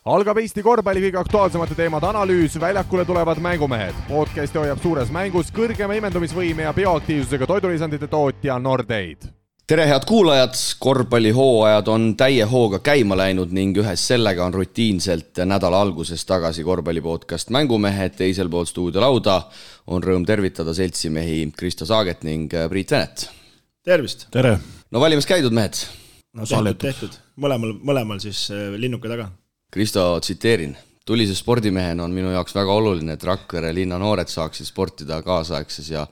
Algab Eesti korvpalli kõige aktuaalsemate teemade analüüs, väljakule tulevad mängumehed. Podcasti hoiab suures mängus kõrgema imendumisvõime ja bioaktiivsusega toidulisandite tootja Nordeid. Tere head kuulajad, korvpallihooajad on täie hooga käima läinud ning ühes sellega on rutiinselt nädala alguses tagasi korvpallipodcast Mängumehed. Teisel pool stuudiolauda on rõõm tervitada seltsimehi Kristo Saaget ning Priit Venet. Tervist! Tere! No valimas käidud mehed? No tehtud. Mõlemal siis linnuke taga. Kristo, tsiteerin. Tulise spordimehena on minu jaoks väga oluline, et Rakvere linna noored saaksid sportida kaasaegses ja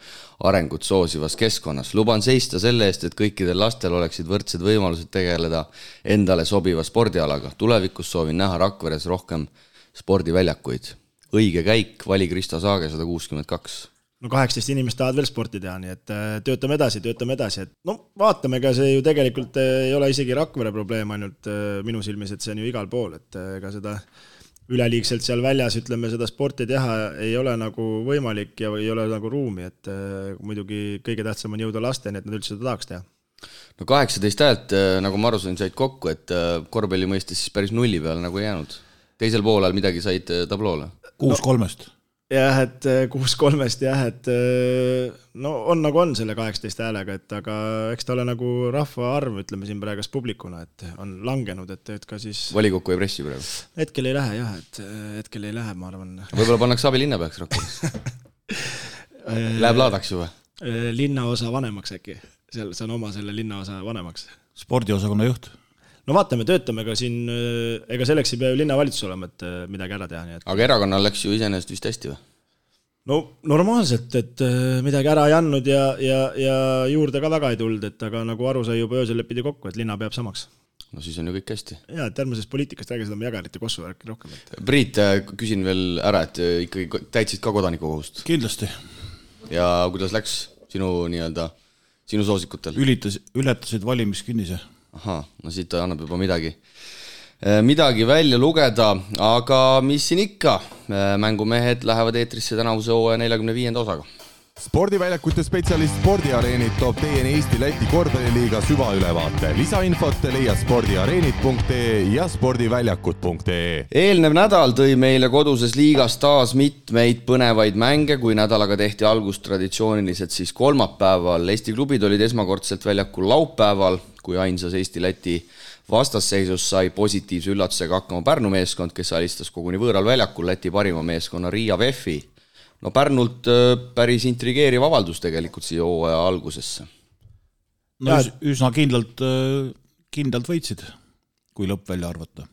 arengut soosivas keskkonnas. Luban seista selle eest, et kõikidel lastel oleksid võrdsed võimalused tegeleda endale sobiva spordialaga. Tulevikus soovin näha Rakveres rohkem spordiväljakuid. Õige käik, vali Kristo Saage 162. No 18 inimest tahavad veel sporti teha, nii et töötame edasi. Et vaatame, ega see ju tegelikult ei ole isegi Rakvere probleem ainult minu silmis, et see on ju igal pool, et ega seda üleliigselt seal väljas, ütleme, seda sporti teha ei ole nagu võimalik ja ei ole nagu ruumi, et muidugi kõige tähtsam on jõuda lasteni, et nad üldse seda tahaks teha. No 18 häält, nagu ma aru sain, said kokku, et korvpalli mõistes siis päris nulli peale nagu jäänud. Teisel poolel midagi said tabloole? 6-3. Jah, et 6-3, et no on nagu on selle 18 häälega, et aga eks ta ole nagu rahva arv, ütleme siin praegu publikuna, et on langenud, et ka siis... Valikokku ei pressi praegu? Hetkel ei lähe, jah, et hetkel ei lähe, ma arvan. Võib-olla pannaks abilinnapeaks Rakveres. Läheb laadaks juba? Linnaosa vanemaks äkki. See on oma selle linnaosa vanemaks. Spordiosakonna juht. No vaatame, töötame ka siin, ega selleks ei pea ju linnavalitsus olema, et midagi ära teha. Nii et... Aga erakonnal läks ju iseenesest vist hästi või? No normaalselt, et midagi ära ei andnud ja juurde ka väga ei tulnud, et aga nagu aru sai juba öösel lepidi kokku, et linna peab samaks. No siis on ju kõik hästi. Ja, et järgmisest poliitikast räägi seda jagarite kossu värki rohkem. Et... Priit, küsin veel ära, et ikkagi täitsid ka kodanikukohust? Kindlasti. Ja kuidas läks sinu soosikutel? Ületasid valimiskinnise. Aha, no siit annab juba midagi välja lugeda, aga mis siin ikka? Mängumehed lähevad eetrisse tänavuse hooaja 45. osaga. Spordiväljakute spetsialist Spordiareenid toob teieni Eesti-Läti korvpalliliiga süvaülevaate. Lisainfot leia spordiareenid.ee ja spordiväljakud.ee. Eelnev nädal tõi meile koduses liigas taas mitmeid põnevaid mänge, kui nädalaga tehti algust traditsiooniliselt siis kolmapäeval. Eesti klubid olid esmakordselt väljakul laupäeval, kui ainsas Eesti-Läti vastasseisus sai positiivse üllatusega hakkama Pärnu meeskond, kes alistas koguni võõral väljakul Läti parima meeskonna Riia VEF-i. No Pärnult päris intrigeeriv avaldus tegelikult siia hooaja algusesse. No üsna kindlalt võitsid, kui lõpp välja arvata.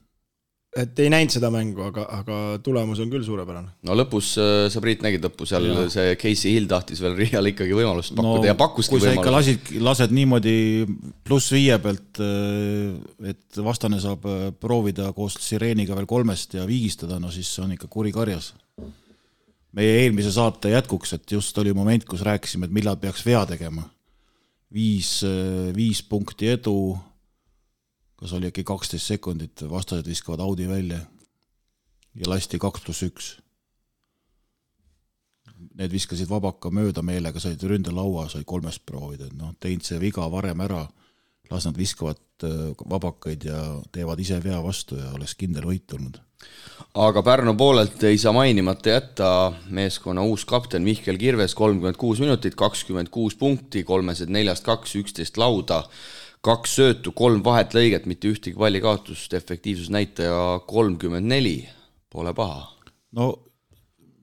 Et ei näinud seda mängu, aga tulemus on küll suurepärane. No lõpus, sa Priit nägid lõpus, seal see Casey Hill tahtis veel Riial ikkagi võimalust pakkuda ja pakkuski võimalust. Kui sa ikka lased niimoodi +5 pealt, et vastane saab proovida koos sireeniga veel 3 ja viigistada, no siis on ikka kuri karjas. Meie eelmise saate jätkuks, et just oli moment, kus rääkisime, et millal peaks vea tegema. 5 punkti edu, kas oli äkki 12 sekundit, vastased viskavad Audi välja ja lasti 2+1. Need viskasid vabaka mööda meelega, said ründelaua, sai 3 proovida. No, teinud see viga varem ära, las nad viskavad vabakaid ja teevad ise vea vastu ja oleks kindel võit tulnud. Aga Pärnu poolelt ei saa mainimata jätta meeskonna uus kapten Mihkel Kirves 36 minutit, 26 punkti, 3-4-2, 11 lauda, 2 söötu, 3 vahetlõiget, mitte ühtegi pallikaotust, efektiivsusnäitaja 34, pole paha. No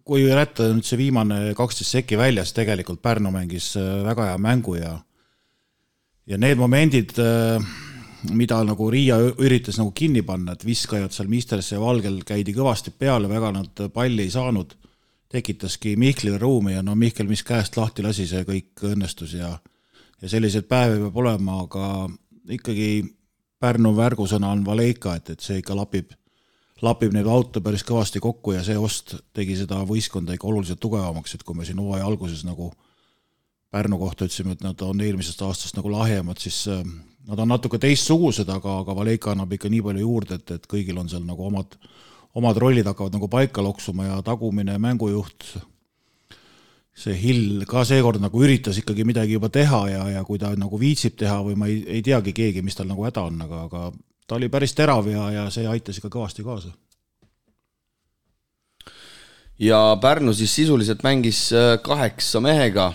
kui jätta nüüd see viimane 12 sekki väljas, tegelikult Pärnu mängis väga hea mängu ja need momendid... mida nagu Riia üritas nagu kinni panna, et viskajad seal Misterse ja Valgel käidi kõvasti peale, väga nad palli ei saanud, tekitaski Mihklile ruumi ja no Mihkel, mis käest lahti lasi, see kõik õnnestus ja selliseid päevi peab olema, aga ikkagi Pärnu värgusõna on Valeika, et see ikka lapib neid auto päris kõvasti kokku ja see ost tegi seda võistkonda ikka oluliselt tugevamaks, et kui me siin hooaja alguses nagu Pärnu kohta ütlesime, et nad on eelmisest aastast nagu lahjemad, siis nad on natuke teistsugused, aga Valeika annab ikka nii palju juurde, et kõigil on seal nagu omad rollid hakkavad nagu paika loksuma ja tagumine mängujuht. See Hill ka seekord nagu üritas ikkagi midagi juba teha ja kui ta nagu viitsib teha või ma ei teagi keegi, mis tal nagu häda on, aga ta oli päris terav ja see aitas ikka kõvasti kaasa. ja Pärnu siis sisuliselt mängis 8 mehega.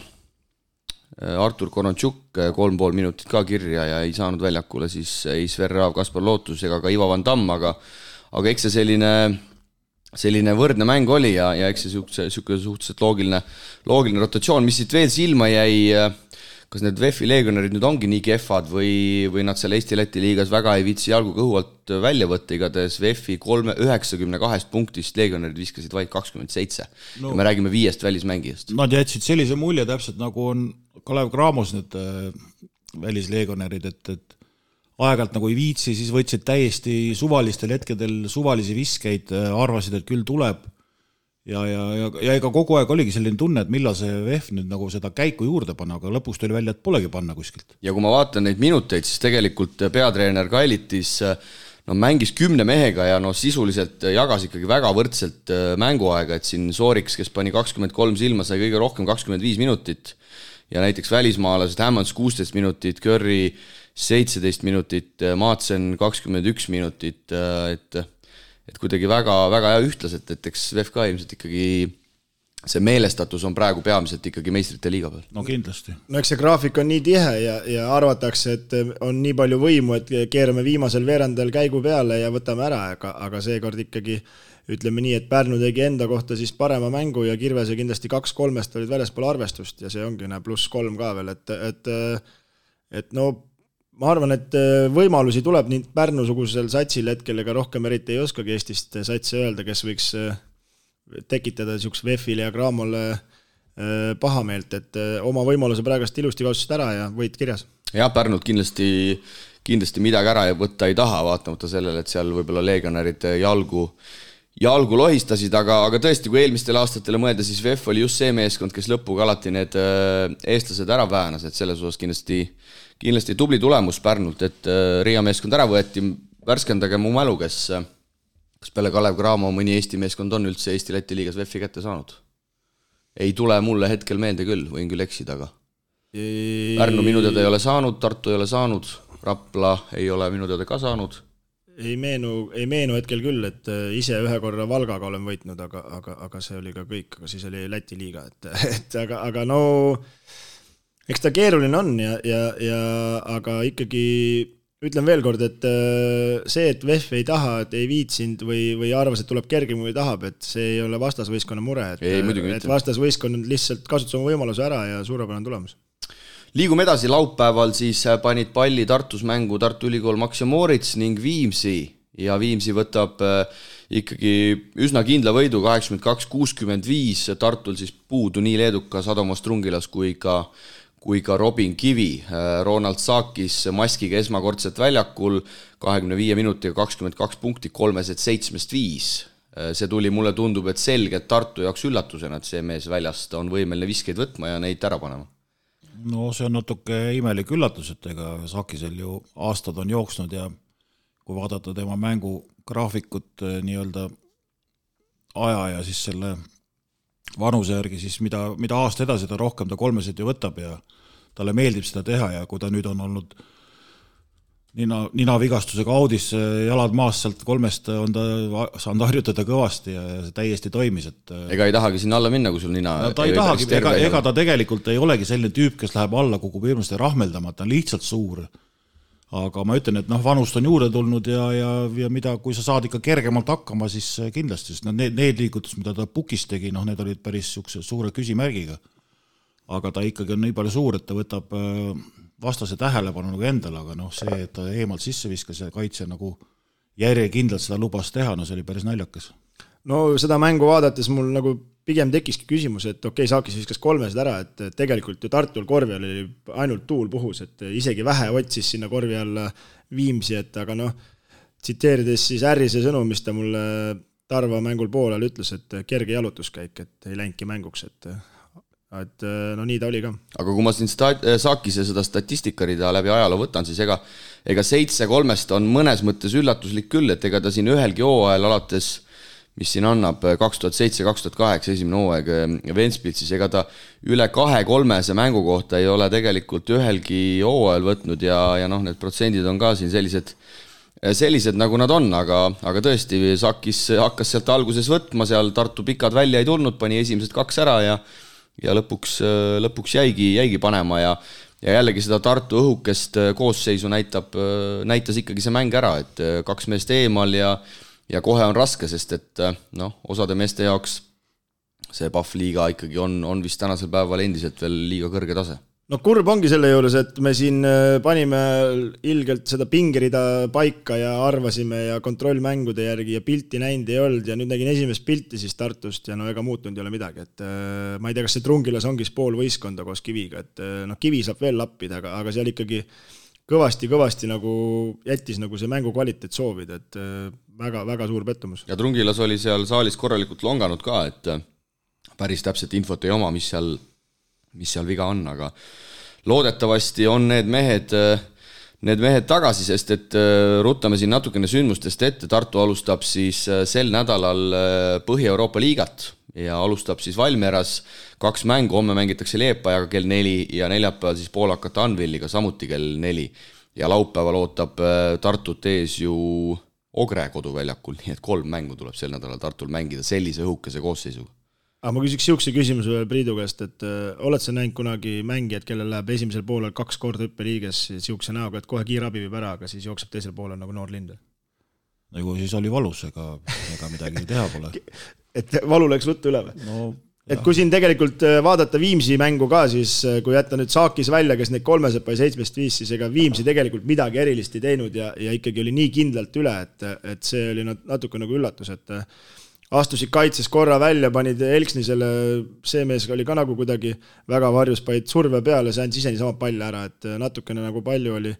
Artur Koronchuk 3,5 minutit ka kirja ja ei saanud väljakule siis ei Sver Raav, Kaspar Lootus ega ka Ivo Van Damm, aga eks see selline võrdne mäng oli ja eks see suhteliselt loogiline rotatsioon, mis siit veel silma jäi, kas need VEF-i leegionerid nüüd ongi nii kehvad või nad seal Eesti-Läti liigas väga ei viitsi jalgu kõhu alt välja võtta, igatahes VEF-i 92 punktist leegionerid viskasid vaid 27 ja me räägime 5 välismängijast. Nad jätsid sellise mulje täpselt nagu on Kalev Cramos need välisleegionerid, et aeg-ajalt nagu ei viitsi, siis võtsid täiesti suvalistel hetkedel suvalisi viskeid, arvasid, et küll tuleb ja ega kogu aeg oligi selline tunne, et millal see VEF nüüd nagu seda käiku juurde panna, aga lõpuks tuli välja, et polegi panna kuskilt. Ja kui ma vaatan neid minuteid, siis tegelikult peatreener Kailitis mängis 10 mehega ja sisuliselt jagas ikkagi väga võrdselt mänguaega, et siin Sooriks, kes pani 23 silma, sai kõige rohkem 25 minutit ja näiteks välismaalased Hammonds 16 minutit, Curry 17 minutit, Maatsen 21 minutit, et kuidagi väga ühtlaselt, et eks VEF ka ilmselt ikkagi see meelestatus on praegu peamiselt ikkagi meistrite liiga peal. No kindlasti. No eks see graafik on nii tihe ja arvatakse, et on nii palju võimu, et keerame viimasel veerandel käigu peale ja võtame ära, aga seekord ikkagi ütleme nii, et Pärnu tegi enda kohta siis parema mängu ja Kirvese kindlasti 2-3 olid väljaspool arvestust ja see ongi +3 ka veel, et no ma arvan, et võimalusi tuleb nii Pärnu-sugusel satsil hetkel, ega rohkem eriti ei oskagi Eestist satsi öelda, kes võiks tekitada niisuguse VEF-ile ja Cramole pahameelt, et oma võimaluse praegast ilusti kaotasid ära ja võit kirjas. Jah, Pärnult kindlasti midagi ära võtta ei taha, vaatamata sellele, et seal võib-olla leegionärid jalgu lohistasid, aga tõesti, kui eelmistel aastatele mõelda, siis VEF oli just see meeskond, kes lõpuga alati need eestlased ära väänas, et selles osas kindlasti tubli tulemus Pärnult, et Riia meeskond ära võeti, värskendage mu mälu, kas peale Kalev Cramo mõni Eesti meeskond on üldse Eesti-Läti liigas VEF-i kätte saanud? Ei tule mulle hetkel meelde küll, võin küll eksida, aga Pärnu minu teada ei ole saanud, Tartu ei ole saanud, Rapla ei ole minu teada ka saanud. Ei meenu hetkel küll, et ise ühe korra Valgaga olen võitnud, aga see oli ka kõik, aga siis oli Läti liiga, aga no eks ta keeruline on aga ikkagi ütlen veel kord, et see, et VEF ei taha, et ei viitsinud või arvas, et tuleb kergem või tahab, et see ei ole vastasvõistkonna mure, et vastasvõistkond lihtsalt kasutas oma võimaluse ära ja suurepärane tulemus. Liigume edasi, laupäeval siis panid palli Tartus mängu Tartu Ülikool Max ja Moritz ning Viimsi ja Viimsi võtab ikkagi üsna kindla võidu 82-65, Tartul siis puudu nii leedukas Adomas Trungilas kui ka Robin Kivi. Ronald Saakis maskiga esmakordselt väljakul 25 minutiga 22 punkti, 3-7-5. See tuli, mulle tundub, et selgelt Tartu jaoks üllatusena, et see mees väljast on võimeline viskeid võtma ja neid ära panema. No see on natuke imelik üllatus, et ega Saakisel ju aastad on jooksnud ja kui vaadata tema mängu graafikut nii-öelda aja ja siis selle vanuse järgi, siis mida aasta edasi ta rohkem ta kolmesid ju võtab ja talle meeldib seda teha ja kui ta nüüd on olnud ninavigastusega audis, jalad maas sealt kolmest on ta saanud harjutada kõvasti ja see täiesti toimis. Ega ei tahagi sinna alla minna, kui sul nina... No, ta ei tahagi, ega ta tegelikult ei olegi selline tüüp, kes läheb alla kukub hirmust rahmeldama, ta on lihtsalt suur. Aga ma ütlen, et vanust on juurde tulnud ja mida, kui sa saad ikka kergemalt hakkama, siis kindlasti, sest need liigutus, mida ta pukis tegi, need olid päris suure küsimärgiga. Aga ta ikkagi on nii palju suur, et ta võtab vastase tähelepanu nagu endale, aga see, et ta eemalt sisse viskas ja kaitse nagu järjekindlalt seda lubas teha, see oli päris naljakas. No seda mängu vaadates mul nagu pigem tekkiski küsimus, et Saakis viskas kolmesed ära, et tegelikult ju Tartul korvi all oli ainult tuul puhus, et isegi vähe otsis sinna korvi alla Viimsi, et aga tsiteerides siis Ärrise sõnu, mis ta mulle Tarva mängul poolel ütles, et kerge jalutuskäik, et ei läinudki mänguks, et nii ta oli ka. Aga kui ma siin Saakise seda statistikarida läbi ajaloo võtan, siis ega 7-3 on mõnes mõttes üllatuslik küll, et ega ta siin ühelgi hooajal alates, mis siin annab 2007-2008 esimene hooaeg Ventspils, siis ega ta üle 2-3 mängu kohta ei ole tegelikult ühelgi hooajal võtnud ja need protsendid on ka siin sellised sellised, nagu nad on, aga tõesti, Sakis hakkas sealt alguses võtma, seal Tartu pikad välja ei tulnud, pani esimesed 2 ära ja lõpuks jäigi panema ja jällegi seda Tartu õhukest koosseisu näitas ikkagi see mäng ära, et 2 meest eemal ja kohe on raske, sest et osade meeste jaoks see Pahv liiga ikkagi on vist tänasel päeval endiselt veel liiga kõrge tase. No kurb ongi selle juures, et me siin panime ilgelt seda pingerida paika ja arvasime ja kontrollmängude järgi ja pilti näinud ei olnud ja nüüd nägin esimest pilti siis Tartust ja ega muutunud ei ole midagi, et ma ei tea, kas see Trungilas ongi pool võistkonda koos Kiviga, et Kivi saab veel lappida, aga seal ikkagi kõvasti nagu jättis nagu see mängu kvaliteet soovida, et väga suur pettumus. Ja Trungilas oli seal saalis korralikult longanud ka, et päris täpselt infot ei oma, mis seal viga on, aga loodetavasti on need mehed tagasi, sest et ruttame siin natukene sündmustest ette. Tartu alustab siis sel nädalal Põhja-Euroopa liigat ja alustab siis Valmieras 2 mängu, homme mängitakse Liepajaga kell 4 ja neljapäeval siis poolakate Anvilliga samuti kell 4 ja laupäeval ootab Tartut ees ju Ogre koduväljakul, nii et 3 mängu tuleb sel nädalal Tartul mängida sellise õhukese koosseisuga. Aga ma küsiks siukse küsimuse veel Priidu käest, et oled sa näinud kunagi mängijad, kellel läheb esimesel poolel 2 korda hüppeliiges siukse näoga, et kohe kiirabi viib ära, aga siis jookseb teisel poolel nagu noor lind? Nagu siis oli valus, ega midagi teha pole. Et valu läks ruttu üle või? No, et kui siin tegelikult vaadata Viimsi mängu ka, siis kui jätta nüüd Saakis välja, kes neid 3 sai 7-5, siis ega Viimsi tegelikult midagi erilist ei teinud ja ikkagi oli nii kindlalt üle, et see oli natuke nagu üllatus, et astusid kaitses korra välja, panid Elksnisele, see mees oli ka nagu kuidagi väga varjus, panid surve peale, see andis ise niisama palli ära, et natukene nagu palju oli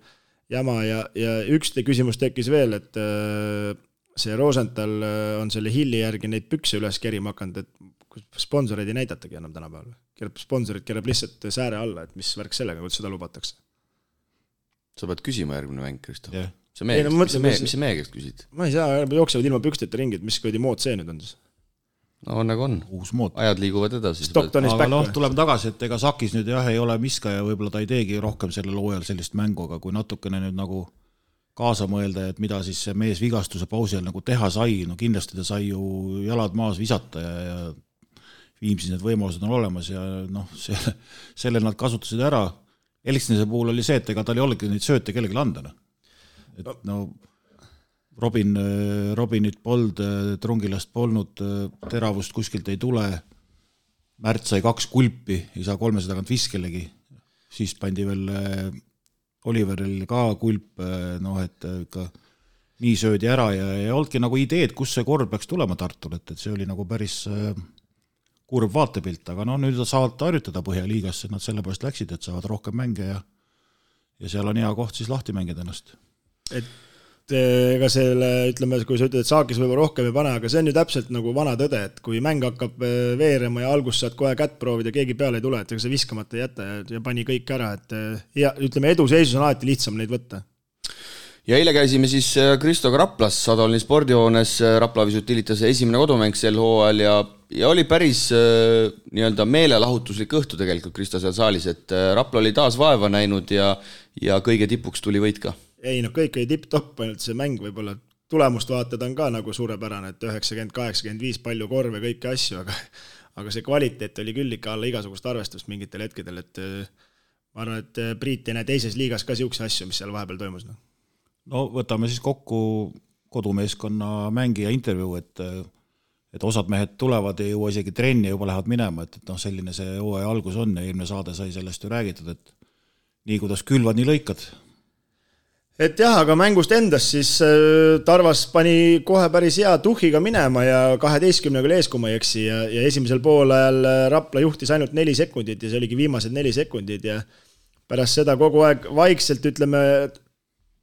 jama ja üks küsimus tekkis veel, et see Rosenthal on selle Hilli järgi neid pükse üles kerima hakanud, et sponsoreid ei näidatagi enam tänapäeval. Sponsorid kerab lihtsalt sääre alla, et mis värk sellega, kuidas seda lubatakse. Sa pead küsima järgmine mäng, Kristo. Yeah. Mis see meie käest küsid? Ma ei saa, jooksevad ilma püksteta ringid, mis kõidi mood see nüüd on siis? No nagu on. Uus mood. Ajad liiguvad edasi. Aga tuleme tagasi, et ega Sakis nüüd ei ole miska ja võib-olla ta ei teegi rohkem sellel hooajal sellist mängu, aga kui natukene nüüd nagu kaasa mõelda, et mida siis see mees vigastuse pausi nagu teha sai, no kindlasti ta sai ju jalad maas visata ja Viimsis need võimalused on olemas ja selle nad kasutasid ära. Elksnise puhul oli see, et ega tal ei olegi neid sööte kellegi andana. Et Robinit polnud, Trungilast polnud, teravust kuskilt ei tule, Märt sai 2 kulpi, ei saa 300 tagant viskelegi, siis pandi veel Oliveril ka kulp, et ikka nii söödi ära ja ei olnudki nagu ideed, kus see kord peaks tulema Tartul, et see oli nagu päris kurb vaatepilt, aga nüüd saavad harjutada Põhjaliigasse, nad selle pärast läksid, et saavad rohkem mänge ja seal on hea koht siis lahti mängida ennast. Et ega selle, ütleme, kui sa ütled, et Saakis võib rohkem ei pane, aga see on ju täpselt nagu vana tõde, et kui mäng hakkab veerema ja algus saad kohe kätt proovida, keegi peale ei tule, et ega see viskamata ei jäta ja pani kõik ära, et ja, ütleme, eduseisus on alati lihtsam neid võtta. Ja eile käisime siis Kristoga Raplas, Sadolini spordihoones, Rapla Visutilitas esimene kodumäng sel hooajal ja oli päris nii-öelda meelelahutuslik õhtu tegelikult Kristo seal saalis, et Rapla oli taas vaeva näinud ja kõige tipuks tuli võit ka. Ei, kõik oli tipp-topp, ainult see mäng võib-olla tulemust vaatada on ka nagu suurepärane, et 90-85 palju korve, kõiki asju, aga see kvaliteet oli küll ikka alla igasugust arvestust mingitel hetkedel, et ma arvan, et Priit ei näe teises liigas ka siukse asju, mis seal vahepeal toimus. No võtame siis kokku kodumeeskonna mängija intervjuu, et osad mehed tulevad ja jõua isegi trenni ja juba lähevad minema, et selline see hooaja algus on ja eelmine saade sai sellest ju räägitud, et nii kuidas külvad, nii lõikad. Et jah, aga mängust endast siis Tarvas pani kohe päris hea tuhhiga minema ja 12-ga ees, kui ma ei eksi ja esimesel poolajal Rapla juhtis ainult 4 sekundit ja see oligi viimased 4 sekundit ja pärast seda kogu aeg vaikselt, ütleme,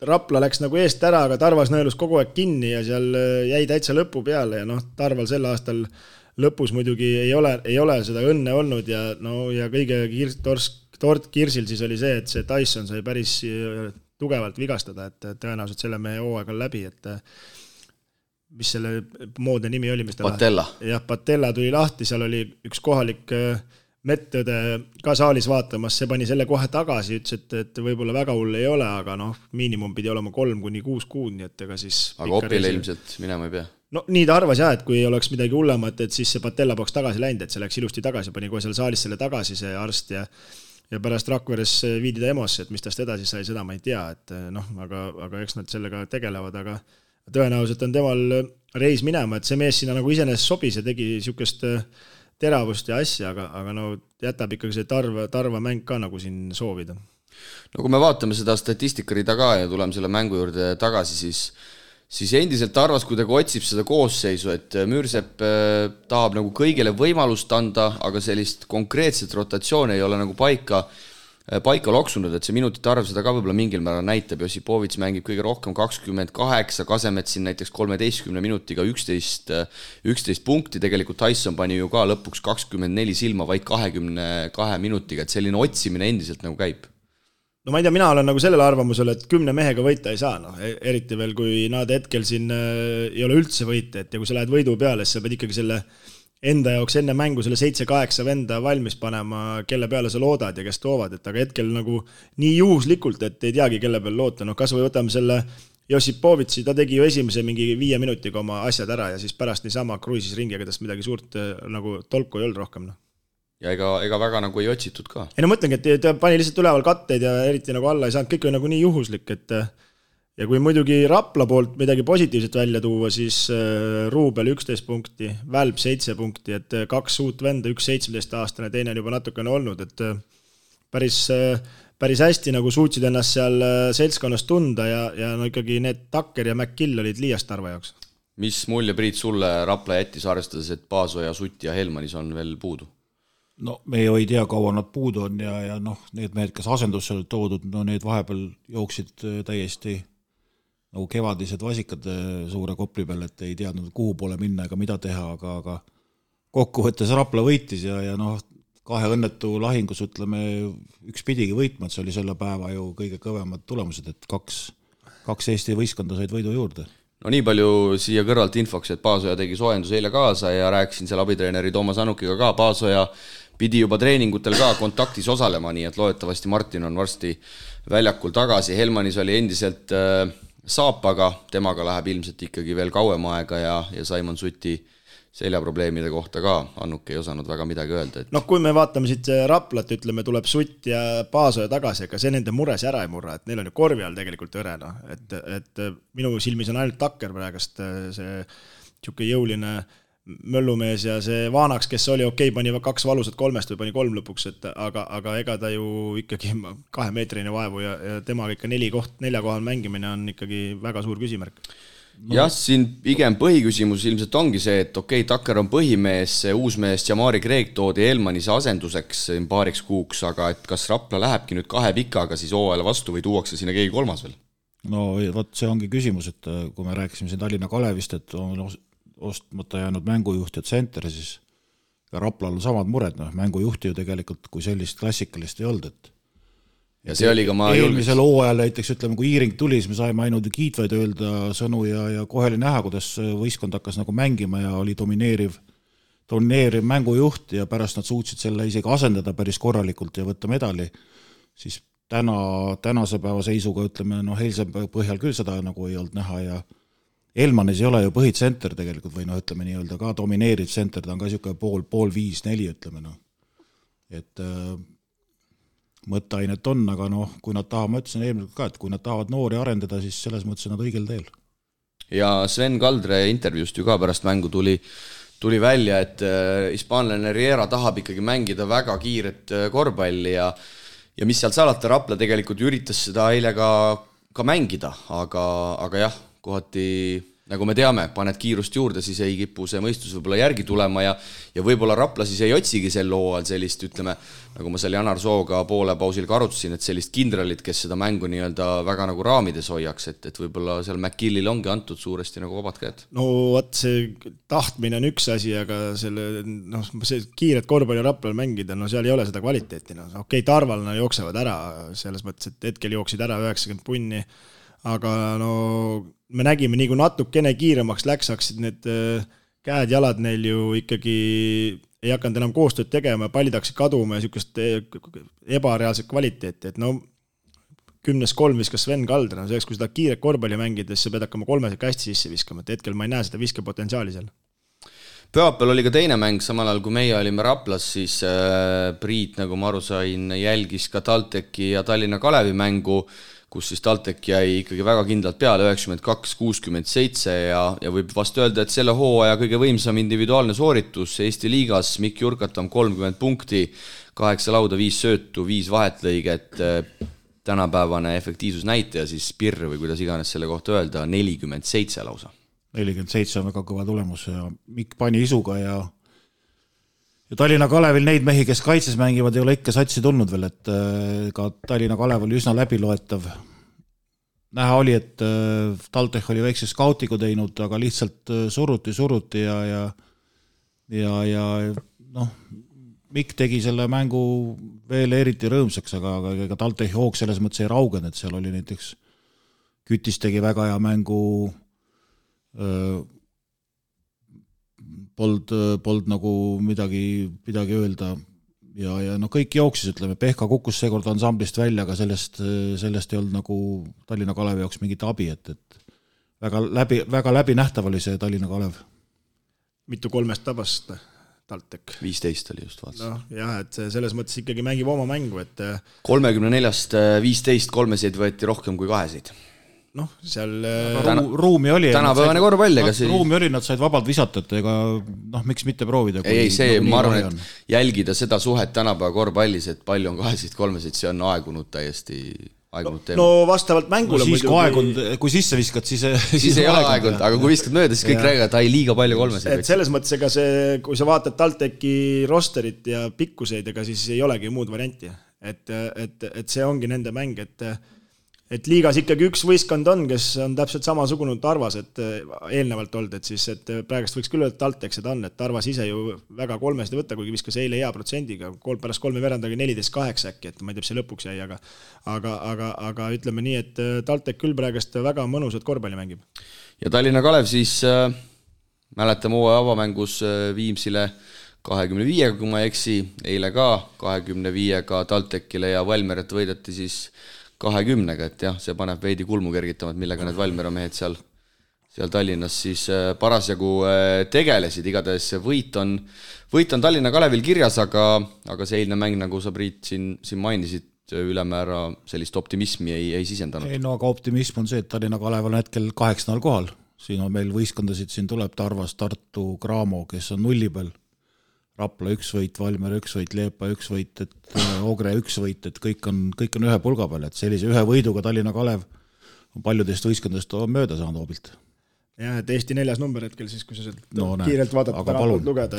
Rapla läks nagu eest ära, aga Tarvas nõelus kogu aeg kinni ja seal jäi täitsa lõpu peale ja Tarval sel aastal lõpus muidugi ei ole seda õnne olnud ja kõige tort kirsil siis oli see, et see Tyson sai päris tugevalt vigastada, et tõenäoliselt selle mehe hooaeg on läbi, et mis selle moodne nimi oli? Patella. Jah, Patella tuli lahti, seal oli üks kohalik Mettõde ka saalis vaatamas, see pani selle kohe tagasi, ütles, et võib-olla väga hull ei ole, aga miinimum pidi olema 3-6 kuud, nii et ega siis... Aga Opile ilmselt minema ei pea? No nii ta arvas jah, et kui oleks midagi hullemat, et siis see patella poleks tagasi läinud, et see läks ilusti tagasi, pani kohe seal saalis selle tagasi see arst ja pärast Rakveres viidi ta EMO-sse, et mis tast edasi sai, seda ma ei tea, et aga eks nad sellega tegelevad, aga tõenäoliselt on temal reis minema, et see mees sinna nagu iseenesest sobis ja tegi niisugust teravust ja asja, aga jätab ikkagi see tarva mäng ka nagu siin soovida. No kui me vaatame seda statistikarida ka ja tuleme selle mängu juurde tagasi, siis endiselt arvas kuidagi otsib seda koosseisu, et Müürsepp tahab nagu kõigile võimalust anda, aga sellist konkreetset rotatsiooni ei ole nagu paika loksunud, et see minutite arv seda ka võib-olla mingil määral näitab, Josipovits mängib kõige rohkem 28, Kasemets siin näiteks 13 minutiga 11 punkti, tegelikult Tyson pani ju ka lõpuks 24 silma vaid 22 minutiga, et selline otsimine endiselt nagu käib. No ma ei tea, mina olen nagu sellel arvamusel, et 10 mehega võita ei saa, eriti veel, kui nad hetkel siin ei ole üldse võita, et ja kui sa lähed võidu peale, siis sa pead ikkagi selle enda jaoks enne mängu selle 7-8 venda valmis panema, kelle peale sa loodad ja kes toovad, et aga hetkel nagu nii juhuslikult, et ei teagi, kelle peale loota, kas või võtame selle Josipovitsi, ta tegi ju esimese mingi 5 minutiga oma asjad ära ja siis pärast niisama kruisis ringi, aga tast midagi suurt nagu tolku ei olnud rohkem, Ja ega väga nagu ei otsitud ka. Ei mõtlengi, et ta pani lihtsalt üleval katteid ja eriti nagu alla ei saanud, kõik oli nagu nii juhuslik, et ja kui muidugi Rapla poolt midagi positiivset välja tuua, siis Ruubel 11 punkti, Välb 7 punkti, et 2 uut venda, 1 17-aastane, teine on juba natukene olnud, et päris hästi nagu suutsid ennast seal seltskonnas tunda ja ikkagi need Takker ja McGill olid liiast Tarva jaoks. Mis mulje, Priit, sulle Rapla jättis arvestades, et Paasoja, Sutt ja Helmanis on veel puudu? No me ju ei tea, kaua nad puudu on ja need mehed, kes asendusse olid toodud, need vahepeal jooksid täiesti nagu kevadised vasikad suure kopli peal, et ei teadnud, kuhu poole minna ega mida teha, aga kokkuvõttes Rapla võitis ja 2 õnnetu lahingus, ütleme, üks pidigi võitma, et see oli selle päeva ju kõige kõvemad tulemused, et 2 Eesti võistkonda said võidu juurde. No nii palju siia kõrvalt infoks, et Paasoja tegi soojendus eile kaasa ja rääkisin seal abitreeneri Toomas Anukiga ka, Paasoja pidi juba treeningutel ka kontaktis osalema, nii et loodetavasti Martin on varsti väljakul tagasi. Helmanis oli endiselt saapaga, temaga läheb ilmselt ikkagi veel kauem aega ja Saimon Suti seljaprobleemide kohta ka Annuk ei osanud väga midagi öelda. Et... kui me vaatame siit Raplat, ütleme, tuleb Sutt ja Paasoja tagasi, aga see nende mures ära ei murra, et neil on ju korvi all tegelikult õrena, et minu silmis on ainult Takker praegast see tšuke jõuline möllumees ja see Vaanaks, kes oli pani 2 valusat 3 või pani 3 lõpuks, aga ega ta ju ikkagi 2 meetrine vaevu ja temaga ikka 4 kohal mängimine on ikkagi väga suur küsimärk. Jah, siin pigem põhiküsimus ilmselt ongi see, et Takker on põhimees, see uus mees Jamari Kreek toodi Elmanis asenduseks paariks kuuks, aga et kas Rapla lähebki nüüd 2 pikaga siis hooajale vastu või tuuakse sinna keegi 3 veel? No vot, see ongi küsimus, et kui me rääkisime siin Tallinna Kalevist, et on ostmata jäänud mängujuht ja tsenter, siis ka Raplal on samad mured, mängujuhti ju tegelikult kui sellist klassikalist ei olnud, et ja see oli ka eelmisel hooajal näiteks, ütleme, kui Iiring tuli, siis me saime ainult kiitvaid öelda sõnu ja kohe oli näha, kuidas võistkond hakkas nagu mängima ja oli domineeriv mängujuht ja pärast nad suutsid selle isegi asendada päris korralikult ja võtta medali, siis tänase päeva seisuga, ütleme, eilse põhjal küll seda nagu ei olnud näha ja Elmanis ei ole ju põhitsenter tegelikult või ütleme nii-öelda ka domineeriv tsenter, ta on ka niisugune pool 5-4, ütleme, et mõtteainet on, aga kui nad tahavad, ma ütlesin eelmine ka, et kui nad tahavad noori arendada, siis selles mõttes on nad õigel teel. Ja Sven Kaldre intervjuust ju ka pärast mängu tuli välja, et hispaanlane Riera tahab ikkagi mängida väga kiiret korvpalli ja mis sealt salata, Rapla tegelikult üritas seda eile ka mängida, aga jah, kohati, nagu me teame, paned kiirust juurde, siis ei kipu see mõistus võib-olla järgi tulema ja võib-olla Rapla siis ei otsigi sel hooajal sellist, ütleme, nagu ma seal Janar Sooga poole pausil ka arutasin, et sellist kindralit, kes seda mängu nii-öelda väga nagu raamides hoiaks, et võib-olla seal McGillil ongi antud suuresti nagu vabad käed. No vot, see tahtmine on üks asi, aga see kiiret korvpalli Raplal mängida, seal ei ole seda kvaliteeti. Tarval jooksevad ära, selles mõttes, et hetkel jooksid ära 90 punni, aga me nägime, nii kui natukene kiiremaks läks, hakkasid need käed-jalad neil ju ikkagi ei hakanud enam koostööd tegema, pallid hakkasid kaduma ja niisugust ebareaalset kvaliteeti, et no 10-3 viskas Sven Kalder, no selleks, kui seda kiiret korvpalli mängides, sa pead hakkama 3 hästi sisse viskama, et hetkel ma ei näe seda viskepotentsiaali seal. Pühapäeval oli ka teine mäng, samal ajal kui meie olime Raplas, siis Priit, nagu ma aru sain, jälgis ka TalTechi ja Tallinna Kalevi mängu, kus siis TalTech jäi ikkagi väga kindlalt peale 92-67 ja võib vast öelda, et selle hooaja kõige võimsam individuaalne sooritus Eesti liigas, Mikk Jurkatam 30 punkti, 8 lauda, 5 söötu, 5 vahetlõiget, tänapäevane efektiivsusnäitaja, siis Pirr või kuidas iganes selle kohta öelda, 47 lausa. 47 on väga kõva tulemus ja Mikk pani isuga ja Tallinna Kalevil neid mehi, kes kaitses mängivad, ei ole ikka satsi tulnud veel, et ka Tallinna Kalev oli üsna läbiloetav. Näha oli, et TalTech oli väikse skautigu teinud, aga lihtsalt suruti ja noh, Mikk tegi selle mängu veel eriti rõõmsaks, aga TalTech hoog selles mõttes ei raugen, et seal oli näiteks Kütis tegi väga hea mängu, polnud nagu midagi öelda ja no kõik jooksis, ütleme, Pehka kukkus seekord ansamblist välja, aga sellest ei olnud nagu Tallinna Kalevi jaoks mingit abi, et väga läbinähtav oli see Tallinna Kalev. Mitu 3 tabast TalTech? 15 oli just vaats. No, jah, et selles mõttes ikkagi mängib oma mängu, et 34-st 15 kolmeseid võeti rohkem kui kaheseid. Noh, seal ruumi oli. Tänapäevane korvpall, ega see... Ruumi oli, nad said vabalt visata, et ega miks mitte proovida. Ei, see, ma arvan, et jälgida seda suhet tänapäeva korvpallis, et palju on kahesid, kolmesid, see on aegunud täiesti aegunud teema. No vastavalt mängule no, siis kui sisse viskad, siis ei ole aegunud, aga kui viskad mööda, siis kõik räägivad, et liiga palju kolmesid. Et selles mõttes, ega see, kui sa vaatad TalTechi rosterit ja pikkuseid, ega siis ei olegi muud varianti. Et see ongi nende mäng, et liigas ikkagi üks võistkond on, kes on täpselt samasugune Tarvas, et eelnevalt olnud, et siis et praegust võiks küll öelda, et TalTech seda on, et Tarvas ise ju väga kolmesid ei võtta, kuigi viskas eile hea protsendiga, pärast 3 verandagi 14-8 äkki, et ma ei tea, see lõpuks jäi, aga ütleme nii, et TalTech küll praegust väga mõnusat korvpalli mängib. Ja Tallinna Kalev siis mäletame hooaja avamängus Viimsile 25, kui ma eksi, eile ka 25-ga TalTechile ja Valmeret võideti siis 20-ga, et jah, see paneb veidi kulmu kergitama, et millega need Valmiera mehed seal Tallinnas siis parasjagu tegelesid, igatahes võit on Tallinna Kalevil kirjas, aga see eilne mäng, nagu sa Priit siin mainisid, ülemäära sellist optimismi ei sisendanud. Ei, no aga optimism on see, et Tallinna Kalev on hetkel 8. kohal, siin on meil võistkondasid, siin tuleb Tarvas, Tartu, Graamo, kes on 0 peal, Rapla 1 võit, Valmiera 1 võit, Leepa 1 võit, et Ogre 1 võit, et kõik on ühe pulga peal, et sellise ühe võiduga Tallinna Kalev on paljudest võistkondadest mööda saanud hoobilt. Jah, et Eesti 4. number hetkel siis, kui sa kiirelt vaadata, tänavalt lugeda,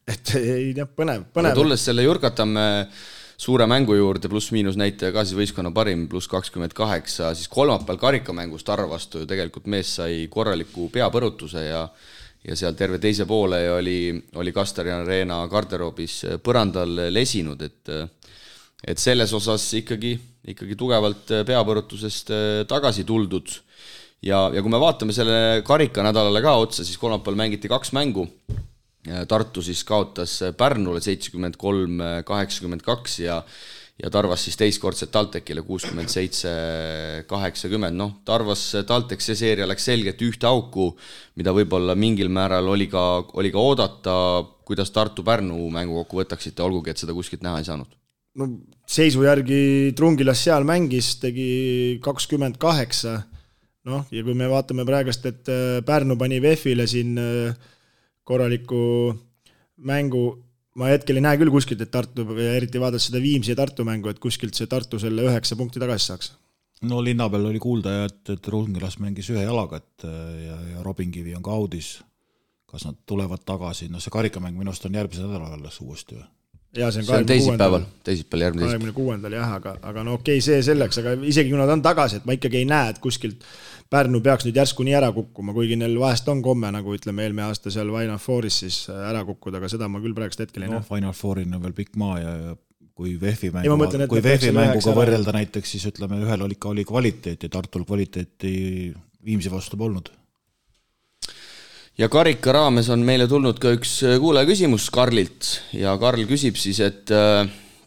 et ei tea, põnev. Aga tulles selle Jurkatamme suure mängu juurde, pluss-miinus näitaja ka siis võistkonna parim, pluss 28, siis kolmapäeval karikamängus Tarva vastu ju tegelikult mees sai korraliku peapõrutuse ja seal terve teise poole oli Kastarian Reena garderoobis põrandal lesinud, et selles osas ikkagi tugevalt peapõrutusest tagasi tuldud. Ja kui me vaatame selle karikanädalale ka otsa, siis kolmapäeval mängiti 2 mängu. Tartu siis kaotas Pärnule 73-82 ja Tarvas siis teistkordselt TalTechile 67-80. No, Tarvas TalTech see seeria läks selgelt ühte auku, mida võib-olla mingil määral oli ka oodata, kuidas Tartu-Pärnu mängu kokku võtaksite, olgugi, et seda kuskilt näha ei saanud. No, seisu järgi Trungilas seal mängis, tegi 28. No, ja kui me vaatame praegast, et Pärnu pani VEF-ile siin korraliku mängu, ma hetkel ei näe küll kuskilt, et Tartu, eriti vaadata seda Viimsi ja Tartu mängu, et kuskilt see Tartu selle 9 punkti tagasi saaks. No linna peal oli kuulda, et Trungilas mängis ühe jalaga, ja Robinkivi on ka audis. Kas nad tulevad tagasi? No see karikamäng minust on järgmise nädala alles uuesti või? Ja, see on teisipäeval järgmine 26. jah, aga no okei, see selleks, aga isegi kui nad on tagasi, et ma ikkagi ei näe, et kuskilt Pärnu peaks nüüd järsku nii ära kukkuma, kuigi neil vahest on komme, nagu ütleme eelmine aasta seal Final Fouris siis ära kukkuda, aga seda ma küll praegust hetkel ei näe. Final Fourin on veel pikk maa ja kui VEF-i mänguga võrrelda näiteks, siis ütleme, ühel oli kvaliteeti, Tartul kvaliteeti Viimsi vastu polnud. ja karika raames on meile tulnud ka üks kuulaja küsimus Karlilt ja Karl küsib siis, et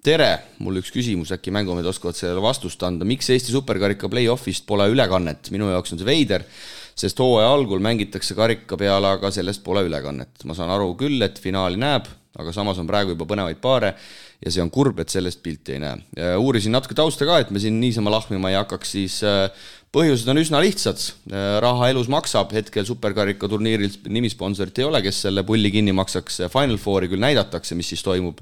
tere, mul üks küsimus, äkki mängumehed oskavad sellele vastust anda. Miks Eesti superkarika play-offist pole ülekannet? Minu jaoks on see veider, sest hooaja algul mängitakse karika peale, aga sellest pole ülekannet. Ma saan aru küll, et finaali näeb, aga samas on praegu juba põnevaid paare ja see on kurb, et sellest pilti ei näe. Uurisin natuke tausta ka, et me siin niisama lahmima ei hakkaks, siis põhjused on üsna lihtsad. Raha elus maksab, hetkel superkarika turniiril nimisponsorit ei ole, kes selle pulli kinni maksaks. Final Fouri küll näidatakse, mis siis toimub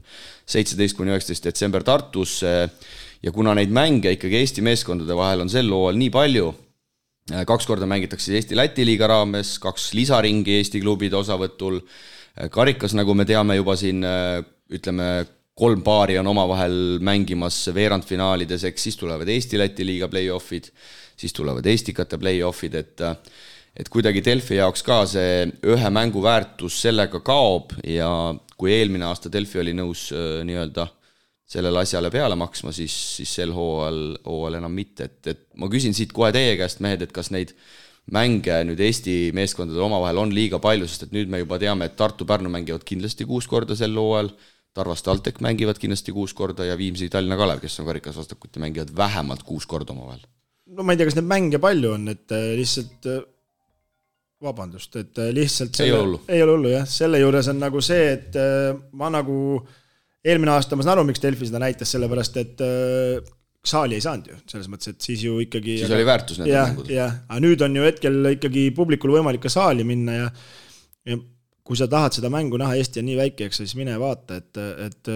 17-19 detsember Tartus ja kuna neid mänge ikkagi Eesti meeskondade vahel on sel hooajal nii palju, 2 korda mängitakse Eesti-Läti liiga raames, 2 lisaringi Eesti klubide osavõtul, karikas, nagu me teame juba siin, ütleme, 3 paari on omavahel mängimas veerandfinaalides, eks siis tulevad Eesti-Läti liiga play-offid, siis tulevad Eestikate play-offid, et kuidagi Delfi jaoks ka see ühe mängu väärtus sellega kaob ja kui eelmine aasta Delfi oli nõus nii-öelda sellele asjale peale maksma, siis sel hooajal enam mitte. Et ma küsin siit kohe teie käest, mehed, et kas neid mänge nüüd Eesti meeskondade omavahel on liiga palju, sest et nüüd me juba teame, et Tartu-Pärnu mängivad kindlasti 6 korda sel hooajal, Tarvas TalTech mängivad kindlasti 6 korda ja Viimsi Tallinna Kalev, kes on karikas vastakuti, mängivad vähemalt 6 korda omavahel. No ma ei tea, kas neid mänge palju on, et lihtsalt vabandust, et lihtsalt ei ole hullu, jah. Selle juures on nagu see, et ma nagu eelmine aasta ma saan aru, miks Delfi seda näitas, sellepärast, et saali ei saanud ju, selles mõttes, et siis ju ikkagi siis oli väärtus need mängud. Aga nüüd on ju hetkel ikkagi publikul võimalik ka saali minna ja kui sa tahad seda mängu näha, Eesti on nii väike, eks siis mine vaata, et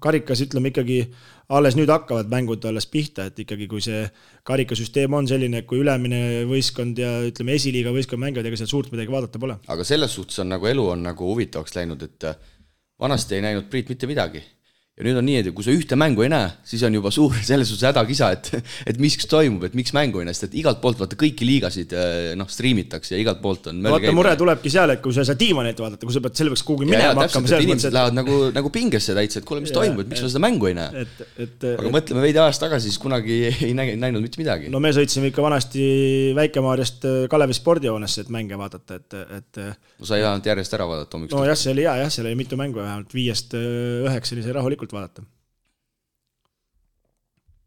karikas ütleme ikkagi alles nüüd hakkavad mängud alles pihta, et ikkagi kui see karikasüsteem on selline, kui ülemine võistkond ja ütleme esiliiga võistkond mängivad, ega seal suurt midagi vaadata pole. Aga selles suhtes on nagu elu on nagu huvitavaks läinud, et vanasti ei näinud Priit mitte midagi. Ja nüüd on nii, et kui sa ühte mängu ei näe, siis on juba suur selles suhtes hädakisa, et miks toimub, et miks mängu ei näe, sest et igalt poolt vaata kõiki liigasid striimitakse ja igalt poolt on vaata mure tulebki seal, et kui sa tiimanet vaadata, kui sa pead selle peaks kuhugi minema hakkama. Ja inimesed lähevad nagu pingesse täitsa, et kuule, mis toimub, et miks sa seda mängu ei näe. Aga mõtleme veidi ajast tagasi, siis kunagi ei näinud mitte midagi. No me sõitsime ikka vanasti Väike-Maarjast Kalevi spordihoonesse, et mänge vaadata. No sa ei vähemalt järjest ära vaadata. No jah, see oli hea, seal oli mitu mängu vähemalt 5-9 oli see rahulikult vaadata.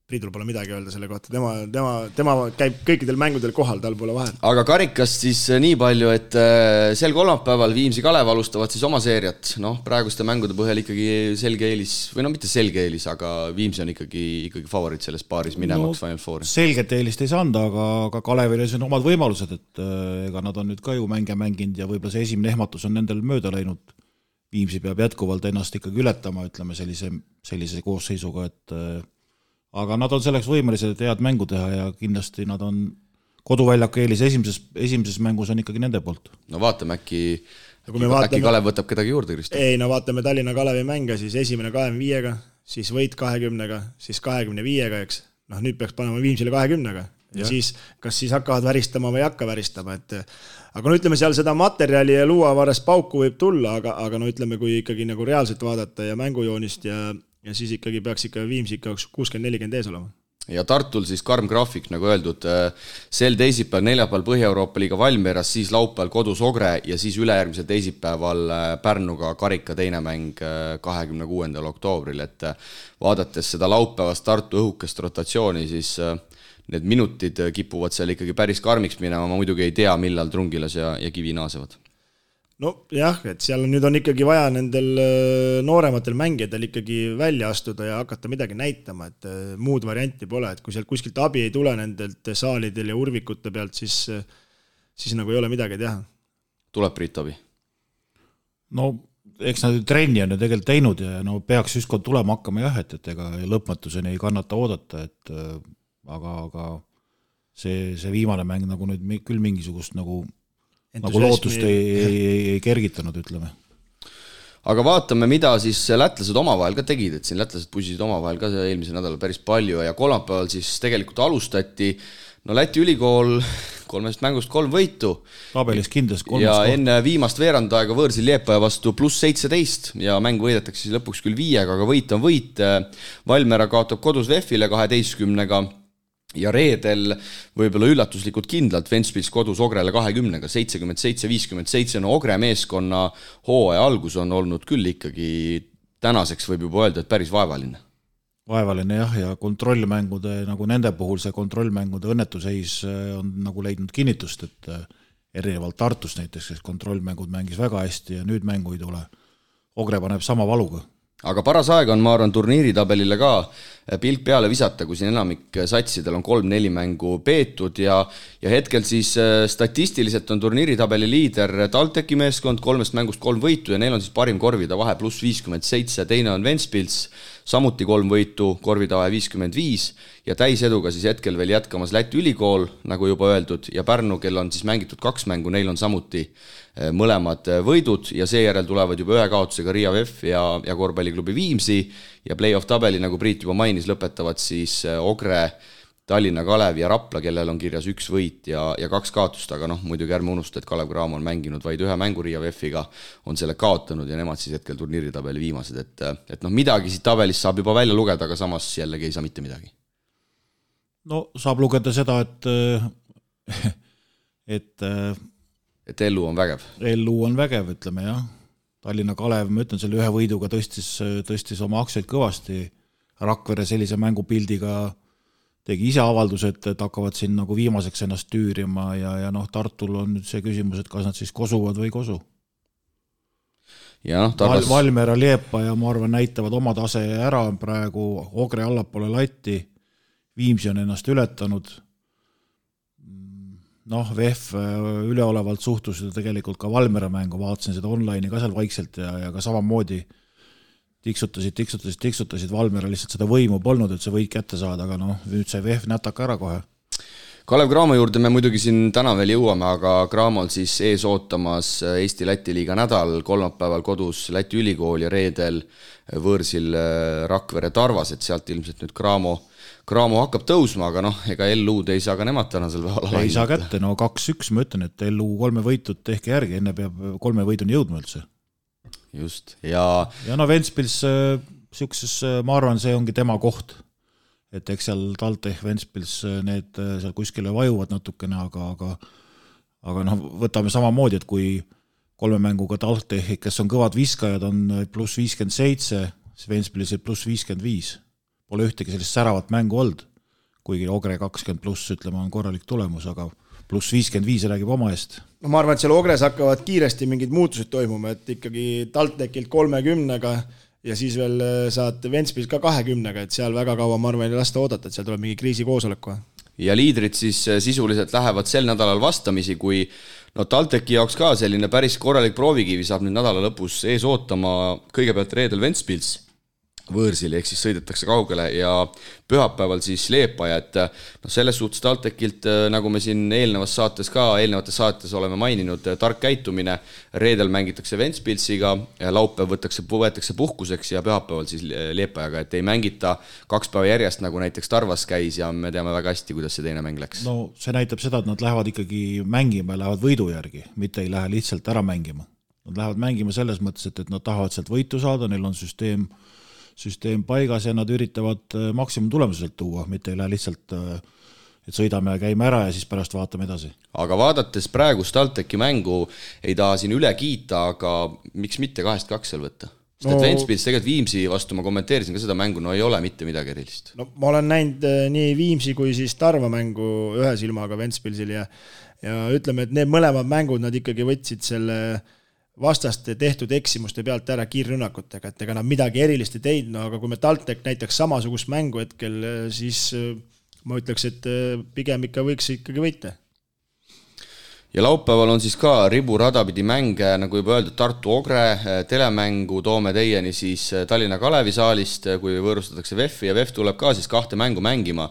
Priidul pole midagi öelda selle kohta, tema käib kõikidel mängudel kohal, tal pole vahet. Aga karikast siis nii palju, et sel kolmapäeval Viimsi Kalev alustavad siis oma seeriat, praeguste mängude põhjal ikkagi selge eelis, või mitte selge eelis, aga Viimsi on ikkagi favoriit selles paaris minemaks Final Fouri. Selget eelist ei saanud, aga Kalevil on omad võimalused, et ega nad on nüüd ka ju mänginud ja võib-olla see esimene ehmatus on nendel mööda läinud. Viimsi peab jätkuvalt ennast ikkagi ületama, ütleme sellise koosseisuga, et aga nad on selleks võimelised, et head mängu teha ja kindlasti nad on koduväljaku eelis esimeses mängus on ikkagi nende poolt. No vaatame, äkki Kalev võtab kedagi juurde, Kristo? Ei, no vaatame Tallinna Kalevi mänge, siis esimene 25-ga, siis võit 20-ga, siis 25-ga, eks. Nüüd peaks panema Viimsile 20-ga. Ja siis, kas siis hakkavad väristama või ei hakka väristama, aga ütleme seal seda materjali ja luuavaras pauku võib tulla, aga ütleme, kui ikkagi nagu reaalselt vaadata ja mängujoonist ja siis ikkagi peaks ikka Viimsi 60-40 ees olema. Ja Tartul siis karm graafik, nagu öeldud, sel teisipäeval, neljapäeval Põhja-Euroopa liiga Valmieras, siis laupäeval kodus Ogre ja siis ülejärgmisel teisipäeval Pärnuga karika teine mäng 26. oktoobril, et vaadates seda laupäevast Tartu õhukest rotatsiooni, siis need minutid kipuvad seal ikkagi päris karmiks minema, ma muidugi ei tea, millal Trungilas ja Kivi naasevad. No jah, et seal nüüd on ikkagi vaja nendel noorematel mängijadel ikkagi välja astuda ja hakata midagi näitama, et muud varianti pole, et kui sealt kuskilt abi ei tule nendelt saalidel ja urvikute pealt, siis nagu ei ole midagi teha. Tuleb Priit abi? No eks nad trenni on ju tegelikult teinud ja peaks ükskord tulema hakkama jah, et ega lõpmatuseni ei kannata oodata, aga see viimane mäng nagu nüüd küll mingisugust nagu lootust ei kergitanud, ütleme. Aga vaatame, mida siis lätlased omavahel ka tegid, et siin lätlased pusisid omavahel ka eelmisel nädalal päris palju ja kolmapäeval siis tegelikult alustati, Läti ülikool 3 mängust 3 võitu. Tabelis kindlas 3. Ja enne viimast veerandaega võõrsil Liepaja vastu +17 ja mäng võidetakse siis lõpuks küll 5, aga võit on võit. Valmera kaotab kodus VEF-ile 12-ga. ja reedel võib-olla üllatuslikult kindlalt Ventspils kodus Ogrele 20-ga, 77-57, no Ogre meeskonna hooaja algus on olnud küll ikkagi tänaseks võib juba öelda, et päris vaevaline. Vaevaline jah, ja kontrollmängude, nagu nende puhul see kontrollmängude õnnetuseis on nagu leidnud kinnitust, et erinevalt Tartust näiteks, kes kontrollmängud mängis väga hästi ja nüüd mängu ei tule. Ogre paneb sama valuga. Aga paras aeg on, ma arvan, turniiritabelile ka pilk peale visata, kui siin enamik satsidel on 3-4 mängu peetud ja hetkel siis statistiliselt on turniiritabeli liider TalTechi meeskond, 3 mängust 3 võitu ja neil on siis parim korvida vahe pluss 57, teine on Ventspils, samuti 3 võitu, korvida vahe 55 ja täiseduga siis hetkel veel jätkamas Läti ülikool, nagu juba öeldud, ja Pärnu, kel on siis mängitud 2 mängu, neil on samuti mõlemad võidud ja seejärel tulevad juba 1 kaotusega Riia VEF ja korvpalliklubi Viimsi ja play-off tabeli, nagu Priit juba mainis, lõpetavad siis Ogre, Tallinna Kalev ja Rapla, kellel on kirjas 1 võit ja 2 kaotust, aga muidugi ärme unusta, et Kalev Cramo on mänginud vaid 1 mängu Riia VEF-iga, on selle kaotanud ja nemad siis hetkel turniiritabeli viimased, et midagi siit tabelist saab juba välja lugeda, aga samas jällegi ei saa mitte midagi. No saab lugeda seda, et Ellu on vägev. Ellu on vägev, ütleme jah. Tallinna Kalev, ma ütlen, selle 1 võiduga tõstis oma aktsiaid kõvasti. Rakvere sellise mängupildiga tegi ise avalduse, et hakkavad siin nagu viimaseks ennast tüürima ja Tartul on nüüd see küsimus, et kas nad siis kosuvad või ei kosu. Ja Valmiera, Liepa ja ma arvan näitavad oma tase ära praegu, Ogre allapoole latti, Viimsi on ennast ületanud. VEF üleolevalt suhtus tegelikult ka Valmiera mängu, vaatasin seda online'i ka seal vaikselt ja ka samamoodi tiksutasid, Valmiera lihtsalt seda võimu polnud, et see võid kätte saada, aga nüüd sai VEF nätaka ära kohe. Kalev Cramo juurde me muidugi siin täna veel jõuame, aga Cramol siis ees ootamas Eesti-Läti liiga nädal, kolmapäeval kodus Läti ülikool ja reedel võõrsil Rakvere Tarvas, et sealt ilmselt nüüd Cramo hakkab tõusma, aga ega LU-d ei saa ka nemad tänasel päeval ei saa kätte, 2-1 ma ütlen, et LU 3 võitud tehke järgi, enne peab 3 võiduni jõudma üldse. Just, ja Ventspils siukses, ma arvan, see ongi tema koht, et eks seal TalTech, Ventspils need seal kuskile vajuvad natukene, aga võtame samamoodi, et kui 3 mänguga TalTech, kes on kõvad viskajad, on pluss 57, Ventspilis pluss 55. Pole ühtegi sellist säravat mängu olnud, kuigi Ogre 20 pluss, ütleme, on korralik tulemus, aga pluss 55 räägib oma eest. Ma arvan, et seal Ogres hakkavad kiiresti mingid muutused toimuma, et ikkagi TalTechilt 30-ga ja siis veel saad Ventspils ka 20-ga, et seal väga kaua, ma arvan, ei lasta oodata, et seal tuleb mingi kriisikoosolek. Ja liidrid siis sisuliselt lähevad sel nädalal vastamisi, kui TalTechi jaoks ka selline päris korralik proovikivi saab nüüd nädala lõpus ees ootama kõigepealt reedel Ventspils võõrsil, ehk siis sõidetakse kaugele ja pühapäeval siis Liepaja, et selles suhtes TalTechilt, nagu me siin eelnevates saates oleme maininud, tark käitumine, reedel mängitakse Ventspilsiga, laupäev võetakse puhkuseks ja pühapäeval siis Liepajaga, et ei mängita 2 päeva järjest, nagu näiteks Tarvas käis ja me teame väga hästi, kuidas see teine mäng läks. See näitab seda, et nad lähevad ikkagi mängima ja lähevad võidu järgi, mitte ei lähe lihtsalt ära mängima. Nad lähevad mängima selles mõttes, et nad tahavad sealt võitu saada, neil on süsteem paigas ja nad üritavad maksimum tulemuselt tuua, mitte ei lähe lihtsalt, et sõidame ja käime ära ja siis pärast vaatame edasi. Aga vaadates praegust TalTechi mängu ei taha siin üle kiita, aga miks mitte 2-2 seal võtta? Sest et Ventspils tegelikult Viimsi vastu, ma kommenteerisin ka seda mängu, ei ole mitte midagi erilist. Ma olen näinud nii Viimsi kui siis Tarva mängu ühe silmaga Ventspilsil ja ütleme, et need mõlemad mängud nad ikkagi võtsid selle vastaste tehtud eksimuste pealt ära kiirrünnakutega, et ega nad midagi erilist ei teinud, aga kui me TalTech näiteks samasugust mängu hetkel, siis ma ütleks, et pigem ikka võiks ikkagi võita. Ja laupäeval on siis ka riburadapidi mänge, nagu juba öeldud, Tartu Ogre telemängu toome teieni siis Tallinna Kalevi saalist, kui võõrustatakse VEF-i ja VEF tuleb ka siis 2 mängu mängima.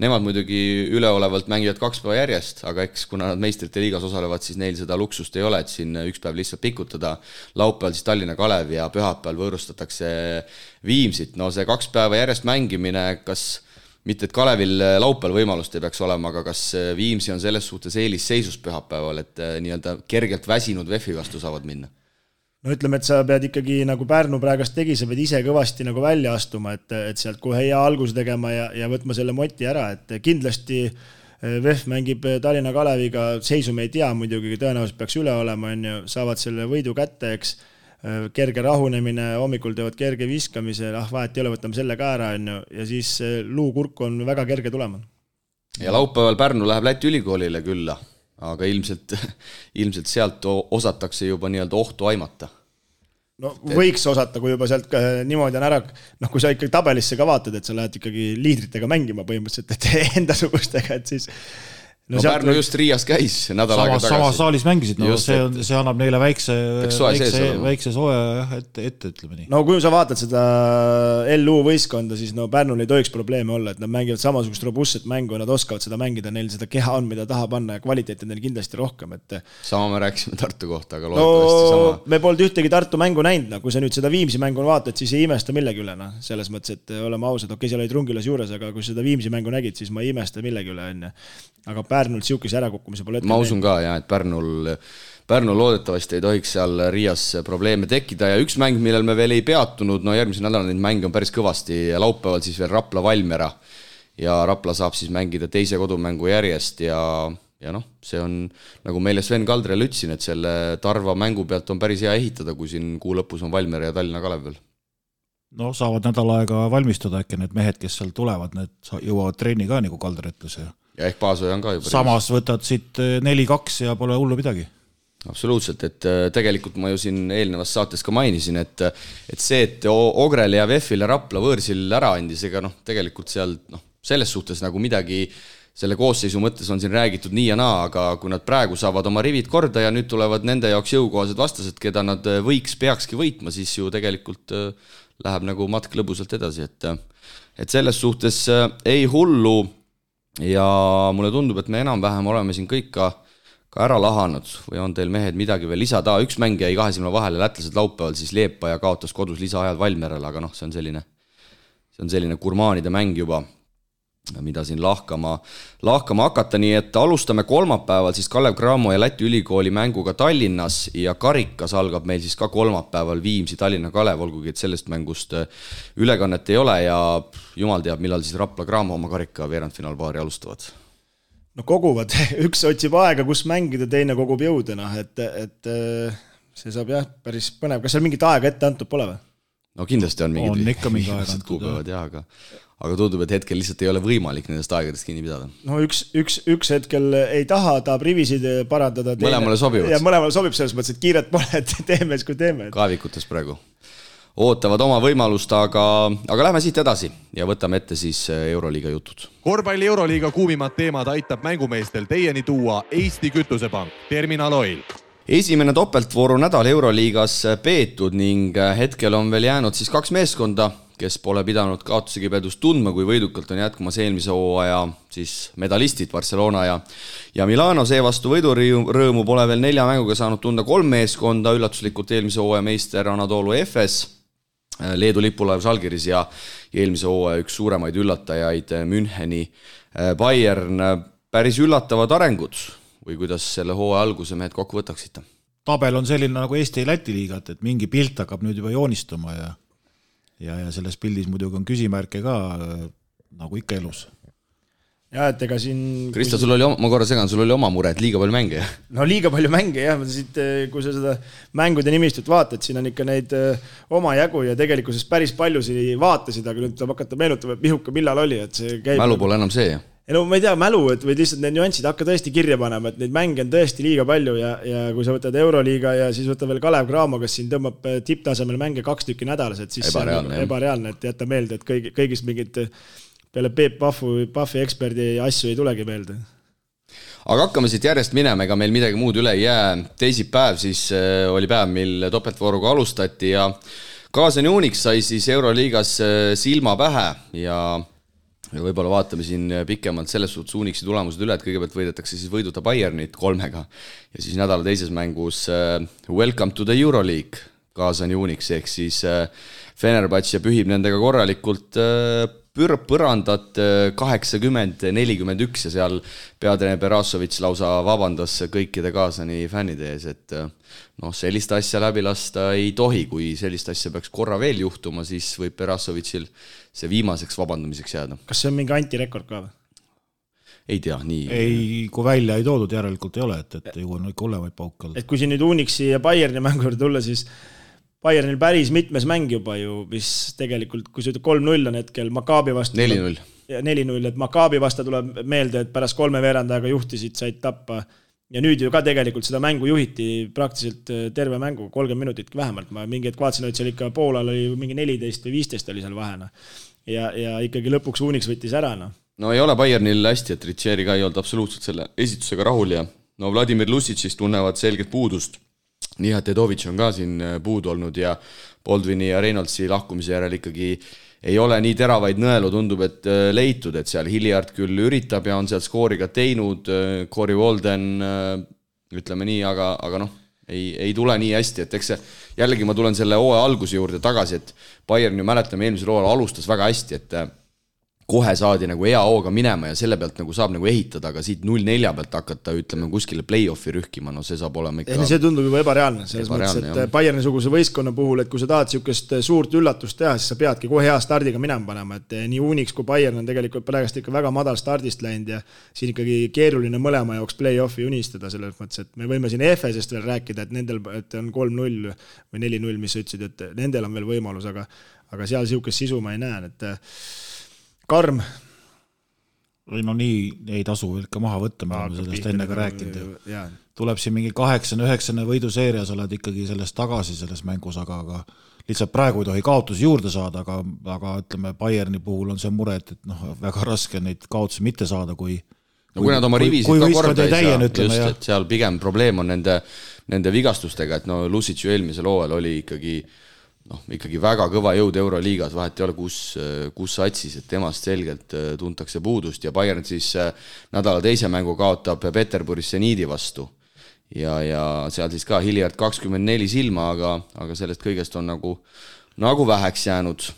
Nemad muidugi üleolevalt mängivad 2 päeva järjest, aga eks kuna nad meistrite liigas osalevad, siis neil seda luksust ei ole, et siin 1 päev lihtsalt pikutada. Laupäeval siis Tallinna Kalev ja pühapäeval võõrustatakse Viimsit. See 2 päeva järjest mängimine, kas mitte, et Kalevil laupäeval võimalust ei peaks olema, aga kas Viimsi on selles suhtes eelisseisus pühapäeval, et nii-öelda kergelt väsinud VEF-i vastu saavad minna? no ütleme, et sa pead ikkagi nagu Pärnu praegast tegi, sa pead ise kõvasti nagu välja astuma, et sealt kohe hea algus tegema ja võtma selle moti ära, et kindlasti VEF mängib Tallinna Kaleviga, seisu me ei tea muidugi, tõenäoliselt peaks üle olema, saavad selle võidu kätte, eks kerge rahunemine, hommikul teevad kerge viskamise, vahet ei ole, võtame selle ka ära, ja siis luukurku on väga kerge tulema. Ja laupäeval Pärnu läheb Läti ülikoolile külla, aga ilmselt sealt osatakse juba nii-öelda ohtu aimata. No võiks osata, kui juba sealt niimoodi on ära, kui sa ikkagi tabelisse ka vaatad, et sa lähed ikkagi liidritega mängima põhimõtteliselt, et endasugustega, et siis... No Pärnu just Riias käis nädal aega tagasi. Sama saalis mängisid, no just, see annab neile väikse soe ette, ütleme nii. No kui sa vaatad seda LU võistkonda, siis Pärnul ei tohiks probleeme olla, et nad mängivad samasugust robustset mängu ja nad oskavad seda mängida, neil seda keha on, mida taha panna ja kvaliteet on neil kindlasti rohkem. Et... Sama me rääkisime Tartu kohta, aga loodetavasti sama. Me polnud ühtegi Tartu mängu näinud, kui sa nüüd seda Viimsi mängu vaatad, siis ei imesta millegi üle. Selles mõttes, et oleme ausad, seal olid Rungilas juures, aga kui seda Viimsi mängu nägid, siis ma ei imesta millegi üle. Aga Pärnul siukese ärakukkumise pole ette. Ma usun ka, et Pärnul loodetavasti ei tohiks seal Riias probleeme tekkida ja üks mäng, millel me veel ei peatunud, järgmise nädala neid mänge on päris kõvasti ja laupäeval siis veel Rapla Valmiera ja Rapla saab siis mängida teise kodumängu järjest ja see on, nagu meile Sven Kaldrel ütlesin, et selle Tarva mängu pealt on päris hea ehitada, kui siin kuu lõpus on Valmiera ja Tallinna Kalev veel. No saavad nädal aega valmistuda äkki need mehed, kes seal tulevad, need jõuavad treeni ka, nagu Kaldr ütles. Ja ehk Paasoja on ka juba. Samas võtad siit 4-2 ja pole hullu midagi. Absoluutselt, et tegelikult ma ju siin eelnevas saates ka mainisin, et see, et Ogrel ja VEF-il ja Rapla võõrsil ära andis, ega tegelikult seal selles suhtes nagu midagi selle koosseisu mõttes on siin räägitud nii ja naa, aga kui nad praegu saavad oma rivid korda ja nüüd tulevad nende jaoks jõukohased vastased, keda nad peakski võitma, siis ju tegelikult läheb nagu matk lõbusalt edasi, et selles suhtes ei hullu ja mulle tundub, et me enam-vähem oleme siin kõik ka ära lahanud või on teil mehed midagi veel lisada. Üks mäng jäi 2 silma vahele, lätlased laupäeval siis Leepa ja kaotas kodus lisaajal Valmierale, aga see on selline gurmaanide mäng juba, mida siin lahkama hakata, nii et alustame kolmapäeval siis Kalev Cramo ja Läti ülikooli mänguga Tallinnas ja karikas algab meil siis ka kolmapäeval Viimsi Tallinna Kalev, olgugi et sellest mängust ülekannet ei ole ja jumal teab, millal siis Rapla Cramo oma karika veerandfinaalpaari alustavad. No koguvad, üks otsib aega, kus mängida, teine kogub jõudena, et see saab päris põnev. Kas seal mingit aega ette antud pole või? No kindlasti on mingid ikka mingi aega antud, aga tundub, et hetkel lihtsalt ei ole võimalik nendest aegadest kinni pidada. No üks hetkel ei taha, tahab rivisid parandada. Mõlemale sobivad. Ja mõlemale sobib selles mõttes, et kiiret pole, et teeme, kui teeme. Kaevikutes praegu ootavad oma võimalust, aga lähme siit edasi ja võtame ette siis Euroliiga jutud. Korvpalli Euroliiga kuumimad teemad aitab mängumeestel teieni tuua Eesti Kütusepank, Terminal Oil. Esimene topeltvooru nädal Euroliigas peetud ning hetkel on veel jäänud siis 2 meeskonda, kes pole pidanud kaotuse kibedust tundma, kui võidukalt on jätkumas eelmise hooaja siis medalistid Barcelona ja Milano. Seevastu võidurõõmu pole veel 4 mänguga saanud tunda 3 meeskonda, üllatuslikult eelmise hooaja meister Anadolu Efes, Leedu lipulaev Žalgiris ja eelmise hooaja üks suuremaid üllatajaid Müncheni Bayern. Päris üllatavad arengud või kuidas selle hooaja alguse mehed kokku võtaksite? Tabel on selline nagu Eesti-Läti liigat, et mingi pilt hakkab nüüd juba joonistuma ja selles pildis muidugi on küsimärke ka, nagu ikka elus. Ja, et ega siin... Krista, sul oli oma mure, et liiga palju mänge, jah? No liiga palju mänge, jah. Kui sa seda mängude nimistut vaatad, siin on ikka neid oma jagu ja tegelikkuses päris paljusi vaatasid, aga nüüd tuleb hakata meenutama, et Pihuka millal oli, et see käib... Mälu pole enam see, jah? No ma ei tea, mälu, et või lihtsalt need nüansid hakka tõesti kirja panema, et neid mänge on tõesti liiga palju ja kui sa võtad Euroliiga ja siis võtad veel Kalev Cramo, kes siin tõmbab tipptasemel mänge 2 tükki nädalas, et siis ebareaalne, et jätta meelde, et kõigist mingid peale Peep Paffi eksperdi asju ei tulegi meelde. Aga hakkame siit järjest minema, ega meil midagi muud üle ei jää. Teisipäev siis oli päev, mil topeltvooruga alustati ja Kaasan Unix sai siis Euroliigas silma pähe ja võib-olla vaatame siin pikemalt selles suhtes Unixi tulemused üle, et kõigepealt võidetakse siis võiduta Bayernit 3 ja siis nädala teises mängus Welcome to the Euroleague Kaasan Unix ehk siis Fenerbahce pühib nendega korralikult põrandat 80-41 ja seal peatreener Berasovitš lausa vabandas kõikide kaasani fännide ees, et sellist asja läbi lasta ei tohi, kui sellist asja peaks korra veel juhtuma, siis võib Berasovitšil see viimaseks vabandamiseks jääda. Kas see on mingi antirekord ka või? Ei tea, nii. Ei, kui välja ei toodud, järelikult ei ole, et ju on ikka hullemaid pauke olnud. Et kui siin nüüd Unixi ja Bayerni mängu juurde tulla, siis Bayernil päris mitmes mäng juba ju, mis tegelikult, kui see 3-0 on hetkel Maccabi vastu 4-0. 4-0, et Maccabi vastu tuleb meelde, et pärast 3 veerandajaga juhtisid, said tappa. Ja nüüd ju ka tegelikult seda mängu juhiti praktiliselt terve mängu, 30 minutit vähemalt. Ma mingi hetk vaatasin, et seal ikka poolal oli mingi 14 või 15 oli seal vahena. Ja ikkagi lõpuks Unix võttis ära. No ei ole Bayernil hästi, et Ritsieri ka ei olnud absoluutselt selle esitusega rahul ja Vladimir Lusicist tunnevad selget puudust. Nii, et Edovitš on ka siin puudu olnud ja Baldwini ja Reynoldsi lahkumise järel ikkagi ei ole nii teravaid nõelu, tundub, et leitud, et seal Hilliard küll üritab ja on seal skooriga teinud, Corey Walden, ütleme nii, aga ei tule nii hästi, et eks see, jällegi ma tulen selle hooaja alguse juurde tagasi, et Bayern ju mäletame eelmisel hooajal alustas väga hästi, et kohe saadi nagu hea hooga minema ja selle pealt nagu saab nagu ehitada, aga siit 0-4 pealt hakata, ütleme, kuskile play-offi rühkima, see saab olema ikka... See tundub juba ebareaalne, selles mõttes, et Bayerni-suguse võistkonna puhul, et kui sa tahad siukest suurt üllatust teha, siis sa peadki kohe hea stardiga minema panema, et nii Unix kui Bayern on tegelikult praegust ikka väga madal stardist läinud ja siin ikkagi keeruline mõlema jaoks play-offi unistada selles mõttes, et me võime siin EFS-est veel rääkida, et nendel et on 3-0 või 4-0, mis sa ütlesid, et nendel on veel võimalus, aga seal siukest sisu ma ei näe, et karm. No nii ei tasu ikka maha võtta, me oleme sellest enne ka rääkinud. Tuleb siin mingi 8-9 võiduseerias, oled ikkagi sellest tagasi selles mängus, aga lihtsalt praegu ei tohi kaotusi juurde saada, aga ütleme, Bayerni puhul on see mure, et väga raske neid kaotusi mitte saada, kui nad oma rivisid ka korda ei saa, just, et seal pigem probleem on nende vigastustega, et Lusic ju eelmisel hooajal oli ikkagi väga kõva jõud Euroliigas, vahet ei ole, kus satsis, et temast selgelt tuntakse puudust ja Bayern siis nädala teise mängu kaotab Peterburis Seniidi vastu ja seal siis ka Hilliard 24 silma, aga sellest kõigest on nagu väheks jäänud.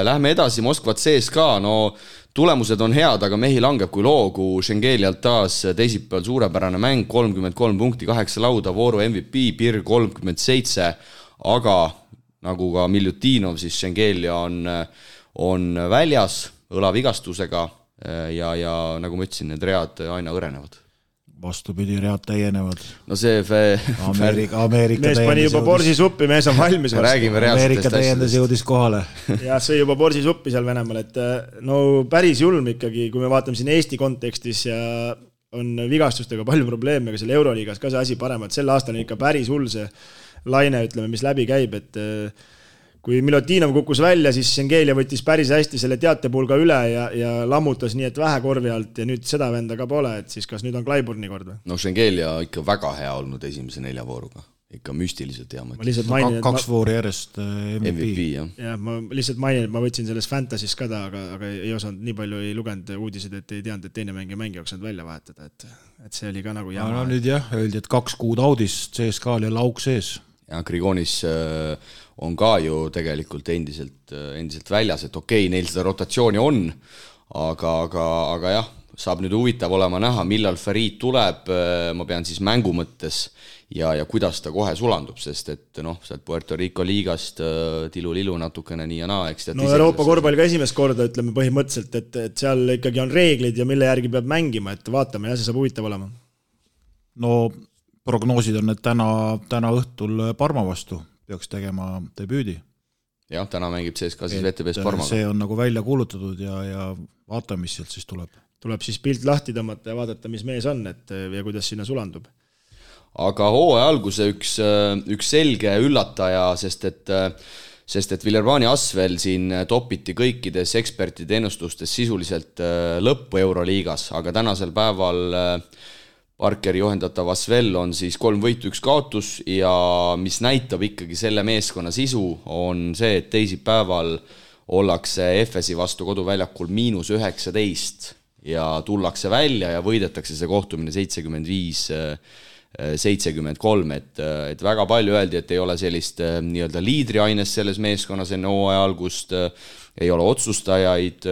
Lähme edasi, Moskva CSKA, tulemused on head, aga mehi langeb kui loogu, Šengelialt taas teisipäeval suurepärane mäng, 33 punkti, 8 lauda, vooru MVP, Pir 37, aga nagu ka Miljutinov, siis Šengelia on väljas õlavigastusega ja nagu ma ütlesin, need read aina õrenevad. Vastupidi, read täienevad. See Ameerika mees pani juba borsisuppi, mees on valmis. Ameerika täiendas jõudis kohale. Ja see juba borsisuppi seal Venemaal, et päris julm ikkagi, kui me vaatame siin Eesti kontekstis ja on vigastustega palju probleeme, aga seal Euroliigas ka see asi parem, et sel aastal on ikka päris hull see laine, ütleme, mis läbi käib, et kui Milutinov kukkus välja, siis Šengelia võttis päris hästi selle teatepulga üle ja lammutas nii, et vähe korvi alt ja nüüd seda venda ka pole, et siis kas nüüd on Clyburni kord või? Šengelia ikka väga hea olnud esimese 4 vooruga. Ikka müstiliselt hea mõte. 2 voori järjest MVP. Ja ma lihtsalt mainin, et ma võtsin selles Fantasy's ka aga ei osanud, nii palju ei lugenud uudiseid, et ei teadnud, et teine mängi jooksenud välja vahetada, et see oli ka nagu jama. Nüüd öeldi, et 2 kuud audis CSKA-l ja lauk sees. Ja Grigonis on ka ju tegelikult endiselt väljas, et okei, neil seda rotatsiooni on, aga jah, saab nüüd huvitav olema näha, millal Farid tuleb, ma pean siis mängu mõttes ja kuidas ta kohe sulandub, sest et sealt Puerto Rico liigast tilu-lilu natukene nii ja naa. Euroopa korvpall ka esimest korda, ütleme põhimõtteliselt, et seal ikkagi on reeglid ja mille järgi peab mängima, et vaatame ja see saab huvitav olema. Prognoosid on, et täna õhtul Parma vastu peaks tegema debüüdi. Jah, täna mängib CSKA siis VTB's Parmaga. See on nagu välja kuulutatud ja vaatame, mis sealt siis tuleb. Tuleb siis pilt lahti tõmmata ja vaadata, mis mees on ja kuidas sinna sulandub. Aga hooaja alguse üks selge üllataja, sest et Villervani Asvel siin topiti kõikides ekspertide ennustustes sisuliselt lõppu Euroliigas, aga tänasel päeval Parkeri juhendatav Asvel on siis 3 võitu 1 kaotus ja mis näitab ikkagi selle meeskonna sisu on see, et teisipäeval ollakse FSi vastu koduväljakul -19 ja tullakse välja ja võidetakse see kohtumine 75-65 73, et väga palju öeldi, et ei ole sellist nii-öelda liidriainest selles meeskonnas enne hooaja algust, ei ole otsustajaid,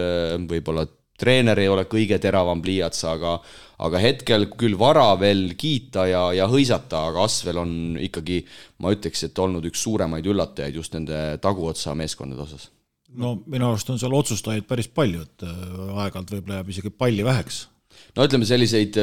võib-olla treener ei ole kõige teravam pliiats, aga hetkel küll vara veel kiita ja hõisata, aga Asvel on ikkagi, ma ütleks, et olnud üks suuremaid üllatajaid just nende taguotsa meeskondade osas. No minu arust on seal otsustajaid päris palju, et aeg-ajalt võib-olla jääb isegi palli väheks. No ütleme selliseid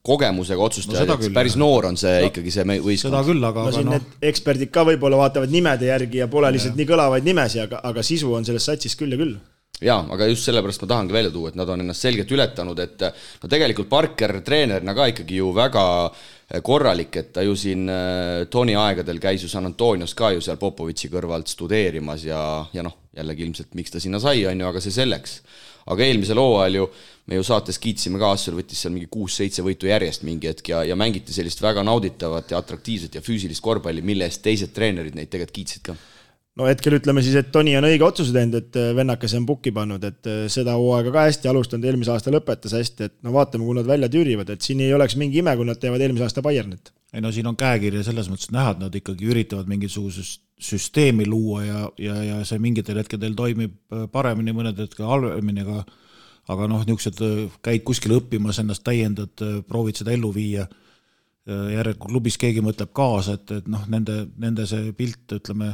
kogemusega otsustajaid, no, päris noor on see ikkagi see võistkond. Seda küll, aga no siin need eksperdid ka võib-olla vaatavad nimede järgi ja pole lihtsalt nii kõlavaid nimesi, aga sisu on selles satsis küll ja küll. Jaa, aga just sellepärast ma tahangi välja tuua, et nad on ennast selgelt ületanud, et no tegelikult Parker treenerina ka ikkagi ju väga korralik, et ta ju siin Toni aegadel käis ju San Antonios ka ju seal Popovitši kõrvalt studeerimas ja noh, jällegi ilmselt miks ta sinna sai, on ju, aga see selleks. Aga eelmisel hooajal ju me ju saates kiitsime ka, Asvel võttis seal mingi 6-7 võitu järjest mingi hetk ja mängiti sellist väga nauditavat ja atraktiivset ja füüsilist korvpalli, mille eest teised treenerid neid tegelikult kiitsid ka. No hetkel ütleme siis, et Toni on õige otsuse teinud, et vennakas on pukki pannud, et seda hooaega ka hästi alustanud, eelmise aasta lõpetas hästi, et no vaatame, kui nad välja tüürivad, et siin ei oleks mingi ime, kui nad teevad eelmise aasta Bayernit. Ei no siin on käekirja selles mõttes näha, et nad ikkagi üritavad mingisugusest süsteemi luua ja see mingitel hetkedel toimib paremini, mõned hetkel halvemini, aga noh, niisugused käid kuskil õppimas, ennast täiendad, proovid seda ellu viia, järelikult klubis keegi mõtleb kaasa, et noh, nende see pilt, ütleme,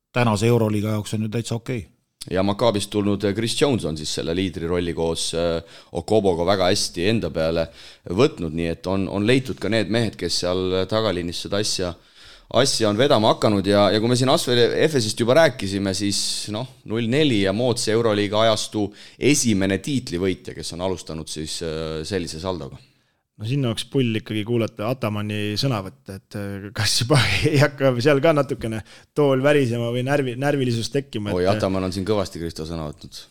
tänase Euroliiga jaoks on ju täitsa okei. Ja Maccaabist tulnud Chris Jones on siis selle liidri rolli koos Okoboga väga hästi enda peale võtnud, nii et on leitud ka need mehed, kes seal tagaliinis seda asja on vedama hakanud ja kui me siin Asvel Efesist juba rääkisime, siis 0-4 ja moodse Euroliiga ajastu esimene tiitlivõitja, kes on alustanud siis sellise saldoga. No sinna oleks pull ikkagi kuulata Atamanni sõnavõtte, et kas juba ei hakka seal ka natukene tool värisema või närvilisus tekkima. Oi, Ataman on siin kõvasti Kristo sõna võtnud.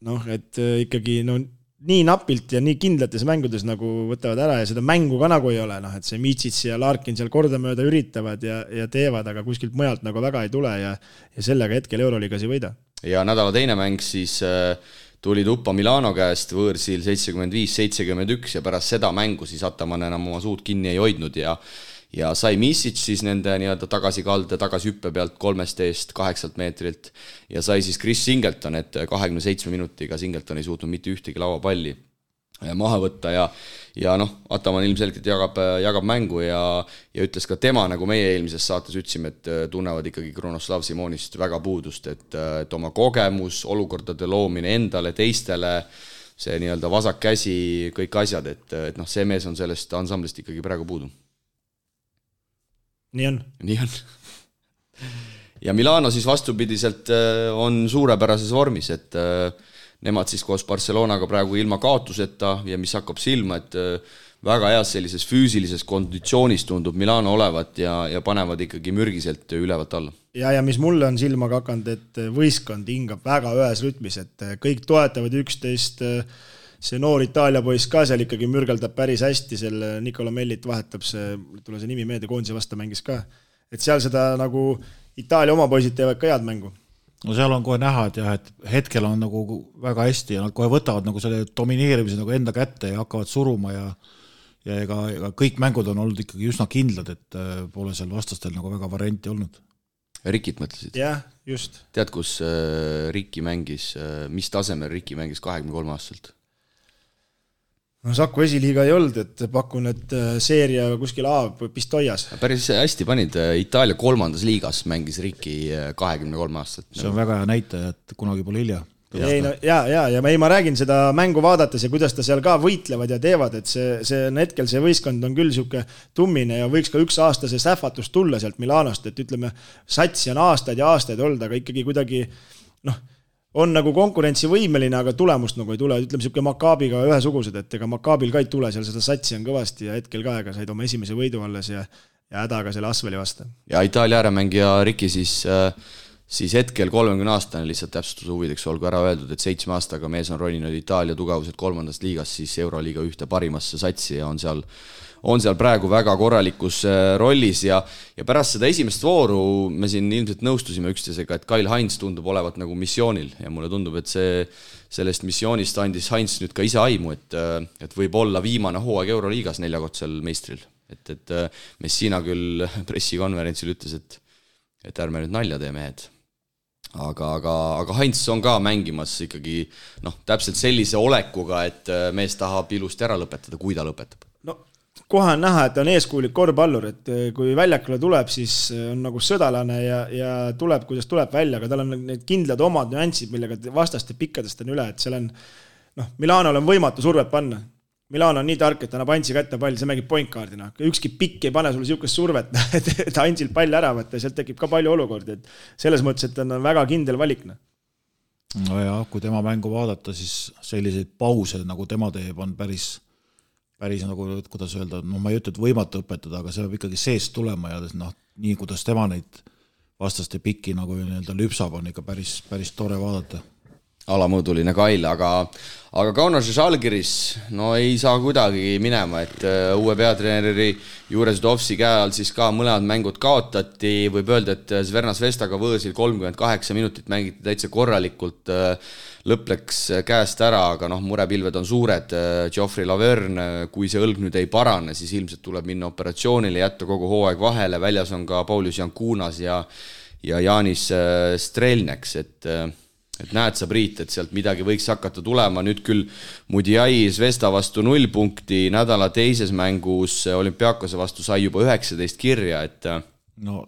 Noh, et ikkagi nii napilt ja nii kindlates mängudes nagu võtavad ära ja seda mängu ka nagu ei ole, et see Mitsits ja Larkin seal kordamööda üritavad ja teevad, aga kuskilt mujalt nagu väga ei tule ja sellega hetkel Euroliigas ei võida. Ja nädala teine mäng siis tuli tuppa Milano käest võõrsil 75-71 ja pärast seda mängu siis Ataman enam oma suud kinni ei hoidnud ja sai Misic siis nende nii-öelda tagasikalde, tagasihüppe pealt 3 eest 8 meetrilt ja sai siis Chris Singleton, et 27 minutiga Singleton ei suutnud mitte ühtegi lauapalli maha võtta ja Ataman ilmselgelt jagab mängu ja ütles ka tema, nagu meie eelmises saates ütlesime, et tunnevad ikkagi Kronoslav Simonist väga puudust, et oma kogemus, olukordade loomine endale, teistele, see nii-öelda vasak käsi, kõik asjad, et see mees on sellest ansamblist ikkagi praegu puudu. Nii on. Ja Milano siis vastupidiselt on suurepärases vormis, et nemad siis koos Barcelonaga praegu ilma kaotuseta ja mis hakkab silma, et väga heas sellises füüsilises konditsioonis tundub Milano olevat ja panevad ikkagi mürgiselt ülevalt alla. Ja mis mulle on silma hakanud, et võistkond hingab väga ühes rütmis, et kõik toetavad üksteist, see noor Itaalia poiss ka seal ikkagi mürgeldab päris hästi, selle Nicola Mellit vahetab tule see nimi meelde, koondise vastu mängis ka, et seal seda nagu Itaalia oma poisid teevad ka head mängu. No seal on kohe näha, et hetkel on nagu väga hästi ja nad kohe võtavad nagu selle domineerimise nagu enda kätte ja hakkavad suruma ja ega kõik mängud on olnud ikkagi üsna kindlad, et pole seal vastastel nagu väga varianti olnud. Rikit mõtlesid? Jah, just. Tead, kus Riki mängis, mis tasemel Riki mängis 23 aastalt? No Saku esiliiga ei olnud, et pakun, et seeria kuskil Pistoias. Päris hästi panid, Itaalia 3. liigas mängis Riki 23 aastat. See on väga hea näitaja, et kunagi pole hilja. Ja ma räägin seda mängu vaadates ja kuidas ta seal ka võitlevad ja teevad, et see hetkel see võistkond on küll siuke tummine ja võiks ka üks aasta see sähvatus tulla sealt Milanost, et ütleme, satsi on aastaid ja aastaid olnud, aga ikkagi kuidagi on nagu konkurentsivõimeline, aga tulemust nagu ei tule. Ütleme siuke Maccaabiga ühesugused, et ega Maccaabil ka ei tule, seal seda satsi on kõvasti ja hetkel ka said oma esimese võidu alles ja hädaga selle Asveli vastu. Ja Itaalia ääremängija Riki siis hetkel 30 aastane lihtsalt täpsustuse huvideks olgu ära öeldud, et 7 aastaga mees on roninud Itaalia tugevuselt 3. liigas siis Euroliiga ühte parimasse satsi ja on seal praegu väga korralikus rollis ja pärast seda esimest vooru me siin ilmselt nõustusime üksteisega, et Kyle Heinz tundub olevat nagu missioonil ja mulle tundub, et sellest missioonist andis Heinz nüüd ka ise aimu, et võib olla viimane hooaeg Euroliigas 4-kordsel meistril. et Messina küll pressikonverentsil ütles, et ärme nüüd nalja tee mehed. Aga Heinz on ka mängimas ikkagi täpselt sellise olekuga, et mees tahab ilusti ära lõpetada, kui ta lõpetab. No kohe on näha, et on eeskuulik korvpallur, et kui väljakule tuleb, siis on nagu sõdalane ja tuleb, kuidas tuleb välja, aga tal on need kindlad omad nüansid, millega vastaste pikkadest on üle, et seal on Milanol on võimatu survet panna. Milano on nii tark, et annab Antsi kätte pall, see mängib pointkaardina. Ükski pikk ei pane sulle siukest survet, et Antsil pall ära võtta, sealt tekib ka palju olukordi. Et selles mõttes, et on väga kindel valikna. No ja, kui tema mängu vaadata, siis selliseid pause, nagu tema teeb, on päris nagu, kuidas öelda, ma ei ütle, et võimatu õpetada, aga see peab ikkagi seest tulema ja nii, kuidas tema neid vastaste pikki nagu lüpsab, on ikka päris tore vaadata. Alamõõduline Kail, aga Kaunas ja Žalgiris ei saa kuidagi minema, et uue peatreeneri juures Dovsi käe all siis ka mõlemad mängud kaotati, võib öelda, et Zverna Zvestaga võõsil 38 minutit mängiti täitsa korralikult, lõpp läks käest ära, aga murepilved on suured, Geoffrey Laverne, kui see õlg nüüd ei parane, siis ilmselt tuleb minna operatsioonile, jätta kogu hooaeg vahele, väljas on ka Paulius Jankunas ja Jaanis Strelneks, et näed sa, Priit, et sealt midagi võiks hakata tulema, nüüd küll Mudiai Zvesta vastu 0 punkti, nädala teises mängus Olümpiakose vastu sai juba 19 kirja, et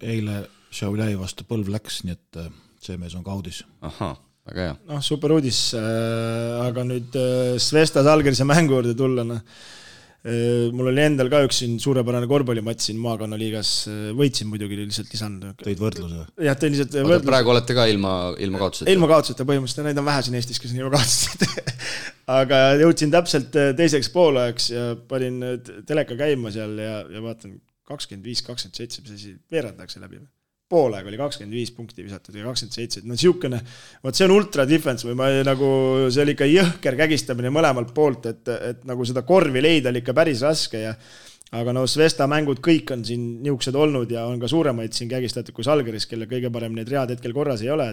eile Šauljai vastu põlv läks, nii et see mees on kaudis. Ahah, väga hea. Super uudis, aga nüüd Zvesta Žalgirise mängu juurde tulla, mul oli endal ka üks suurepärane korvpallimatš siin maakonnaliigas, võitsin muidugi lihtsalt lisand. Tõid võrdluse? Jah, tõid lihtsalt võrdluse. Praegu olete ka ilma kaotuseta? Ilma kaotuseta põhimõtteliselt, neid on vähe siin Eestis, kes on ilma kaotuseta. Aga jõudsin täpselt teiseks poolajaks ja panin teleka käima seal ja vaatan 25-27, mis veerandakse läbi. Poolaeg oli 25 punkti visatud ja 27. Siukene, see on ultra defense või see oli ikka jõhker kägistamine mõlemalt poolt, et nagu seda korvi leida oli ikka päris raske. Aga Zvesta mängud kõik on siin niuksed olnud ja on ka suuremaid siin kägistatud kui Žalgiris, kelle kõige parem need read hetkel korras ei ole.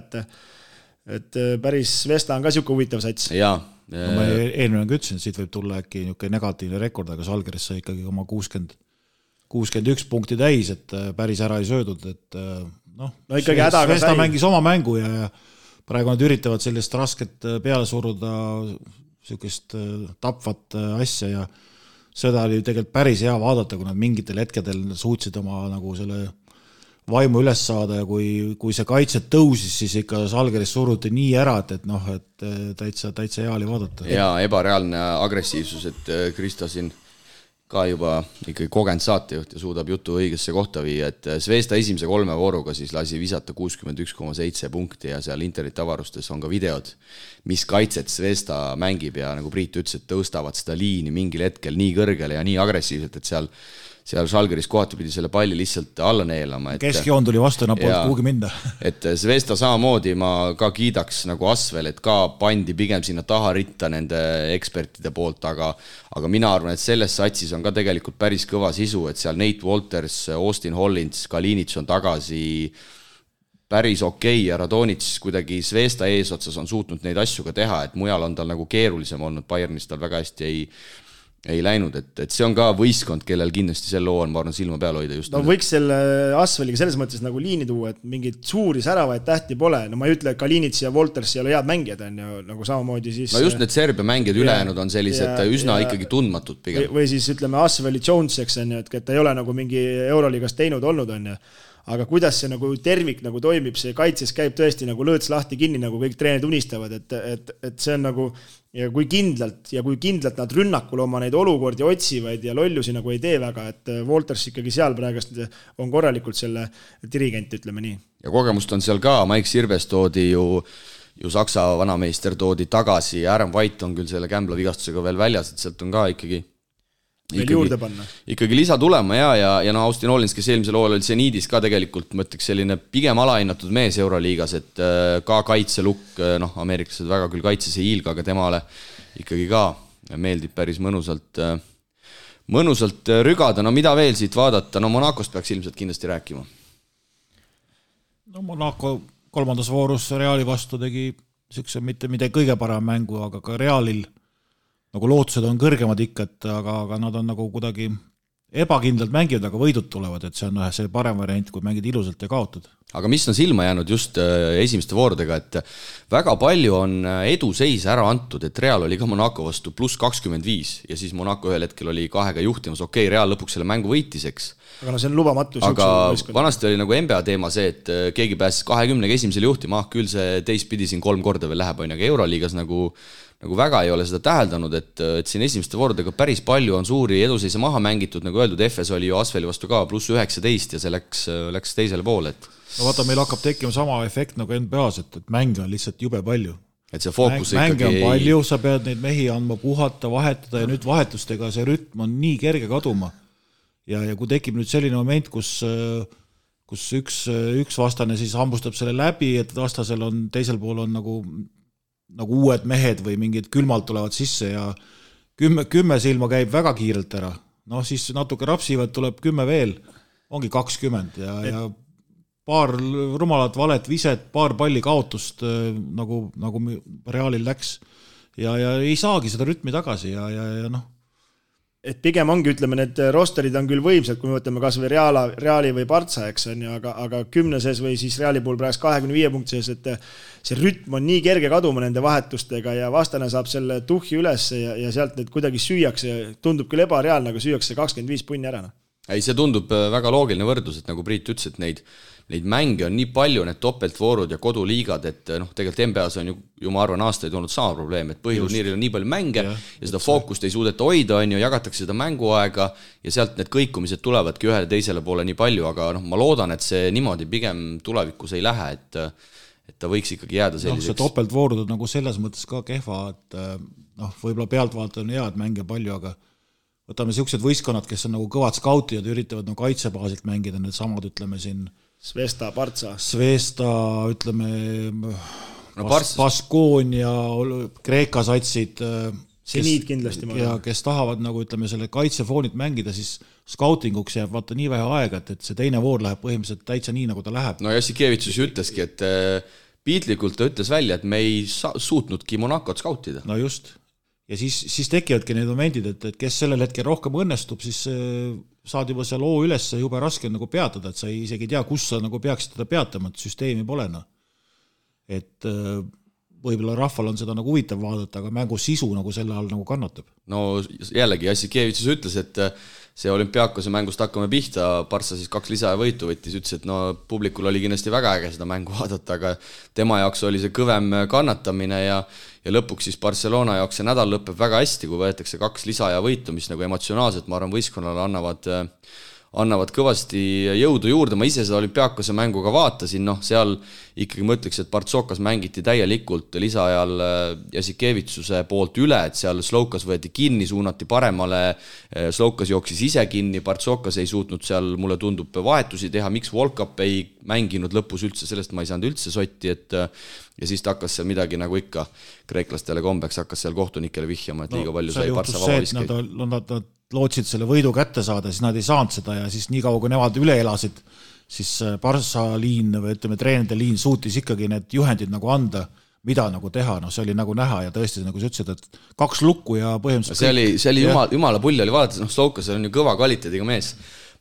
Et päris Zvesta on ka siuke huvitav sats. Jaa. Ma eelmine ütlesin, et siit võib tulla äkki negatiivne rekord, aga Žalgiris sai ikkagi oma 61 punkti täis, et päris ära ei söödud, et ikkagi hädaga sai. Mängis oma mängu ja praegu nad üritavad sellist rasket peale suruda, sellist tapvat asja ja seda oli tegelikult päris hea vaadata, kui nad mingitel hetkedel suutsid oma nagu selle vaimu üles saada ja kui see kaitset tõusis, siis ikka Žalgiris suruti nii ära, et täitsa hea oli vaadata. Ja ebareaalne agressiivsus, et Kristo siin ka juba ikkagi kogenud saatejuht ja suudab jutu õigesse kohta viia, et Zvesta esimese 3 vooruga siis lasi visata 61,7 punkti ja seal interneti avarustes on ka videod, mis kaitset Zvesta mängib ja nagu Priit ütles, et tõustavad seda liini mingil hetkel nii kõrgele ja nii agressiivselt, et seal Žalgiris kohati pidi selle palli lihtsalt alla neelama. Keskjoon tuli vastu, polnud kuhugi minna. Et Zvesta samamoodi ma ka kiidaks nagu Asvel, et ka pandi pigem sinna taha ritta nende ekspertide poolt, aga mina arvan, et selles satsis on ka tegelikult päris kõva sisu, et seal Nate Walters, Austin Hollins, Kalinits on tagasi päris okei ja Radonits kuidagi Zvesta eesotsas on suutnud neid asju ka teha, et mujal on tal nagu keerulisem olnud, Bayernis tal väga hästi ei läinud, et see on ka võistkond, kellel kindlasti sel loo on, ma arvan, silma peal hoida just. Võiks selle Asveliga selles mõttes nagu liini tuua, et mingid suuri säravaid tähti pole. Ma ei ütle, et Kalinits ja Wolters ei ole head mängijad, on ju, nagu samamoodi siis... just need Serbia mängijad ülejäänud on sellised üsna ikkagi tundmatud pigem. Või siis ütleme Asveli Joneseks, on ju, et ta ei ole nagu mingi Euroliigas teinud olnud, on ju. Aga kuidas see nagu tervik nagu toimib, see kaitses käib tõesti nagu lõõts lahti kinni, nagu kõik treenid unistavad, et see on nagu, ja kui kindlalt nad rünnakul oma neid olukordi otsivad ja lollusi nagu ei tee väga, et Wolters ikkagi seal praegust on korralikult selle dirigent, ütleme nii. Ja kogemust on seal ka, Mike Sirves toodi ju Saksa vanameister toodi tagasi ja Aaron White on küll selle kämbla vigastusega veel väljas, et sealt on ka ikkagi lisa tulema ja Austin Hollins, kes eelmisel hooajal oli Zeniidis ka tegelikult, ma ütleks selline pigem alahinnatud mees Euroliigas, et ka kaitselukk, ameeriklased väga küll kaitses ei hiilga, aga temale ikkagi ka meeldib päris mõnusalt rügada. Mida veel siit vaadata? Monacost peaks ilmselt kindlasti rääkima. Monaco 3. voorus Reali vastu tegi mitte kõige parem mängu, aga ka Realil nagu lootused on kõrgemad ikka, aga nad on nagu kuidagi ebakindlalt mängivad, aga võidud tulevad, et see on see parem variant, kui mängid ilusalt ja kaotad. Aga mis on silma jäänud just esimeste voorudega, et väga palju on eduseis ära antud, et Real oli ka Monaco vastu +25 ja siis Monaco ühel hetkel oli 2-ga juhtimas, Real lõpuks selle mängu võitis, eks. Aga see on lubamatu. Aga vanasti oli nagu NBA teema see, et keegi pääses 20-ga esimesele juhtima, küll see teistpidi siin 3 korda veel läheb, aga Euroliigas nagu väga ei ole seda täheldanud, et siin esimeste voorudega päris palju on suuri eduseise maha mängitud, nagu öeldud, Efes oli ju Asveli vastu ka +19 ja see läks teisele poole, et no vaata, meil hakkab tekkima sama efekt nagu NBA-s, et mänge on lihtsalt jube palju. Et see fookus mänge on palju, sa pead neid mehi andma puhata, vahetada ja nüüd vahetustega see rütm on nii kerge kaduma. Ja kui tekib nüüd selline moment, kus üks vastane siis hambustab selle läbi, et vastasel on, teisel pool on nagu uued mehed või mingid külmalt tulevad sisse ja 10 silma käib väga kiirelt ära. No siis natuke rapsivad, tuleb 10 veel, ongi 20 ja paar rumalat valet viset, paar palli kaotust nagu Realil läks ja ei saagi seda rütmi tagasi ja noh. Et pigem ongi, ütleme, need rosterid on küll võimsad, kui me võtame kas või Reali või Partsa, eks on ju, aga 10 või siis Reali puhul praegu 25 punkti sees, et see rütm on nii kerge kaduma nende vahetustega ja vastane saab selle tuhhi üles ja sealt need kuidagi süüakse, tundub küll ebareaalne, aga süüakse 25 punni ära. Ei, see tundub väga loogiline võrdlus, et nagu Priit ütles, et neid mänge on nii palju, need topeltvoorud ja koduliigad, et tegelikult NBA-s on ju ma arvan aastaid olnud sama probleem, et põhiturniiril on nii palju mänge ja seda fookust ei suudeta hoida, jagatakse seda mänguaega ja sealt need kõikumised tulevadki ühele teisele poole nii palju, aga ma loodan, et see niimoodi pigem tulevikus ei lähe, et ta võiks ikkagi jääda selliseks. See topeltvoorud on nagu selles mõttes ka kehva, et võib-olla pealtvaata on hea, et mänge palju, aga võtame siuksed võistkonnad, kes on nagu kõvad skautid ja üritavad nagu kaitsebaasilt mängida, need samad, ütleme siin Svesta, Partsa. Svesta, ütleme Baskoonia, Kreeka satsid, Seniid kindlasti. Ja kes tahavad nagu, ütleme, selle kaitsefoonit mängida, siis skautinguks jääb vaata nii vähe aega, et see teine voor läheb põhimõtteliselt täitsa nii, nagu ta läheb. No Jassikevitsus ütleski, et piitlikult ta ütles välja, et me ei suutnudki Monacot skautida. No just. Ja siis tekivadki need momendid, et kes sellel hetkel rohkem õnnestub, siis saad juba seal oo üles juba raske nagu peatada, et sa isegi tea, kus sa nagu peaksid teda peatama, et süsteemi pole. Et võib-olla rahval on seda nagu huvitav vaadata, aga mängu sisu nagu selle all nagu kannatab. No jällegi Jassikevitsus ütles, et see Olümpiakose mängust hakkame pihta, Partsa siis 2 lisaja võitu võttis, ütles, et publikul oli kindlasti väga äge seda mängu vaadata, aga tema jaoks oli see kõvem kannatamine ja lõpuks siis Barcelona jaoks see nädal lõpeb väga hästi, kui võetakse 2 lisaja võitu, mis nagu emotsionaalselt, ma arvan, võistkonnale annavad kõvasti jõudu juurde, ma ise seda Olümpiakose mängu ka vaatasin, seal ikkagi mõtleks, et Partsokas mängiti täielikult lisaajal Jassikevitsuse poolt üle, et seal Slovkas võeti kinni, suunati paremale, Slovkas jooksis ise kinni, Partsokas ei suutnud seal, mulle tundub, vahetusi teha, miks Volkap ei mänginud lõpus üldse, sellest ma ei saanud üldse sotti, ja siis ta hakkas seal midagi nagu ikka kreeklastele kombeks, hakkas seal kohtunikele vihjama, et liiga palju sai Partsa vabaliskeid. Nad lootsid selle võidu kätte saada, siis nad ei saanud seda ja siis nii kaua, kui nemad üle elasid, siis Partsa liin või ütleme, treenide liin suutis ikkagi need juhendid nagu anda, mida nagu teha, see oli nagu näha ja tõesti, nagu sa ütlesid, et 2 lukku ja põhimõtteliselt see oli jumala pull oli vaadates, Slovkas on ju kõva kvaliteediga mees,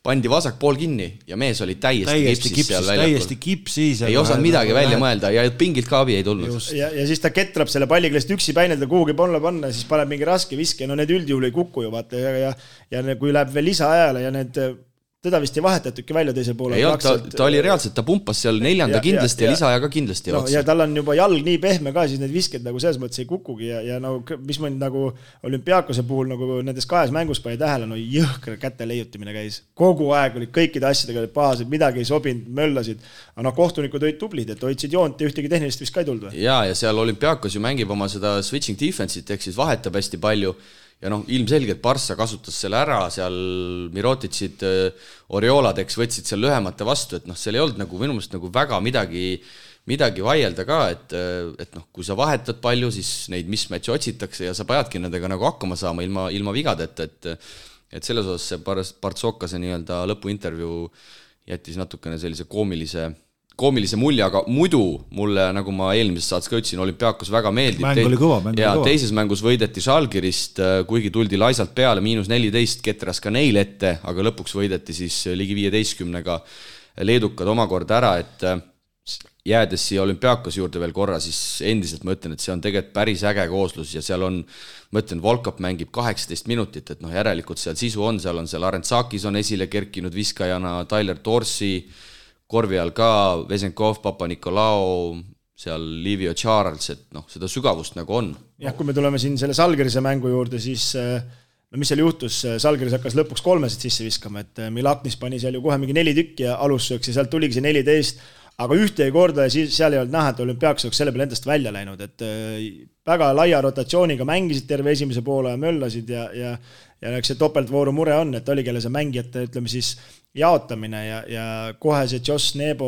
pandi vasak pool kinni ja mees oli täiesti kipsis ei osanud midagi välja mõelda ja pingilt ka abi ei tulnud. Ja siis ta ketrab selle palliga lihtsalt üksi päinelda kuhugi panna ja siis paneb mingi raske viske, need üldjuhul ei kuku ju vaata ja kui läheb veel lisaajale ja need teda vist ei vahetatudki välja teise poole. Ei, ta oli reaalselt, ta pumpas seal 4. kindlasti ja lisaaja ka kindlasti. Ja tal on juba jalg nii pehme ka, siis need visked nagu selles mõttes ei kukugi ja mis ma nagu Olümpiakose puhul nagu nendes 2 mängus pani tähele, jõhkra käte leiutimine käis. Kogu aeg olid kõikide asjadega pahased, midagi ei sobinud, möllasid. Aga kohtunikud olid tublid, et hoidsid joont ja ühtegi tehnilist vist ka ei tulnud. Ja seal Olümpiakos ju mängib oma seda switching defense'it, ehk siis vahetab hästi palju. Ja ilmselgelt Barça kasutas selle ära, seal Mirotitsid, Orioladeks võtsid seal lühemate vastu, et seal ei olnud nagu minu meelest nagu väga midagi vaielda ka, et kui sa vahetad palju, siis neid mismatche otsitakse ja sa peadki nendega nagu hakkama saama ilma vigadeta, et selles osas see Bartsokase nii-öelda lõpuintervjuu jättis natukene sellise koomilise mulje, aga muidu mulle, nagu ma eelmises saates ka ütlesin, Olümpiakos väga meeldib. Mäng oli kõva, mäng oli kõva. Teises mängus võideti Žalgirist, kuigi tuldi laisalt peale, -14 ketras ka neil ette, aga lõpuks võideti siis ligi 15-ga leedukad omakorda ära, et jäädes siia Olümpiakos juurde veel korra, siis endiselt ma ütlen, et see on tegelikult päris äge kooslus ja seal on, ma ütlen, Volkap mängib 18 minutit, et järelikult seal sisu on seal Arentsakis on esile kerkinud viskajana, Tyler Dorsey, korvi all ka Vesenkov, Papa-Nikolao, seal Livio Charles, et seda sügavust nagu on. Jah, kui me tuleme siin selle Žalgirise mängu juurde, siis mis seal juhtus, Žalgiris hakkas lõpuks 3 sisse viskama, et Milaknis pani seal ju kohe mingi 4 tükki ja alussööks ja sealt tuligi see 14, aga ühte ei korda ja siis seal ei olnud näha, et Olümpiakos oleks selle peale endast välja läinud, et väga laia rotatsiooniga mängisid terve esimese poole ja möllasid ja eks see topeltvooru mure on, et oli kelle see mängijate, ütleme siis, jaotamine ja kohe see Josh Nebo,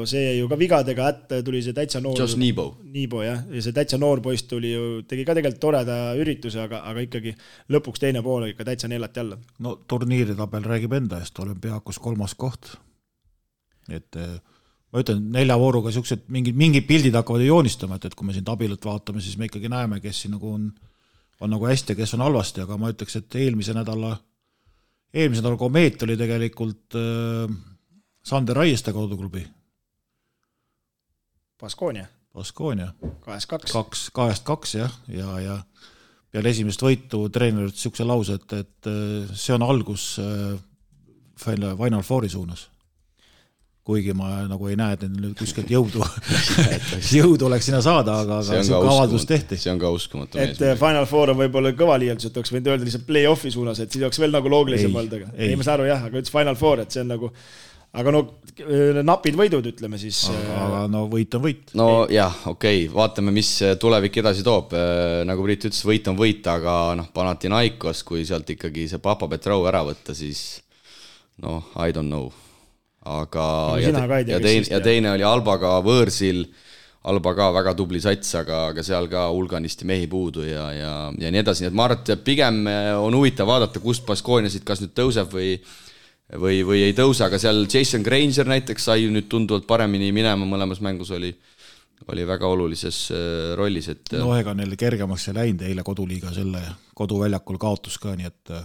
see ju ka vigadega tuli see täitsa noor. Josh Nebo, jah. Ja see täitsa noor poist tuli ju, tegi ka tegelikult toreda ürituse, aga ikkagi lõpuks teine pool ikka täitsa neelati alla. No turniiritabel räägib enda eest, Olümpiakos 3. koht. Et ma ütlen, 4 vooruga siuksed mingid pildid hakkavad joonistama, et kui me siin tabelit vaatame, siis me ikkagi näeme, kes siin nagu on nagu hästi ja kes on halvasti, aga ma ütleks, et eelmise nädala Komeet oli tegelikult Sander Raieste koduklubi. Baskonia. 2-2, jah. Ja peale esimest võitu treener ütles siukse lause, et see on algus Final Fouri suunas. Kuigi ma nagu ei näe, et nüüd kuskilt jõudu oleks sinna saada, aga see avaldus tehti. See on ka uskumatu. Et Final Four on võib-olla kõva liialdus, et oleks võinud öelda lihtsalt play-offi suunas, et siis oleks veel nagu loogilisem olnud. Ei, ma saan aru jah, aga ütles Final Four, et see on nagu, aga napid võidud, ütleme siis. Aga võit on võit. No jah, okei, vaatame, mis tulevik edasi toob. Nagu Priit ütles, võit on võit, aga Panathinaikos, kui sealt ikkagi see Papa Petrov ära võtta, siis I don't know. Aga ja teine oli Albaga võõrsil, Alba ka väga tubli sats, aga seal ka hulganisti mehi puudu ja nii edasi, nii et ma arvan, et pigem on huvitav vaadata, kust Baskoniasid kas nüüd tõuseb või ei tõuse, aga seal Jason Granger näiteks sai nüüd tunduvalt paremini minema, mõlemas mängus oli väga olulises rollis, et ega neil kergemaks ei läinud eile koduliiga selle koduväljakul kaotus ka, nii et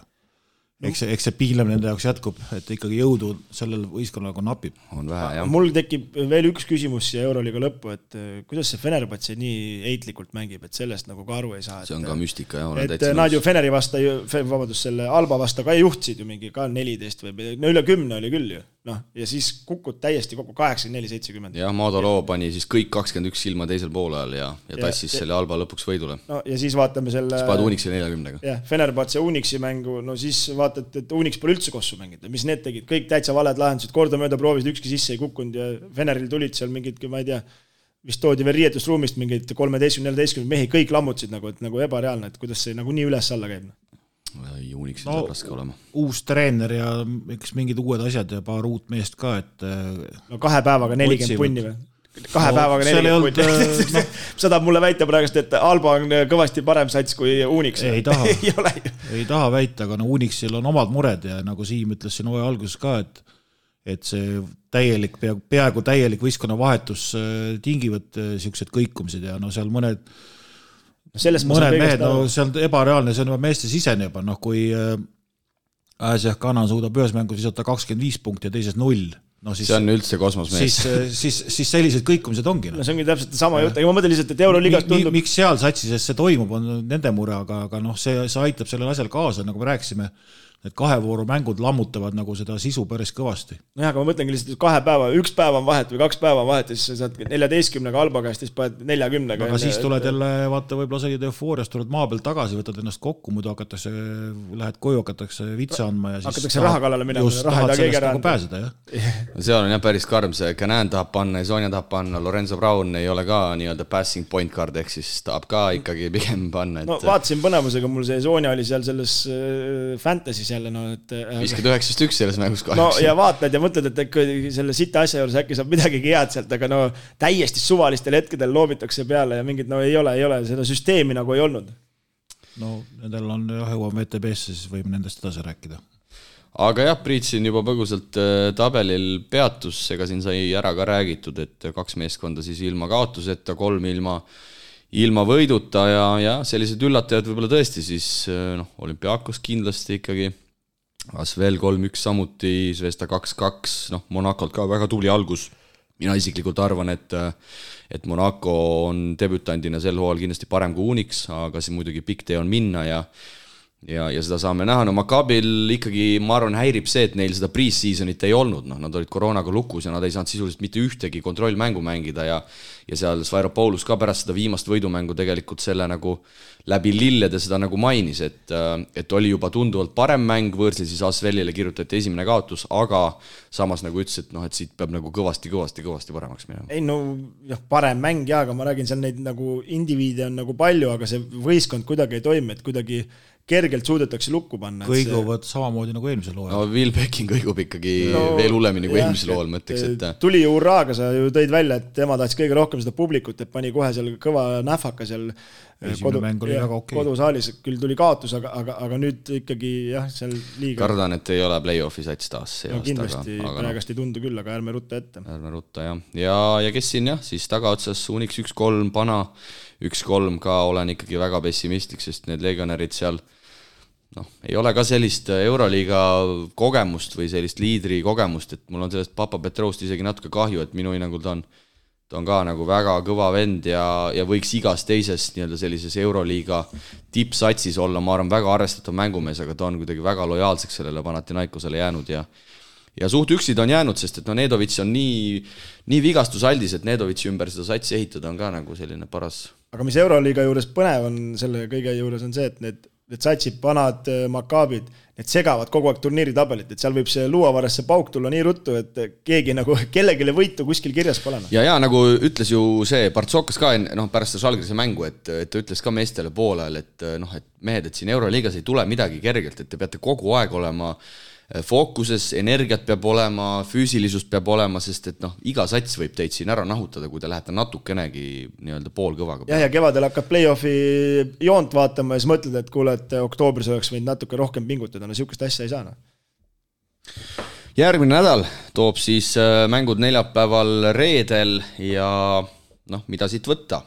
eks see piilem nende jaoks jätkub, et ikkagi jõudu sellel võistkonnal napib. On vähe, jah. Mul tekib veel üks küsimus siia Euroliiga lõppu, et kuidas see Fenerbahce nii eitlikult mängib, et sellest nagu ka aru ei saa. See on ka müstika, jah. Et nad ju Feneri vasta, selle Alba vasta ka juhtsid ju mingi ka 14 või üle 10 oli küll ju. Ja siis kukud täiesti kokku 84-70. Jah, Maadoloo pani siis kõik 21 silma teisel poolajal ja tassis selle Alba lõpuks võidule. Ja siis vaatame selle Spad Unixi 40-ga. Jah, Fenerbahce Unixi mängu, siis vaatad, et Unix pole üldse kossu mängida. Mis need tegid? Kõik täitsa valed lahendused, kordamööda proovisid, ükski sisse ei kukkunud ja Feneril tulid seal mingid, ma ei tea, vist toodi veel riietusruumist mingid 13-14 mehi, kõik lammutasid nagu ebareaalne, et kuidas see nagu nii üles alla käib. Unixil saab raske olema. Uus treener ja eks mingid uued asjad ja paar uut meest ka, et 2 päevaga 40 punni või? 2 päevaga 40 punni. Seda mulle väita praegust, et Alba on kõvasti parem sats kui Unix. Ei taha väita, aga Unixil on omad mured ja nagu Siim ütles siin hooaja alguses ka, et see peaaegu täielik võistkonna vahetus tingivad siuksed kõikumised ja seal mõned mehed, see on ebareaalne, see on juba meeste sisene juba, kui Äsjah Kanan suudab ühes mängus visata 25 punkti ja teises 0. See on üldse kosmos mees. Siis sellised kõikumised ongi. See ongi täpselt sama jutt, aga ma mõtlen lihtsalt, et Euroliigas tundub... Miks seal satsises see toimub, on nende mure, aga see aitab sellel asjal kaasa, nagu me rääkisime, et 2 vooru mängud lammutavad nagu seda sisu päris kõvasti. Jah, aga ma mõtlengi lihtsalt, et 2 päeva, 1 päev on vahet või 2 päeva on vahet ja siis sa saad 14-ga Alba käest ja siis paned 40-ga. Aga siis tuled jälle, vaata, võib-olla sa olid eufooriast, tuled maa pealt tagasi, võtad ennast kokku, muidu lähed koju, hakatakse vitsa andma ja siis hakatakse raha kallale minema, raha ei taha keegi ära pääseda, jah. Seal on jah päris karm, see Canan tahab panna ja Sonja tahab panna, Lorenzo Brown ei ole ka nii-öelda passing point card, ehk siis tahab ka ikkagi pigem panna. Vaatasin põnevusega, mul see Sonja oli seal selles fantasy jälle, viskad 9-1 selles mängus kahjuks. Ja vaatad ja mõtled, et selle sita asja juures äkki saab midagi head sealt, aga täiesti suvalistel hetkedel loobitakse peale ja mingid, ei ole, seda süsteemi nagu ei olnud. Nendel on jõuame VTB-sse, siis võime nendest edasi rääkida. aga jah, Priit siin juba põgusalt tabelil peatus, ega siin sai ära ka räägitud, et 2 meeskonda siis ilma kaotuseta, 3 ilma võiduta ja sellised üllatajad võib-olla tõesti siis Olümpiakos kindlasti ikkagi, Asvel 3-1 samuti, Zvezda 2-2, Monacolt ka väga tubli algus. Mina isiklikult arvan, et Monaco on debütandina sel hooajal kindlasti parem kui Unix, aga see muidugi pikk tee on minna ja seda saame näha. Maccabil ikkagi, ma arvan, häirib see, et neil seda pre-seasonit ei olnud. Nad olid koroonaga lukus ja nad ei saanud sisuliselt mitte ühtegi kontrollmängu mängida ja seal Sfairopoulos ka pärast seda viimast võidumängu tegelikult selle nagu läbi lillede seda nagu mainis, et oli juba tunduvalt parem mäng, võõrsil siis Asvelile kirjutati esimene kaotus, aga samas nagu ütles, et siit peab nagu kõvasti paremaks minema. Ei parem mäng aga ma räägin, seal neid nagu indiviide on nagu palju, aga see võistkond kuidagi ei toimi, et kuidagi kergelt suudetakse lukku panna. Kõiguvad samamoodi nagu eelmisel hooajal. Will Becking kõigub ikkagi veel hullemini kui eelmisel hooajal, mõtleks, et tuli ju urraaga, sa ju tõid välja, et tema tahtis kõige rohkem seda publikut, et pani kohe seal kõva nähvaka seal kodusaalis, küll tuli kaotus, aga nüüd ikkagi seal liiga. Kardan, et ei ole play-offi sats taas see aasta. Kindlasti praegast ei tundu küll, aga ärme rutta ette. Ärme rutta, jah. Ja kes siin siis tagaotsas Unix 1-3, Pana 1-3 ka olen ikkagi väga pessimistlik, sest need legionärid seal ei ole ka sellist Euroliiga kogemust või sellist liidri kogemust, et mul on sellest Papa Petroust isegi natuke kahju, et minu hinnangul ta on ka nagu väga kõva vend ja võiks igas teises nii-öelda sellises Euroliiga tippsatsis olla, ma arvan, väga arvestatav mängumees, aga ta on kuidagi väga lojaalseks sellele Panathinaikosele jäänud ja suht üksid on jäänud, sest et Nedovitš on nii vigastusaldis, et Nedovitši ümber seda satsi ehitada on ka nagu selline paras. Aga mis Euroliiga juures põnev on, selle kõige juures on see, et need satsid, Panad, Maccabid, need segavad kogu aeg turniiri tabelit, et seal võib see luuavarasse pauk tulla nii ruttu, et keegi nagu kellegile võitu kuskil kirjas pole. Ja nagu ütles ju see Partsokas ka pärast seda Žalgirise mängu, et ta ütles ka meestele poolel, et mehed, et siin Euroliigas ei tule midagi kergelt, et te peate kogu aeg olema fookuses, energiat peab olema, füüsilisust peab olema, sest et iga sats võib teid siin ära nahutada, kui te lähete natukenegi nii-öelda poolkõvaga. Ja kevadel hakkad play-offi joont vaatama ja siis mõtled, et kuule, et oktoobris oleks võinud natuke rohkem pingutada, sihukest asja ei saa. Järgmine nädal toob siis mängud neljapäeval reedel ja mida siit võtta?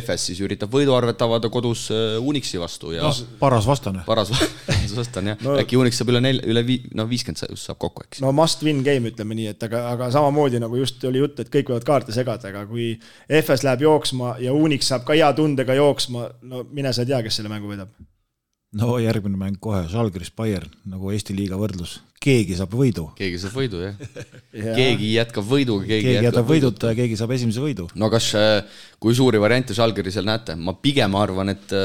FS siis üritab võiduarvet avada kodus Unixi vastu ja paras vastane. Paras vastane, jah. Äkki Unix saab üle 50 saab kokku, eks. Must win game, ütleme nii, et aga samamoodi nagu just oli jutt, et kõik võivad kaarte segada, aga kui FS läheb jooksma ja Unix saab ka hea tundega jooksma, mine sa tea, kes selle mängu võidab. Järgmine mäng kohe, Žalgiris Bayern, nagu Eesti liiga võrdlus. Keegi saab võidu. Keegi saab võidu, jah. Keegi jätkab võidu, keegi jätab võiduta ja keegi saab esimese võidu. Kas, kui suuri variante Žalgirisel näete? Ma pigem arvan, et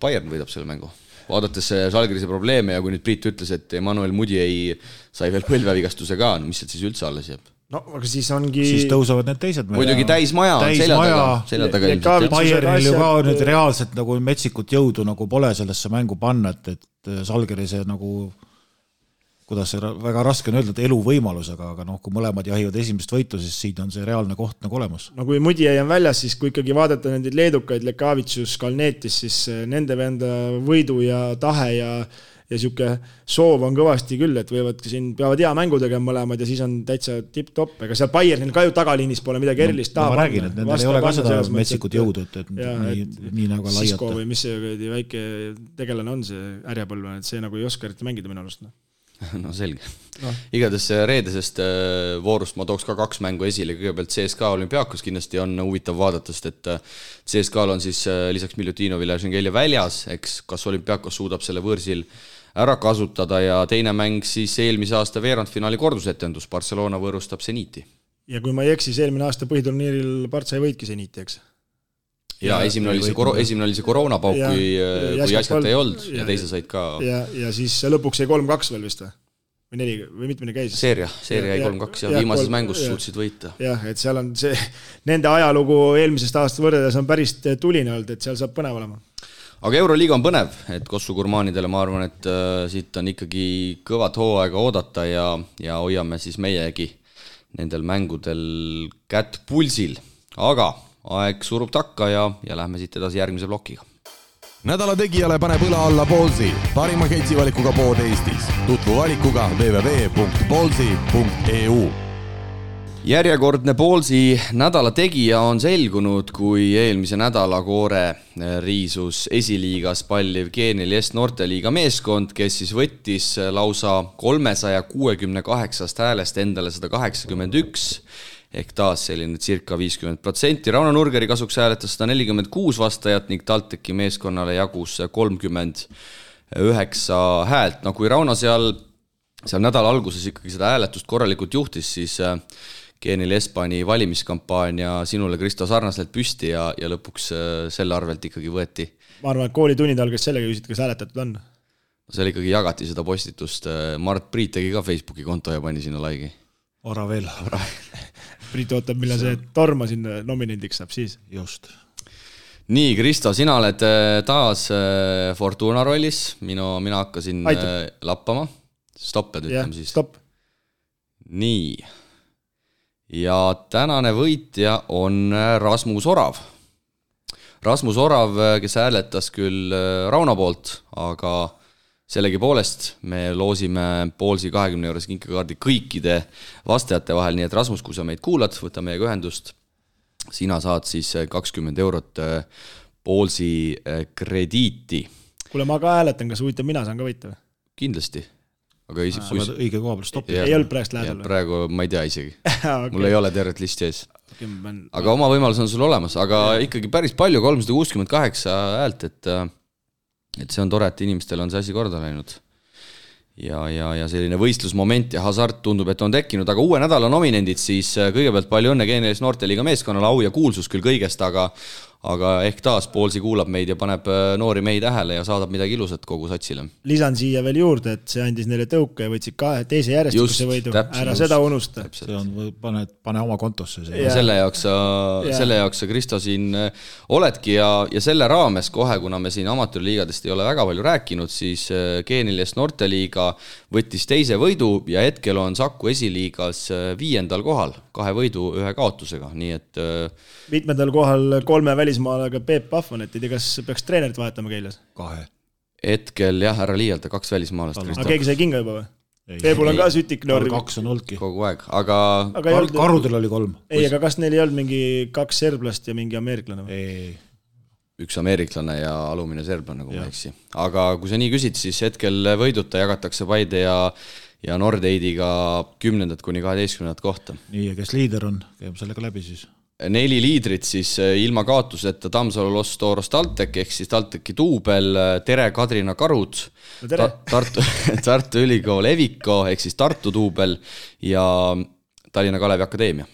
Bayern võidab selle mängu. Vaadates Žalgirise probleeme ja kui nüüd Priit ütles, et Emmanuel Mudiay sai veel põlvevigastuse ka, mis sealt siis üldse alles jääb? Aga siis ongi... Siis tõusevad need teised. Muidugi täismaja on selja taga ilmselt. Bayernil ju ka nüüd reaalselt nagu metsikut jõudu nagu pole sellesse mängu panna, et Žalgirise nagu, kuidas see väga raske on öelda, et eluvõimalus, aga kui mõlemad jahivad esimest võitu, siis siin on see reaalne koht nagu olemas. Kui Mudiay on väljas, siis kui ikkagi vaadata nendid leedukaid, Lekavitsus, Kalnetis, siis nende venda võidu ja tahe ja siuke soov on kõvasti küll, et siin peavad hea mängu tegema mõlemad ja siis on täitsa tipp-top, ega seal Bayernil ka ju tagaliinis pole midagi erilist taha. Ma räägin, et nendel ei ole ka seda metsikut jõudu, et nii nagu laiata. Sisko või mis see väike tegelane on see ärjapõlvane, et see nagu ei oska eriti mängida minu arust. Selge. Igades reedesest voorust ma tooks ka 2 mängu esile, kõigepealt CSKA Olümpiakos kindlasti on huvitav vaadata, sest et CSKA on siis lisaks Milutinovile ja Šengelja väljas, eks kas Olümpiakos suudab selle võõrsil ära kasutada ja teine mäng siis eelmise aasta veerandfinaali kordusetendus, Barcelona võõrustab Zeniti. Ja kui ma ei eksis, eelmine aasta põhiturniiril Partsa ei võitki Zeniti, eks? Ja esimene oli see koroonapauk, kui jäskat ei olnud ja teise said ka... Ja siis lõpuks jäi 3-2 veel vist või mitmene käis? Seeria jäi 3-2 ja viimases mängus suutsid võita. Jah, et seal on see, nende ajalugu eelmisest aastast võrreldes on päris tuline olnud, et seal saab põnev olema. Aga Euroliiga on põnev, et Kossu gurmaanidele ma arvan, et siit on ikkagi kõvat hooaega oodata ja hoiame siis meiegi nendel mängudel kätt pulsil. Aga aeg surub takka ja lähme siit edasi järgmise plokiga. nädala tegijale paneb õla alla Ballsi, parima ketsivalikuga pood Eestis. Tutvu valikuga www.ballsi.eu. Järjekordne Ballsi nädala tegija on selgunud, kui eelmise nädala koore riisus esiliigas palliv Geenial Est Noorteliiga meeskond, kes siis võttis lausa 368 häälest endale 181, ehk taas selline circa 50%. Rauno Nurgeri kasuks hääletas 146 vastajat ning TalTechi meeskonnale jagus 39 häält. No kui Rauno seal nädala alguses ikkagi seda hääletust korralikult juhtis, siis Geenial Est pani valimiskampaania sinule, Kristo, sarnaselt püsti ja lõpuks selle arvelt ikkagi võeti. Ma arvan, et koolitunnid algas sellega küsida, kas hääletatud on. Seal ikkagi jagati seda postitust. Mart Priit tegi ka Facebooki konto ja pani sinna laigi. Ora veel. Priit ootab, millal see Torma sinna nominendiks saab siis. Just. Nii, Kristo, sina oled taas Fortuna rollis. Mina hakkasin lappama. Stopped ütleme siis. Stopp. Nii. Ja tänane võitja on Rasmus Orav. Rasmus Orav, kes hääletas küll Rauno poolt, aga sellegi poolest me loosime Ballsi 20 € kinkekaardi kõikide vastajate vahel, nii et Rasmus, kui sa meid kuulad, võta meiega ühendust. Sina saad siis 20 € Ballsi krediiti. Kuule, ma ka hääletan, kas huvitav, mina saan ka võita või? Kindlasti. Aga sa oled õige koha peal stoppi. Ei olnud praegust lähedal või? Praegu ma ei tea isegi. Okay. Mul ei ole tervet listi ees. Aga oma võimalus on sul olemas, aga ikkagi päris palju, 368 häält, et see on tore, et inimestel on see asi korda läinud. Ja selline võistlusmoment ja hasart tundub, et on tekkinud, aga uue nädala nominendid siis kõigepealt palju õnne Geenial Est Noorteliiga meeskonnale, au ja kuulsus küll kõigest, aga ehk taas Ballsi kuulab meid ja paneb noori mehi tähele ja saadab midagi ilusat kogu satsile. Lisan siia veel juurde, et see andis neile tõuke ja võtsid teise järjestikuse võidu. Ära seda unusta. See on, pane oma kontosse. Selle jaoks sa, Kristo, siin oledki ja selle raames kohe, kuna me siin amatöörliigadest ei ole väga palju rääkinud, siis Geenial Est Noorteliiga võttis teise võidu ja hetkel on Saku esiliigas 5. kohal, 2 võidu 1 kaotusega, nii et 5. kohal 3 välismaalaga Peep Pahvan, et ei tea, kas peaks treenerit vahetama Keilas? 2. Hetkel jah, ära liialda, 2 välismaalast. Aga keegi sai kinga juba või? Peepul on ka sütik noori. 2 on olnudki. Kogu aeg, aga Karudel oli 3. Ei, aga kas neil ei olnud mingi 2 serblast ja mingi ameeriklane või? Ei. 1 ameeriklane ja alumine serblane, kui ma eksi. Aga kui sa nii küsid, siis hetkel võiduta jagatakse Paide ja Nordeidiga 10. kuni 12. kohta. Nii, ja kes liider on, käib sellega läbi siis? 4 liidrit siis ilma kaotuseta Tammsalu Los Toros TalTech ehk siis TalTechi duubel, Tere Kadrina Karud, Tartu Ülikool Eviko ehk siis Tartu duubel ja Tallinna Kalevi Akadeemia.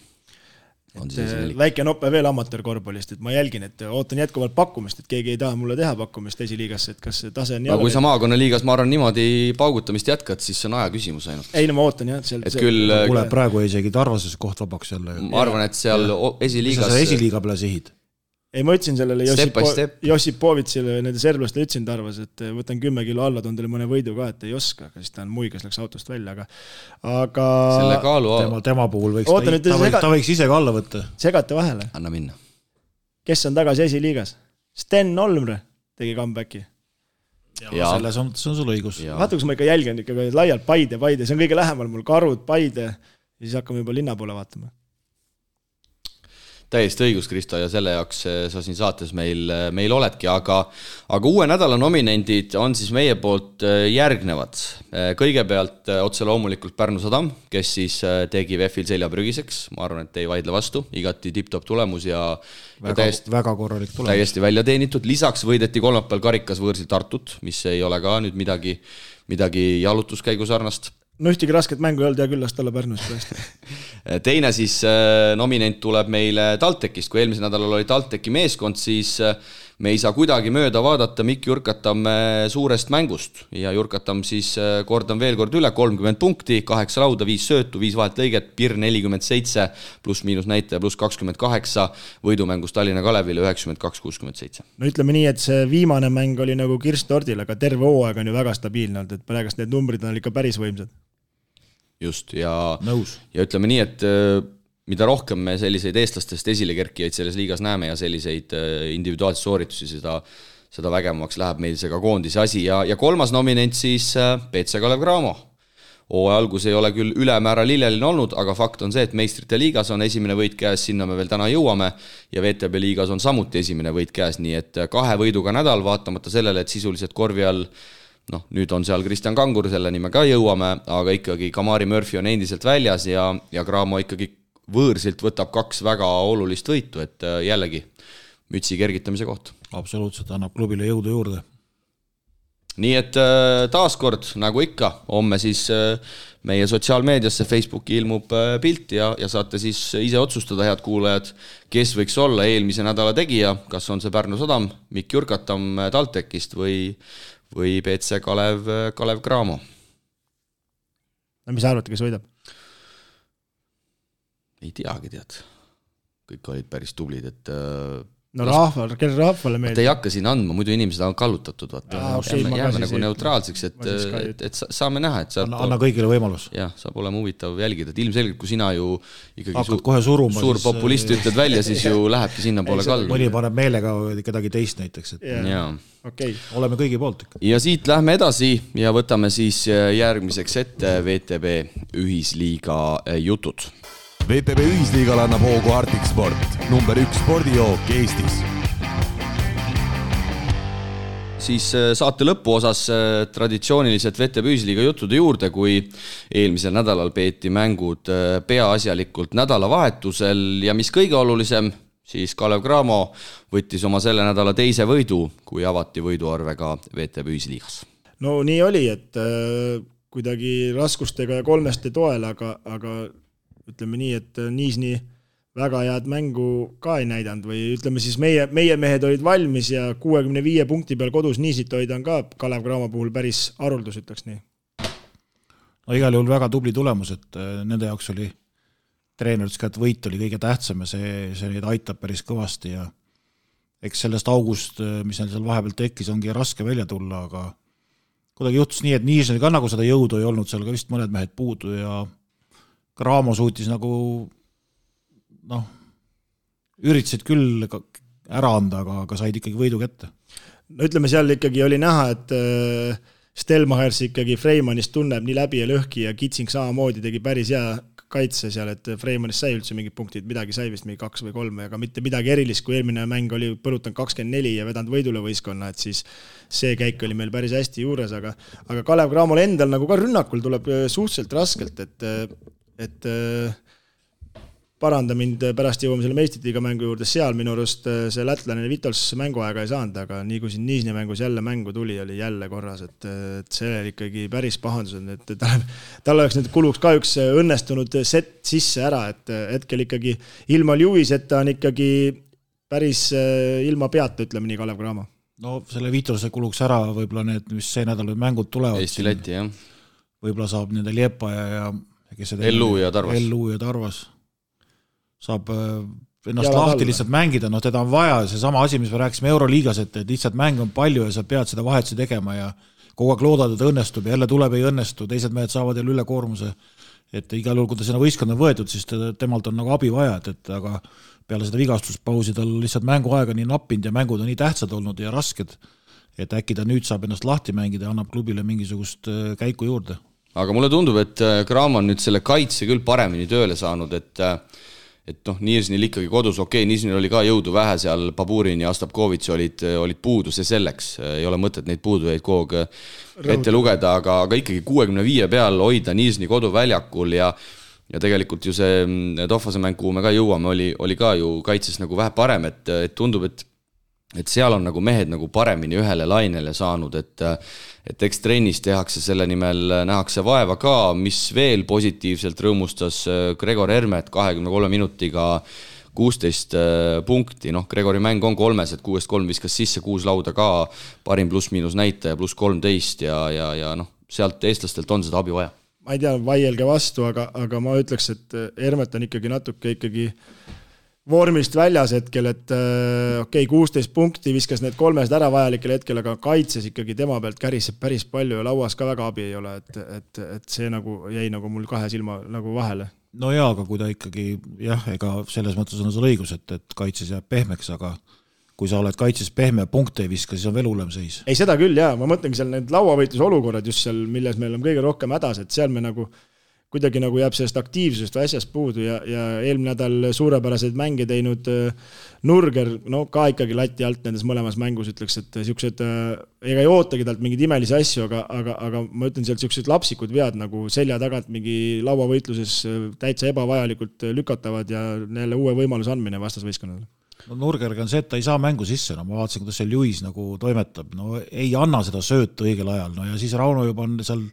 Väike noppe veel amatöörkorvpallist, et ma jälgin, et ootan jätkuvalt pakkumist, et keegi ei taha mulle teha pakkumist esiliigasse, et kas see tase on kui sa maakonnaliigas, ma arvan, niimoodi paugutamist jätkad, siis see on aja küsimus ainult. Ei, no ma ootan jah. Küll praegu isegi Tarvases koht vabaks jälle. Ma arvan, et seal esiliigas... Mis sa esiliiga peale sihid? Ei, ma ütlesin sellele Jossipovitsile nende serblastele ütlesin Tarvas, et võtan 10 kilo alla, toon teile mõne võidu ka, et ei oska, aga siis ta on muigas, läks autost välja, aga selle kaalu... Tema puhul võiks ta võiks ise ka alla võtta. Segate vahele. Anna minna. Kes on tagasi esiliigas? Sten Olmre tegi comebacki. Ja selles on sul õigus. Vaata, kus ma ikka jälgen ikka laialt Paide, see on kõige lähemal mul Karud, Paide ja siis hakkame juba linna poole vaatama. Täiesti õigus, Kristo, ja selle jaoks sa siin saates meil oledki, aga uue nädala nominendid on siis meie poolt järgnevad. Kõigepealt otse loomulikult Pärnu Sadam, kes siis tegi VEF-il selja prügiseks, ma arvan, et ei vaidle vastu, igati tipp-top tulemus ja väga korralik tulemus. Täiesti välja teenitud, lisaks võideti kolmapäeval karikas võõrsil Tartut, mis ei ole ka nüüd midagi jalutuskäigu sarnast. No ühtegi rasket mängu ei olnud ja küll last olla Pärnus praegu. Teine siis nominent tuleb meile TalTechist, kui eelmisel nädalal oli TalTechi meeskond, siis me ei saa kuidagi mööda vaadata Mikk Jurkatam suurest mängust ja Jurkatam siis kordan veel kord üle, 30 punkti, 8 lauda, 5 söötu, 5 vahet lõiget, PIR 47, pluss miinus näitaja, pluss 28, võidumängus Tallinna Kalevile 92-67. No ütleme nii, et see viimane mäng oli nagu kirst tordil, aga terve hooaeg on ju väga stabiilne olnud, et praegust need numbrid on ikka päris võimsad. Just, ja ütleme nii, et mida rohkem me selliseid eestlastest esilekerkijaid selles liigas näeme ja selliseid individuaalseid sooritusi, seda vägevamaks läheb meil see ka koondise asi ja kolmas nominent siis BC Kalev Cramo. Hooaja algus ei ole küll ülemäära lilleline olnud, aga fakt on see, et meistrite liigas on esimene võit käes, sinna me veel täna jõuame ja VTB liigas on samuti esimene võit käes, nii et 2 võiduga nädal, vaatamata sellele, et sisuliselt korvi all, nüüd on seal Kristjan Kangur, selleni me ka jõuame, aga ikkagi Kamari Murphy on endiselt väljas ja Cramo ikkagi võõrsilt võtab 2 väga olulist võitu, et jällegi mütsi kergitamise koht. Absoluutselt, annab klubile jõudu juurde. Nii et taaskord, nagu ikka, homme siis meie sotsiaalmeediasse Facebooki ilmub pilt ja saate siis ise otsustada, head kuulajad, kes võiks olla eelmise nädala tegija, kas on see Pärnu Sadam, Mikk Jurkatam TalTechist või BC Kalev Cramo. Mis arvate, kes võidab? Ei teagi, tead. Kõik olid päris tublid, et kelle rahvale meeldib? Te ei hakka siin andma, muidu inimesed on kallutatud. Jääme nagu neutraalseks, et saame näha. Anna kõigile võimalus. Jah, saab olema huvitav jälgida. Et ilmselgelt, kui sina ju ikkagi suur populist ütled välja, siis ju lähebki sinna poole kaldu. Mõni paneb meelega kedagi teist näiteks. Oleme kõigi poolt. Ja siit lähme edasi ja võtame siis järgmiseks ette VTB ühisliiga jutud. VTB ühisliigal annab hoogu Arctic Sport, number 1 spordijook Eestis. Siis saate lõpu osas traditsiooniliselt VTB ühisliiga juttude juurde, kui eelmisel nädalal peeti mängud peaasjalikult nädalavahetusel ja mis kõige olulisem, siis Kalev Cramo võttis oma selle nädala teise võidu, kui avati võiduarvega VTB ühisliigas. No nii oli, et kuidagi raskustega ja kolmeste toel, aga ütleme nii, et Niisni väga head mängu ka ei näidanud või ütleme siis meie mehed olid valmis ja 65 punkti peal kodus Niisit hoida on ka Kalev Cramo puhul päris haruldus, ütleks nii. No igal juhul väga tubli tulemus, et nende jaoks oli treenerid, et võit oli kõige tähtsam ja see neid aitab päris kõvasti ja eks sellest august, mis neil seal vahepeal tekkis, ongi raske välja tulla, aga kuidagi juhtus nii, et Niisnil ka nagu seda jõudu ei olnud, seal ka vist mõned mehed puudu ja Cramo suutis nagu üritasid küll ära anda, aga said ikkagi võidu kätte. No ütleme, seal ikkagi oli näha, et Stelmachers ikkagi Freimanist tunneb nii läbi ja lõhki ja Kitsing samamoodi tegi päris hea kaitse seal, et Freimanist sai üldse mingid punktid, midagi sai vist mingi 2 või 3, aga mitte midagi erilist, kui eelmine mäng oli põrutanud 24 ja vedanud võidule võistkonna, et siis see käik oli meil päris hästi juures, aga Kalev Cramol endal nagu ka rünnakul tuleb suhteliselt raskelt, et paranda mind, pärast jõuame selle meistritiiga mängu juurde, seal minu arust see lätlane Vitols mänguaega ei saanud, aga nii kui siin Niisni mängus jälle mängu tuli, oli jälle korras, et see oli ikkagi päris pahandused, et tal oleks nüüd kuluks ka üks õnnestunud set sisse ära, et hetkel ikkagi ilma Lewiseta on ikkagi päris ilma peata, ütleme nii, Kalev Cramo. No selle Vitolse kuluks ära võib-olla need, mis see nädal mängud tulevad. Eesti-Läti, jah. Võib-olla saab nende Liepa ja Ellu ja Tarvas. Saab ennast lahti lihtsalt mängida, teda on vaja, see sama asi, mis me rääkisime Euroliigas, et lihtsalt mänge on palju ja sa pead seda vahetusi tegema ja kogu aeg loodad, et õnnestub ja jälle tuleb ei õnnestu, teised mehed saavad jälle ülekoormuse, et igal juhul, kui ta sinna võistkond on võetud, siis temalt on nagu abi vaja, et aga peale seda vigastuspausi tal lihtsalt mänguaega nii nappinud ja mängud on nii tähtsad olnud ja rasked, et äkki ta nüüd saab ennast lahti mängida ja annab klubile mingisugust käiku juurde. Aga mulle tundub, et Cramo on nüüd selle kaitse küll paremini tööle saanud, et Niisnil ikkagi kodus, Niisnil oli ka jõudu vähe seal, Baburin ja Astapkovitš olid puudu, see selleks, ei ole mõtet neid puudujaid kogu ette lugeda, aga ikkagi 65 peal hoida Niisni koduväljakul ja tegelikult ju see Tohvase mäng, kuhu me ka jõuame, oli ka ju kaitses nagu vähe parem, et tundub, et seal on nagu mehed nagu paremini ühele lainele saanud, et eks trennis tehakse selle nimel, nähakse vaeva ka, mis veel positiivselt rõõmustas Gregor Hermet 23 minutiga 16 punkti, Gregori mäng on 3, et 6-3 viskas sisse, 6 lauda ka, parim pluss-miinus näitaja, pluss 13 ja sealt eestlastelt on seda abi vaja. Ma ei tea, vaielge vastu, aga ma ütleks, et Hermet on ikkagi natuke vormist väljas hetkel, et 16 punkti viskas need 3 ära vajalikel hetkel, aga kaitses ikkagi tema pealt käriseb päris palju ja lauas ka väga abi ei ole, et see nagu jäi nagu mul 2 silma nagu vahele. No jaa, aga kui ta ikkagi, ega selles mõttes on sul õigus, et kaitses jääb pehmeks, aga kui sa oled kaitses pehme ja punkte ei viska, siis on veel hullem seis. Ei, seda küll, jaa, ma mõtlengi seal need lauavõitluse olukorrad just seal, milles meil on kõige rohkem hädas, et seal me nagu kuidagi nagu jääb sellest aktiivsusest või asjast puudu ja eelmine nädal suurepäraseid mänge teinud Nurger, no ka ikkagi lati alt nendes mõlemas mängus ütleks, et siuksed, ega ei ootagi talt mingeid imelisi asju, aga ma ütlen sealt siuksed lapsikud vead nagu selja tagant mingi lauavõitluses täitsa ebavajalikult lükatavad ja neile uue võimaluse andmine vastasvõistkonnale. No Nurgerga on see, et ta ei saa mängu sisse, no ma vaatasin, kuidas seal Lewis nagu toimetab, no ei anna seda söötu õigel ajal, no ja siis Rauno juba on seal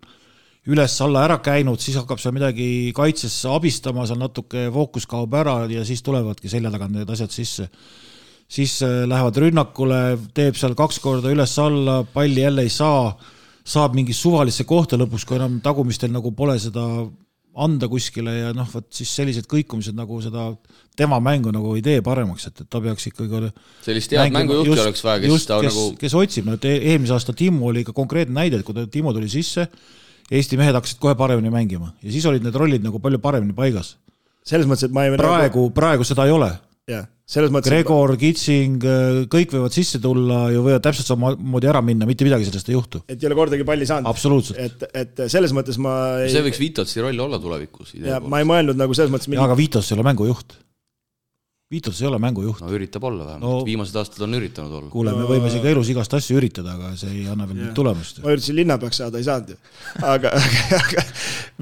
üles-alla ära käinud, siis hakkab seal midagi kaitses abistama, seal natuke fookus kaob ära ja siis tulevadki selja tagant need asjad sisse. Siis lähevad rünnakule, teeb seal 2 korda üles-alla, palli jälle ei saa, saab mingi suvalisse kohta lõpuks, kui enam tagumistel nagu pole seda anda kuskile ja noh, võt siis sellised kõikumised nagu seda tema mängu nagu ei tee paremaks, et ta peaks ikkagi sellist head mängujuhti oleks vaja, kes otsib, no eelmise aasta Timo oli ikka konkreetne näide, et kui Timo tuli sisse, Eesti mehed hakkasid kohe paremini mängima ja siis olid need rollid nagu palju paremini paigas. Selles mõttes, et ma ei praegu seda ei ole. Ja, selles mõttes, Gregor, Kitsing, kõik võivad sisse tulla ja võivad täpselt samamoodi ära minna, mitte midagi sellest ei juhtu. Et ei ole kordagi palli saanud. Absoluutselt. Et selles mõttes ma ei... See võiks Vitotsi roll olla tulevikus. Ja ma ei mõelnud nagu selles mõttes... Ja, aga Vitos ei ole mängujuht. Viitos ei ole mängujuht. No üritab olla vähemalt, viimased aastad on üritanud olla. Kuule, me võime siin ka elus igast asju üritada, aga see ei anna veel tulemust. Ma üritasin linnapeaks saada, ei saanud ju. Aga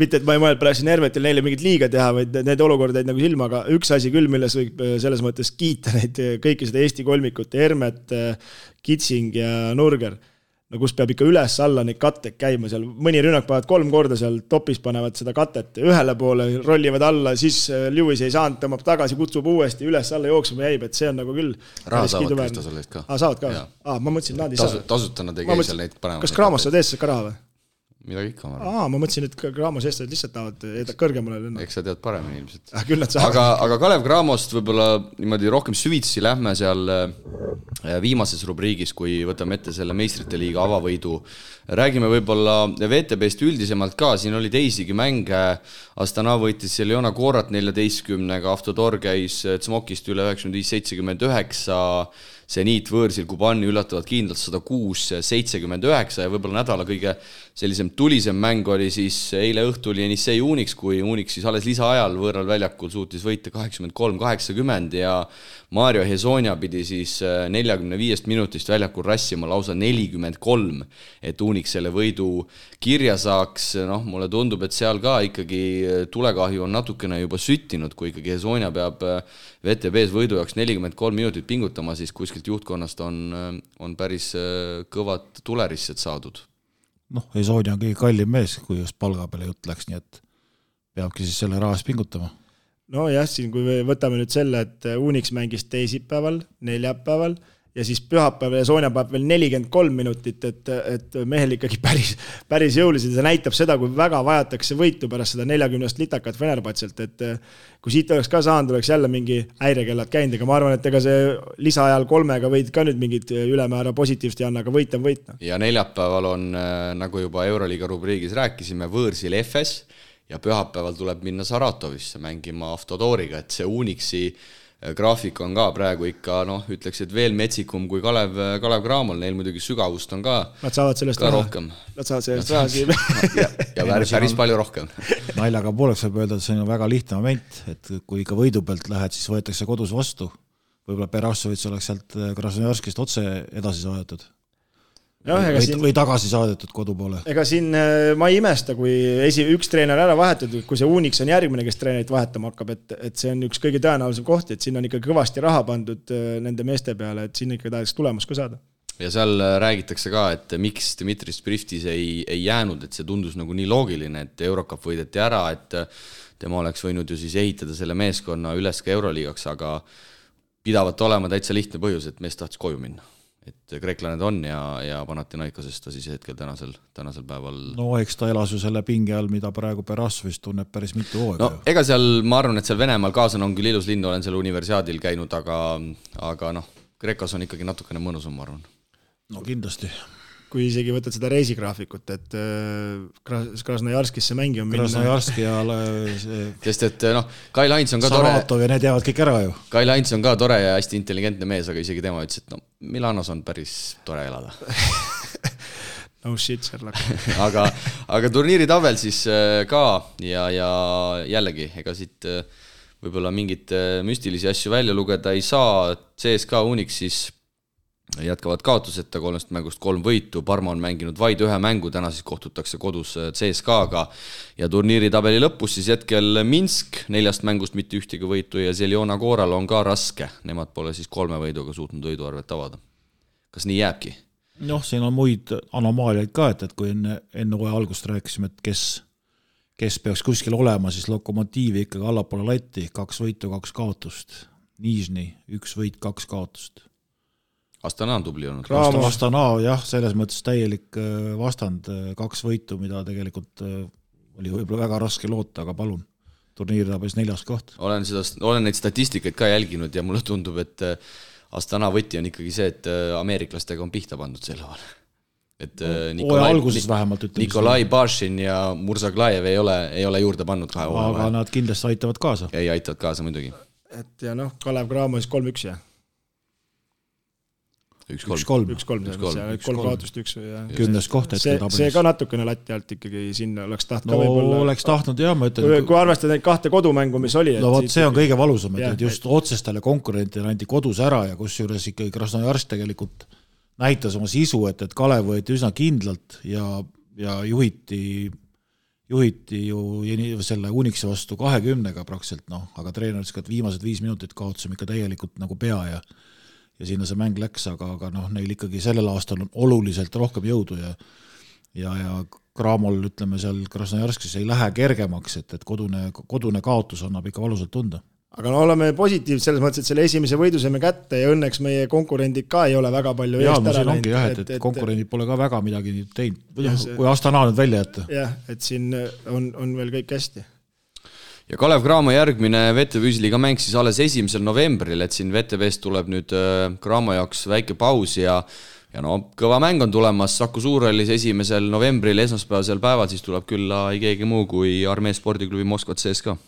mitte, et ma ei mõelnud praegu Hermetil neile mingit liiga teha, vaid need olukorda jäid nagu silma, aga üks asi küll, milles võib selles mõttes kiita neid kõiki seda Eesti kolmikut, Hermet, Kitsing ja Nurger, no kus peab ikka üles-alla neid katted käima seal, mõni rünnak panevad 3 korda seal topis panevad seda katet ühele poole, rollivad alla, siis Lewis ei saanud, tõmbab tagasi, kutsub uuesti, üles-alla jooksuma jäib, et see on nagu küll raha saavad Krista selle eest ka. Saavad ka? Ma mõtlesin, nad ei saa. Tasutana tegi seal neid panevad. Kas Kraamos saad eest ka raha või? Midagi ikka. Ma mõtlesin, et Kraamos eest lihtsalt tahavad kõrgemale lennata. Eks sa tead paremini ilmselt. Küll nad saavad. Aga Kalev Cramost võib-olla niimoodi rohkem süvitsi lähme seal viimases rubriigis, kui võtame ette selle meistrite liiga avavõidu. Räägime võib-olla VTBst üldisemalt ka, siin oli teisigi mänge. Astana võitis Leona Koorat 14-ga, Avtodor käis Tsmokist üle 95-79, Zeniit võõrsil Kubani üllatavad kindlalt 106-79 ja võib-olla nädala kõige sellisem tulisem mäng oli siis eile õhtul Jenissei Unix, kui Unix siis alles lisaajal võõral väljakul suutis võita 83-80 ja Mario Hezonia pidi siis 45 minutist väljakul rassima lausa 43, et Unix selle võidu kirja saaks. Noh, mulle tundub, et seal ka ikkagi tulekahju on natukene juba süttinud, kui ikkagi Hezonia peab VTBs võidu jaoks 43 minutit pingutama, siis kuskilt juhtkonnast on päris kõvad tulerised saadud. Noh, Hezonia on kõige kallim mees, kui just palga peale jutt läks, nii et peabki siis selle rahas pingutama. No jah, siin kui võtame nüüd selle, et Unix mängis teisipäeval, neljapäeval ja siis pühapäeval ja Soonia paneb veel 43 minutit, et mehel ikkagi päris jõuliselt. See näitab seda, kui väga vajatakse võitu pärast seda 40 litakat Fenerbahcelt, et kui siit oleks ka saanud, oleks jälle mingi häirekellad käinud, aga ma arvan, et ega see lisaajal 3-ga võid ka nüüd mingit ülemäära positiivst ja anna, aga võit on võit. Ja neljapäeval on, nagu juba Euroliiga rubriigis rääkisime, võõrsil FS ja pühapäeval tuleb minna Saratovisse mängima Avtodoriga, et see Unixi graafik on ka praegu ikka, ütleks, et veel metsikum kui Kalev Cramol, neil muidugi sügavust on ka nad saavad sellest rohkem. Nad saavad sellest raha ja päris palju rohkem. Naljaga pooleks võib öelda, et see on väga lihtne moment, et kui ikka võidu pealt lähed, siis võetakse kodus vastu. Võib-olla Perassovits oleks sealt Krasnojarskist otse edasi saadetud. Või tagasi saadetud kodu poole. Ega siin ma ei imesta, kui üks treener ära vahetud, kui see Unix on järgmine, kes treenerit vahetama hakkab, et see on üks kõige tõenäolisem koht, et siin on ikka kõvasti raha pandud nende meeste peale, et siin ikka tahaks tulemus ka saada. Ja seal räägitakse ka, et miks Dmitri Spriftis ei jäänud, et see tundus nagu nii loogiline, et Eurocup võideti ära, et tema oleks võinud ju siis ehitada selle meeskonna üles ka Euroliigaks, aga pidavat olema täitsa lihtne põhjus, et mees tahtis koju minna. Et kreeklaned on ja Panathinaikosest ta siis hetkel tänasel päeval. No eks ta elas ju selle pinge all, mida praegu Perassovist tunneb päris mitu hooga. No ega seal, ma arvan, et seal Venemaal kaasan on küll ilus linn, olen seal universiaadil käinud, aga Kreekas on ikkagi natukene mõnusam, ma arvan. No kindlasti. kui isegi võtad seda reisigraafikut, et Krasnojarskisse mängima minna. Krasnojarski ja sest et Kai Lains on ka Saratov ja need jäävad kõik ära ju. Kai Lains on ka tore ja hästi intelligentne mees, aga isegi tema ütles, et Milanos on päris tore elada. No shit, Sherlock. aga turniiri tabel siis ka ja jällegi, ega siit võib-olla mingit müstilisi asju välja lugeda ei saa. CSKA Unix siis jätkavad kaotuseta 3 mängust 3 võitu, Parma on mänginud vaid 1 mängu, täna siis kohtutakse kodus CSKA-ga ja turniiri tabeli lõpus siis hetkel Minsk 4 mängust mitte ühtegi võitu ja Zeljona Kooral on ka raske, nemad pole siis 3 võiduga suutnud võiduarvet avada. Kas nii jääbki? Siin on muid anomaaliaid ka, et kui enne hooaja algust rääkisime, et kes peaks kuskil olema, siis Lokomotiivi ikkagi allapoole latti, 2 võitu, 2 kaotust, Nižni 1 võit, 2 kaotust. Astana on tubli olnud. Astana, jah, selles mõttes täielik vastand, 2 võitu, mida tegelikult oli võib-olla väga raske loota, aga palun, turniiri tabes 4. koht. Olen neid statistikaid ka jälginud ja mulle tundub, et Astana võti on ikkagi see, et ameeriklastega on pihta pandud selle vahel. Et alguses vähemalt ütleme. Nikolai Bašin ja Mursaglajev ei ole juurde pannud 2 hooaja. Aga nad kindlasti aitavad kaasa. Ei aitavad kaasa muidugi. Et ja Kalev Cramo siis 3-1 ja 1-3, 3 kaotust 1 ja 10. koht see ka natukene latti alt ikkagi sinna oleks tahtnud oleks tahtnud jah, ma ütlen kui arvestada neid 2 kodumängu, mis oli see on kõige valusam, et just otsestele konkurentidele anti kodus ära ja kusjuures ikkagi Krasnojarsk tegelikult näitas oma sisu, et Kalev võeti üsna kindlalt ja juhiti ju selle Unixi vastu 20-ga praktiliselt, aga treener ütles, et viimased 5 minutit kaotasime ikka täielikult nagu pea ja sinna see mäng läks, aga neil ikkagi sellel aastal on oluliselt rohkem jõudu ja Kramol, ütleme seal Krasnojarskis ei lähe kergemaks, et kodune kaotus annab ikka valusalt tunda. Aga oleme positiivsed selles mõttes, et selle esimese võidu saime kätte ja õnneks meie konkurendid ka ei ole väga palju eest ära läinud. Et konkurendid pole ka väga midagi teinud, kui Astana nüüd välja jätta. Jah, et siin on veel kõik hästi. Ja Kalev Cramo järgmine VTB-liiga mäng siis alles 1. novembril, et siin VTB-st tuleb nüüd Cramo jaoks väike paus ja kõva mäng on tulemas Saku Suurhallis 1. novembril esmaspäevasel päeval, siis tuleb külla ei keegi muu kui Armee spordiklubi Moskva CSKA.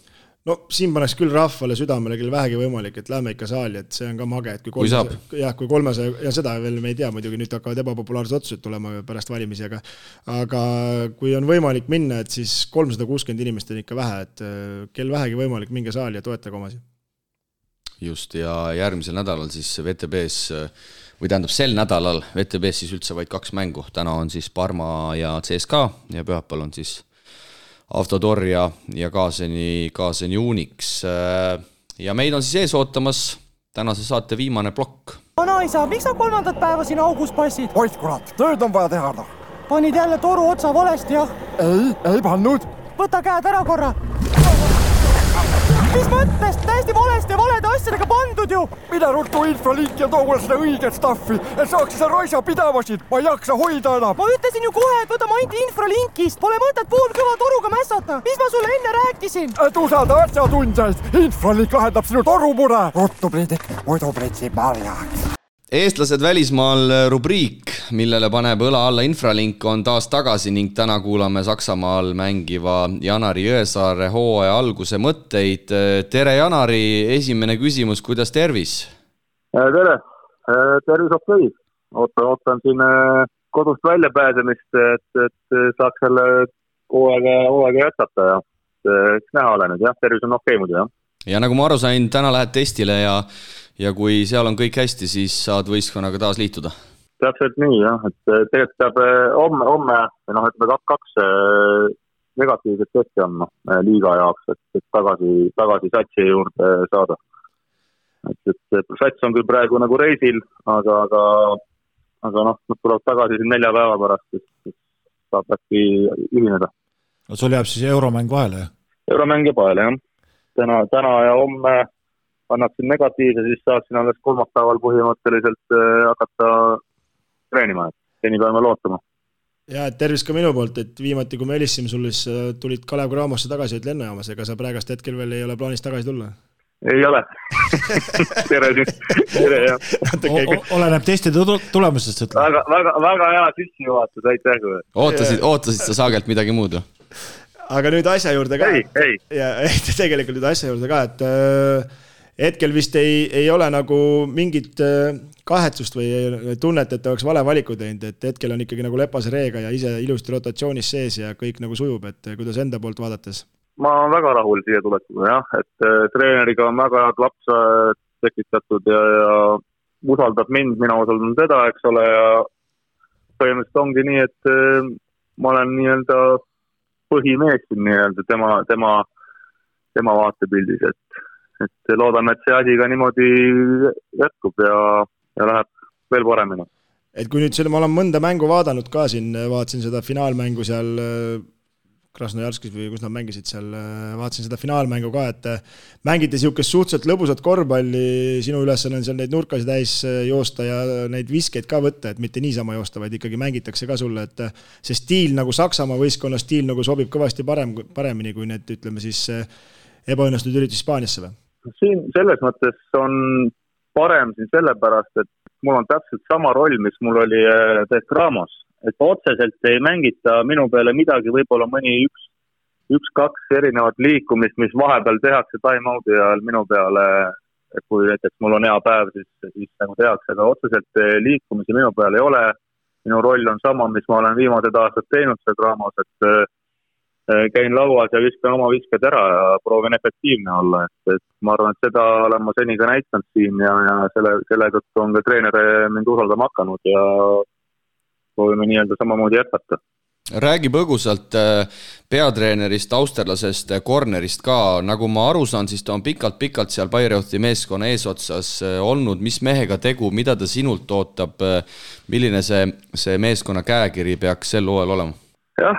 No siin paneks küll rahvale südamele küll vähegi võimalik, et lähme ikka saali, et see on ka mage, et kui 300 ja seda veel me ei tea, muidugi nüüd hakkavad ebapopulaarsed otsused tulema pärast valimisi, aga kui on võimalik minna, et siis 360 inimest on ikka vähe, et kel vähegi võimalik minge saali ja toetage omasi. Just, ja järgmisel nädalal siis VTB-s, või tähendab sel nädalal VTB-s siis üldse vaid 2 mängu, täna on siis Parma ja CSKA ja pühapäeval on siis Avtodor ja Kaaseni Unix. Ja meid on siis ees ootamas tänase saate viimane plokk. Vanaisa, miks sa 3. päeva siin augus passid? Oit kurat, tööd on vaja teha. Panid jälle toru otsa valesti, jah? Ei pannud. Võta käed ära korra. Mis mõttes? Täiesti valede asjadega pandud ju! Mida ruttu infralink ja too mulle seda õiget staffi, et saaks seda raisa pidavasid, ma ei jaksa hoida enam. Ma ütlesin ju kohe, et võta maint infralinkist, pole mõtet poolkõva toruga mässata. Mis ma sulle enne rääkisin? Et usalda asjatundjaid, infralink lahendab sinu torumure. Ruttu Priidik, muidu pritsib marjaks. Eestlased välismaal rubriik, millele paneb õla alla infralink, on taas tagasi ning täna kuulame Saksamaal mängiva Janari Jõesaare hooaja alguse mõtteid. Tere Janari, esimene küsimus, kuidas tervis? Tere, tervis okei. Ootan siin kodust välja pääsemist, et saaks selle hooaega jätkata ja näha ole nüüd, jah, tervis on okei muidu, jah. Ja nagu ma aru sain, täna lähed testile ja kui seal on kõik hästi, siis saad võistkonnaga taas liituda? Täpselt nii, jah. Et tegelikult peab homme, ütleme 2 negatiivset testi on liiga jaoks, et tagasi satsi juurde saada. Et sats on küll praegu nagu reisil, aga tuleb tagasi 4 päeva pärast, siis saab äkki ühineda. No sul jääb siis euromäng vahele, jah? Euromäng jääb vahele, jah. Täna ja homme annaksin negatiivse, siis saaksin alles 3. päeval põhimõtteliselt hakata treenima, et seni peame lootama. Ja tervis ka minu poolt, et viimati kui me helisime sulle, siis tulid Kalev Cramosse tagasi, et lennujaamas, ega sa praegast hetkel veel ei ole plaanis tagasi tulla? ei ole. tere, jah. Oleneb teiste tulemustest. Väga hea sissejuhatus, aitäh. Ootasid sa Saagelt midagi muud? Aga nüüd asja juurde ka. Ei. Ja tegelikult nüüd asja juurde ka, et hetkel vist ei ole nagu mingit kahetsust või tunnet, et oleks vale valiku teinud, et hetkel on ikkagi nagu Lepase Reega ja ise ilusti rotatsioonis sees ja kõik nagu sujub, et kuidas enda poolt vaadates? Ma olen väga rahul siia tulekuga, jah, et treeneriga on väga head lapsa tekitatud ja usaldab mind, mina usaldan teda, eks ole, ja põhimõtteliselt ongi nii, et ma olen nii-öelda põhimees siin nii-öelda tema vaatepildis, et loodame, et see asi ka niimoodi jätkub ja läheb veel paremini. Et kui nüüd ma olen mõnda mängu vaadanud ka siin, vaatasin seda finaalmängu seal Krasnojarskis või kus nad mängisid seal, vaatasin seda finaalmängu ka, et mängiti siukest suhteliselt lõbusat korvpalli, sinu ülesanne on seal neid nurkasi täis joosta ja neid viskeid ka võtta, et mitte niisama joosta, vaid ikkagi mängitakse ka sulle, et see stiil nagu Saksamaa võistkonna stiil nagu sobib kõvasti paremini kui need, ütleme siis, ebaõnnestunud üritus Hispaaniasse või? Siin selles mõttes on parem siin sellepärast, et mul on täpselt sama roll, mis mul oli Ramos. Et otseselt ei mängita minu peale midagi, võib-olla mõni üks-kaks erinevat liikumist, mis vahepeal tehakse time-out'i ajal minu peale, kui näiteks mul on hea päev, siis nagu tehakse, aga otseselt liikumisi minu peale ei ole. Minu roll on sama, mis ma olen viimased aastad teinud seda Ramos, et käin lauas ja viskan oma visked ära ja proovin efektiivne olla. Et ma arvan, et seda olen ma seni ka näitanud siin ja selle tõttu on ka treener mind usaldama hakanud ja proovime nii-öelda samamoodi jätkata. Räägi põgusalt peatreenerist, austerlasest, cornerist ka. Nagu ma aru saan, siis ta on pikalt seal Bayreuthi meeskonna eesotsas olnud. Mis mehega tegu, mida ta sinult ootab? Milline see meeskonna käekiri peaks sel hooajal olema? Jah,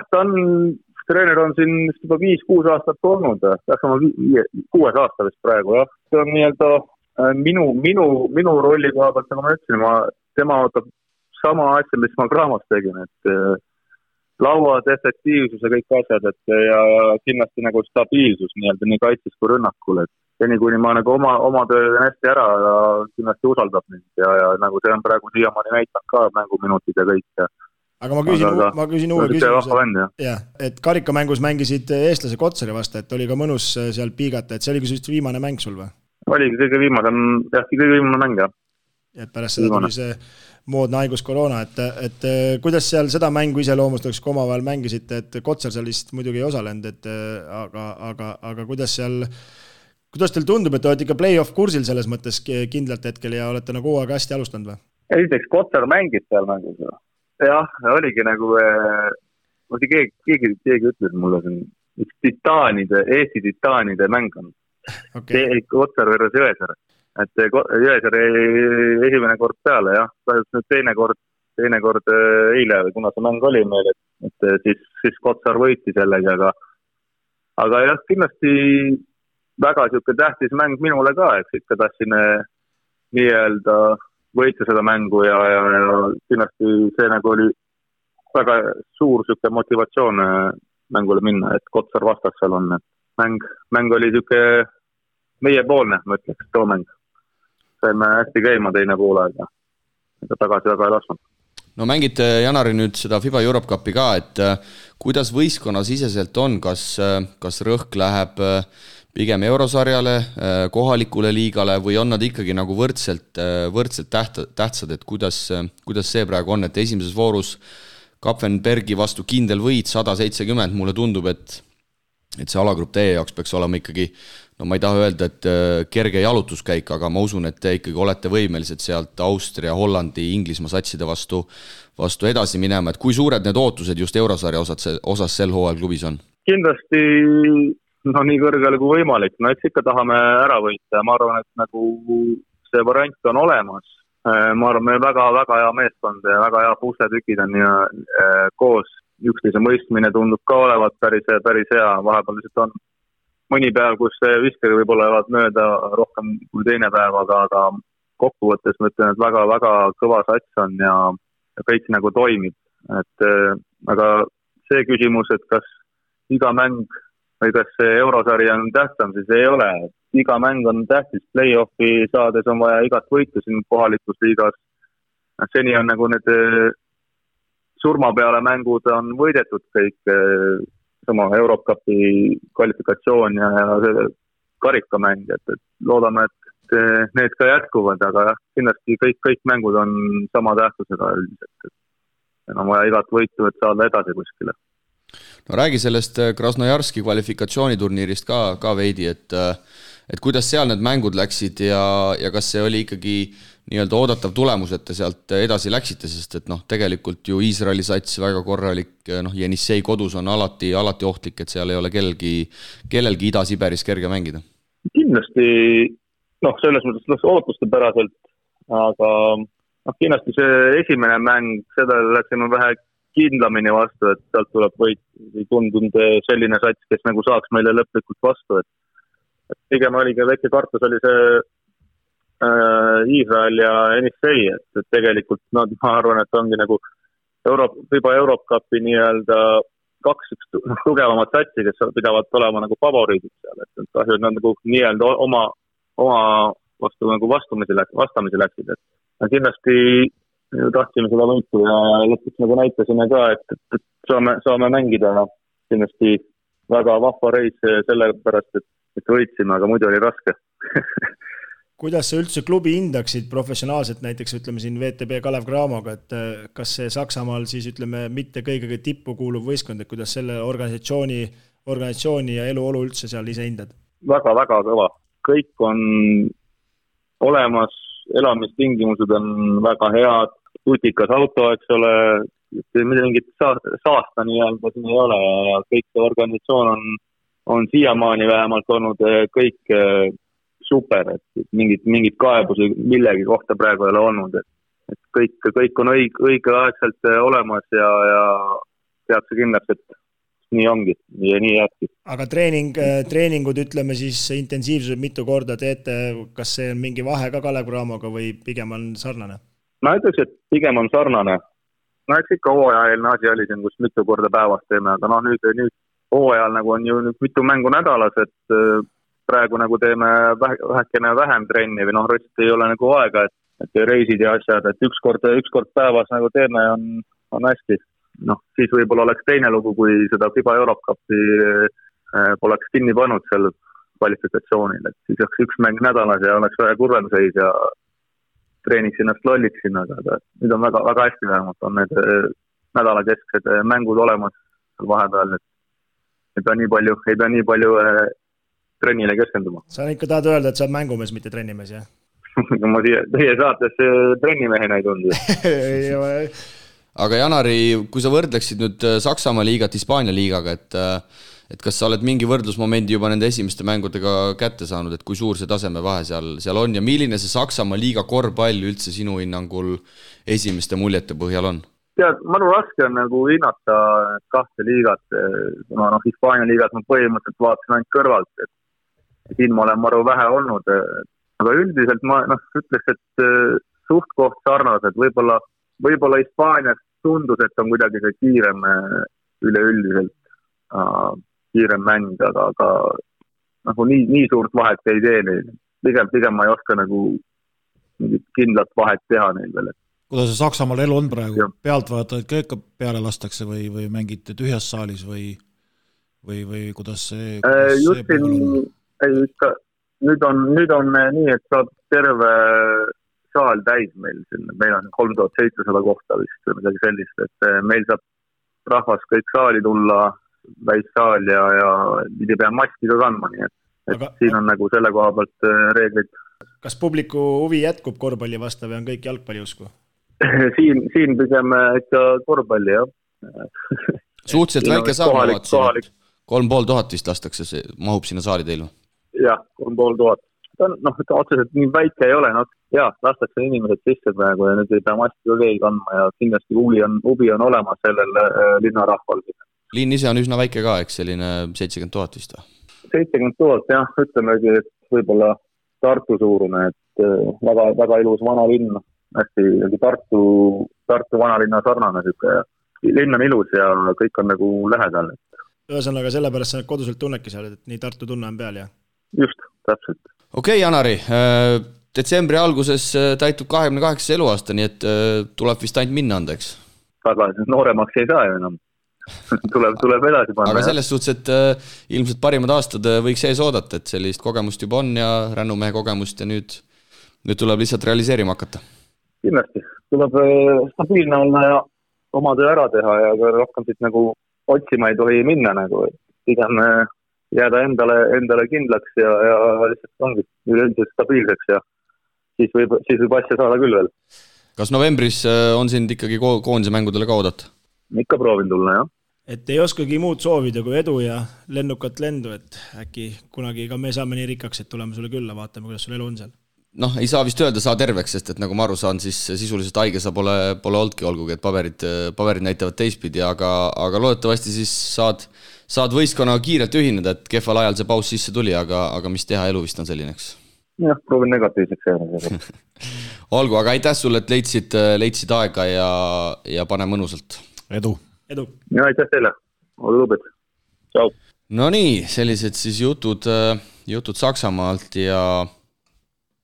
treener on siin juba 5-6 aastat olnud. Peaks oma 6 aasta vist praegu. Jah. See on nii-öelda minu rolli koha pealt, nagu ma ütlesin, tema ootab sama asja, mis ma Graamos tegin, et lauad, efektiivsus ja kõik asjad, ja kindlasti nagu stabiilsus nii-öelda nii kaitses kui rünnakul, et seni kuni ma nagu oma töö hästi ära ja kindlasti usaldab mind ja nagu see on praegu siiamaani näitanud ka mänguminutid ja kõik. Aga ma küsin uue küsimuse, et karikamängus mängisid eestlase Kotsari vastu, et oli ka mõnus seal piigata, et see oli ka viimane mäng sul või? Oligi kõige viimane mäng, jah. Et pärast seda tuli see moodne haigus koroona, et kuidas seal seda mängu iseloomustaks, kui omavahel mängisite, et Kotsar seal vist muidugi ei osalenud, aga kuidas teil tundub, et te olete ikka play-off kursil selles mõttes kindlalt hetkel ja olete nagu hooaega hästi alustanud või? Esiteks Kotsar mängis seal mängus. Jah, oligi nagu, keegi ütles mulle, üks Eesti titaanide mäng on. Kotsar versus Jõesaar. Et Jõesaar esimene kord peale, jah. Nüüd teine kord eile, kuna see mäng oli meil, et siis Kotsar võiti sellega, aga jah, kindlasti väga siuke tähtis mäng minule ka, eks ikka tahtsin nii-öelda võita seda mängu ja kindlasti see nagu oli väga suur siuke motivatsioon mängule minna, et Kotsar vastas seal on, et mäng oli siuke meiepoolne, ma ütleks, too mäng. Saime hästi käima teine poole aega. Tagasi väga ei lasknud. No mängite, Janari, nüüd seda FIBA Europe Cupi ka, et kuidas võistkonna siseselt on, kas rõhk läheb pigem eurosarjale, kohalikule liigale või on nad ikkagi nagu võrdselt tähtsad, et kuidas see praegu on, et esimeses voorus Kapfenbergi vastu kindel võit 170, mulle tundub, et see alagrupp teie jaoks peaks olema ikkagi, no ma ei taha öelda, et kerge jalutuskäik, aga ma usun, et te ikkagi olete võimelised sealt Austria, Hollandi, Inglismaa satside vastu edasi minema, et kui suured need ootused just eurosarja osas sel hooajal klubis on? Kindlasti nii kõrgele kui võimalik, no eks ikka tahame ära võita ja ma arvan, et nagu see variant on olemas. Ma arvan, meil väga hea meeskond ja väga hea pusletükid on koos. Üksteise mõistmine tundub ka olevat päris hea, vahepeal lihtsalt on mõni päev, kus viskeri võib-olla jäävad mööda rohkem kui teine päev, aga kokkuvõttes ma ütlen, et väga kõva sats on ja kõik nagu toimib. Aga see küsimus, et kas iga mäng või kas see eurosari on tähtsam, siis ei ole. iga mäng on tähtis, play-offi saades on vaja igat võitu siin kohalikus liigas. Seni on nagu need surma peale mängud on võidetud kõik, sama Eurocupi kvalifikatsioon ja see karikamäng, et loodame, et need ka jätkuvad, aga kindlasti kõik mängud on sama tähtsusega üldiselt. On vaja igat võitu, et saada edasi kuskile. No räägi sellest Krasnojarski kvalifikatsiooniturniirist ka veidi, et kuidas seal need mängud läksid ja kas see oli ikkagi nii-öelda oodatav tulemus, et te sealt edasi läksite, sest et tegelikult ju Iisraeli sats väga korralik, Jenissei kodus on alati ohtlik, et seal ei ole kellelgi Ida-Siberis kerge mängida. Kindlasti, selles mõttes ootuste päraselt, aga kindlasti see esimene mäng, seda läksime vähe kindlamini vastu, et sealt tuleb võit, ei tundunud selline sats, kes nagu saaks meile lõplikult vastu, et pigem oligi väike kartus oli see Iisrael ja Jenissei, et tegelikult ma arvan, et ongi nagu FIBA Eurocupi nii-öelda kaks tugevamat satsi, kes pidavad olema nagu favoriidid seal, et kahju, et nad nagu nii-öelda oma vastu nagu vastamisi läksid, et kindlasti tahtsime seda võitu ja lõpuks nagu näitasime ka, et saame mängida, kindlasti väga vahva reis sellepärast, et võitsime, aga muidu oli raske. Kuidas sa üldse klubi hindaksid professionaalselt, näiteks ütleme siin VTB Kalev Cramoga, et kas see Saksamaal siis ütleme mitte kõige tippu kuuluv võistkond, et kuidas selle organisatsiooni ja eluolu üldse seal ise hindad? Väga-väga kõva. Kõik on olemas, elamistingimused on väga head, tutikas auto, eks ole, mingit saasta nii-öelda siin ei ole ja kõik see organisatsioon on siiamaani vähemalt olnud kõik super, et mingid kaebusi millegi kohta praegu ei ole olnud, et kõik on õigeaegselt olemas ja teadse kindlasti, et nii ongi ja nii jääbki. Aga treeningud, ütleme siis intensiivsused mitu korda teete, kas see on mingi vahe ka Kalev Cramoga või pigem on sarnane? Ma ütleks, et pigem on sarnane. Eks ikka hooajaelne asi oli siin, kus mitu korda päevas teeme, aga nüüd hooajal nagu on ju mitu mängu nädalas, et praegu nagu teeme vähekene vähem trenni või rõtst ei ole nagu aega, et reisid ja asjad, et üks kord päevas nagu teeme on hästi. Siis võib-olla oleks teine lugu, kui seda FIBA Eurocupi poleks kinni pannud seal kvalifikatsioonil, et siis oleks üks mäng nädalas ja oleks väga kurvem seis ja treeniks ennast lolliksin, aga nüüd on väga, väga hästi vähemalt, on need nädalakesksed mängud olemas vahepeal, et ei pea nii palju trennile keskenduma. Sa ikka tahad öelda, et sa oled mängumees, mitte trennimees, jah? Ma teie saates trennimehena ei tundu. Aga Janari, kui sa võrdleksid nüüd Saksamaa liigat Hispaania liigaga, et kas sa oled mingi võrdlusmomendi juba nende esimeste mängudega kätte saanud, et kui suur see tasemevahe seal on ja milline see Saksamaa liiga korvpall üldse sinu hinnangul esimeste muljete põhjal on? Tead, mõnu raske on nagu hinnata kahte liigat, Hispaania liigat ma põhimõtteliselt vaatasin ainult kõrvalt, et siin ma olen maru vähe olnud, aga üldiselt ma ütleks, et suht koht sarnased, võib-olla Hispaanias tundus, et on kuidagi see kiirem üleüldiselt kiirem mäng, aga nagu nii suurt vahet ei tee neil. Pigem ma ei oska nagu kindlat vahet teha neil veel. Kuidas see Saksamaal elu on praegu? Pealtvaatajad ka ikka peale lastakse või mängite tühjas saalis või kuidas see pool on? Nüüd on nii, et saab terve saal täis meil on 3700 kohta vist või midagi sellist, et meil saab rahvas kõik saali tulla, väissaal ja ei pea maski ka kandma, nii et siin on nagu selle koha pealt reeglid. Kas publiku huvi jätkub korvpalli vastu või on kõik jalgpalli usku? Siin pigem ikka korvpalli, jah. Suhteliselt väike saal, 3500 vist lastakse, mahub sinna saali teil? Jah, 3500. Otseselt nii väike ei ole, lastakse inimesed sisse praegu ja nüüd ei pea maski ka keegi kandma ja kindlasti huvi on olemas sellel linnarahval. Linn ise on üsna väike ka, eks selline 70 000 vist? 70 000, jah, ütlemegi, et võib-olla Tartu suurune, et väga, väga ilus vana linn, hästi Tartu vanalinna sarnane, linn on ilus ja kõik on nagu lähedal. Ühesõnaga sellepärast sa koduselt tunnedki seal, et nii Tartu tunne on peal, jah? Just, Okei, Janari, detsembri alguses täitub 28 eluaasta, nii et tuleb vist ainult minna anda, eks? Aga nooremaks ei saa ju enam. tuleb edasi panna. Aga selles suhtes, et ilmselt parimad aastad võiks ees oodata, et sellist kogemust juba on ja rännumehe kogemust ja nüüd tuleb lihtsalt realiseerima hakata. Kindlasti. Tuleb stabiilne olla ja oma töö ära teha ja rohkem siit nagu otsima ei tohi minna nagu. Pigem jääda endale kindlaks ja lihtsalt ongi üleüldiselt stabiilseks ja siis võib asja saada küll veel. Kas novembris on sind ikkagi koondise mängudele ka oodata? Ikka proovin tulla, jah. Et ei oskagi muud soovida kui edu ja lennukat lendu, et äkki kunagi ka me saame nii rikkaks, et tuleme sulle külla, vaatame, kuidas sul elu on seal. Ei saa vist öelda saa terveks, sest et nagu ma aru saan, siis sisuliselt haige sa pole oldki, olgugi, et paberid näitavad teistpidi, aga loodetavasti siis saad võistkonnaga kiirelt ühineda, et kehval ajal see paus sisse tuli, aga mis teha, elu vist on sellineks. Jah, proovin negatiivseks jääda. Olgu, aga aitäh sulle, et leidsid aega ja pane mõnusalt. Edu. Ja aitäh teile. Ole lubed. Ciao. No nii, sellised siis jutud Saksamaalt ja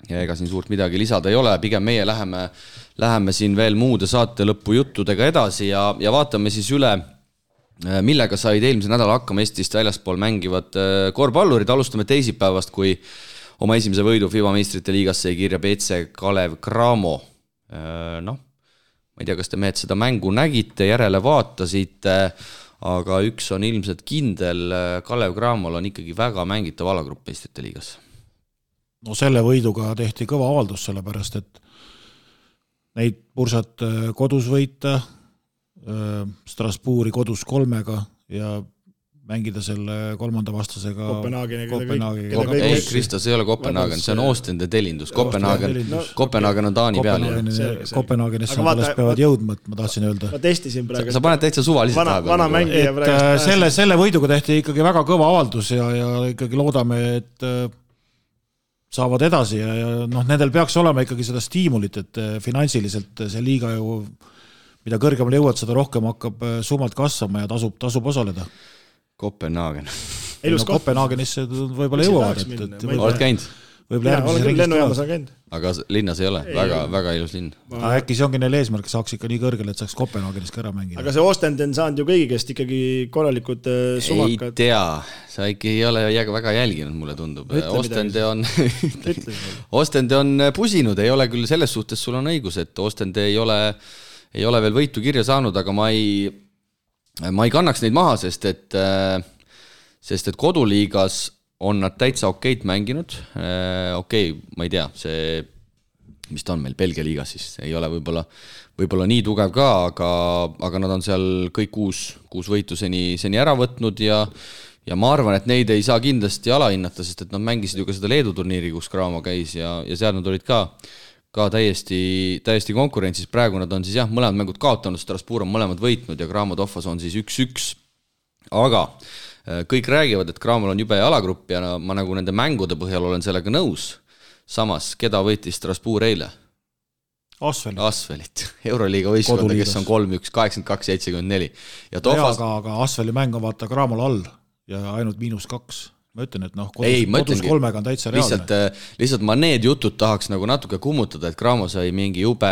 ega siin suurt midagi lisada ei ole, pigem meie läheme siin veel muude saate lõppu juttudega edasi ja vaatame siis üle, millega said eelmise nädala hakkama Eestist väljaspool mängivad korvpallurid. Alustame teisipäevast, kui oma esimese võidu FIBA meistrite liigas sai kirja BC Kalev Cramo. Ma ei tea, kas te mehed seda mängu nägite, järele vaatasite, aga üks on ilmselt kindel, Kalev Cramol on ikkagi väga mängitav alagrupp meistrite liigas. No selle võiduga tehti kõva avaldus, sellepärast, et neid pursat kodus võita, Strasbourgi kodus 3 ja mängida selle 3. vastasega Kopenhaageni. Krista, see ei ole Kopenhaagen, see on Oostende telindus. Kopenhaagen on Taani peal. Kopenhaagenisse alles peavad jõudma, ma tahtsin öelda. Ma testisin praegu. Sa paned täitsa suvaliselt vana mängija praegu. Selle võiduga tehti ikkagi väga kõva avaldus ja ikkagi loodame, et saavad edasi ja nendel peaks olema ikkagi seda stiimulit, et finansiliselt see liiga ju, mida kõrgemale jõuad, seda rohkem hakkab summalt kasvama ja tasub osaleda. Kopenhaagen. Kopenhaagenisse võib-olla jõuavad. Oled käinud? Olen küll lennujaamas on käinud. Aga linnas ei ole, väga ilus linn. Äkki see ongi neil eesmärk, saaks ikka nii kõrgele, et saaks Kopenhaagenis ka ära mängida. Aga see Oostende on saanud ju kõigi käest ikkagi korralikud sumakad. Ei tea, sa ikka ei ole väga jälginud, mulle tundub. Oostende on pusinud, ei ole küll selles suhtes, sul on õigus, et Oostende ei ole veel võitu kirja saanud, aga ma ei kannaks neid maha, sest et koduliigas on nad täitsa okeit mänginud. Okei, ma ei tea, see, mis ta on meil Belgia liigas siis, ei ole võib-olla nii tugev ka, aga nad on seal kõik kuus võitu seni ära võtnud ja ma arvan, et neid ei saa kindlasti alahinnata, sest et nad mängisid ju ka seda Leedu turniiri, kus Cramo käis ja seal nad olid ka täiesti konkurentsis. Praegu nad on siis mõlemad mängud kaotanud, Strasbourg on mõlemad võitnud ja Cramo Toffas on siis 1-1. Aga kõik räägivad, et Cramol on jube alagrupp ja ma nagu nende mängude põhjal olen sellega nõus. Samas, keda võitis Strasbourg eile? Asvelit. Euroliiga võistkonda, kes on 3-1, 82-74. Aga Asveli mäng on vaata Cramol all ja ainult -2. Ma ütlen, et kodus 3 on täitsa reaalne. Lihtsalt ma need jutud tahaks nagu natuke kummutada, et Cramo sai mingi jube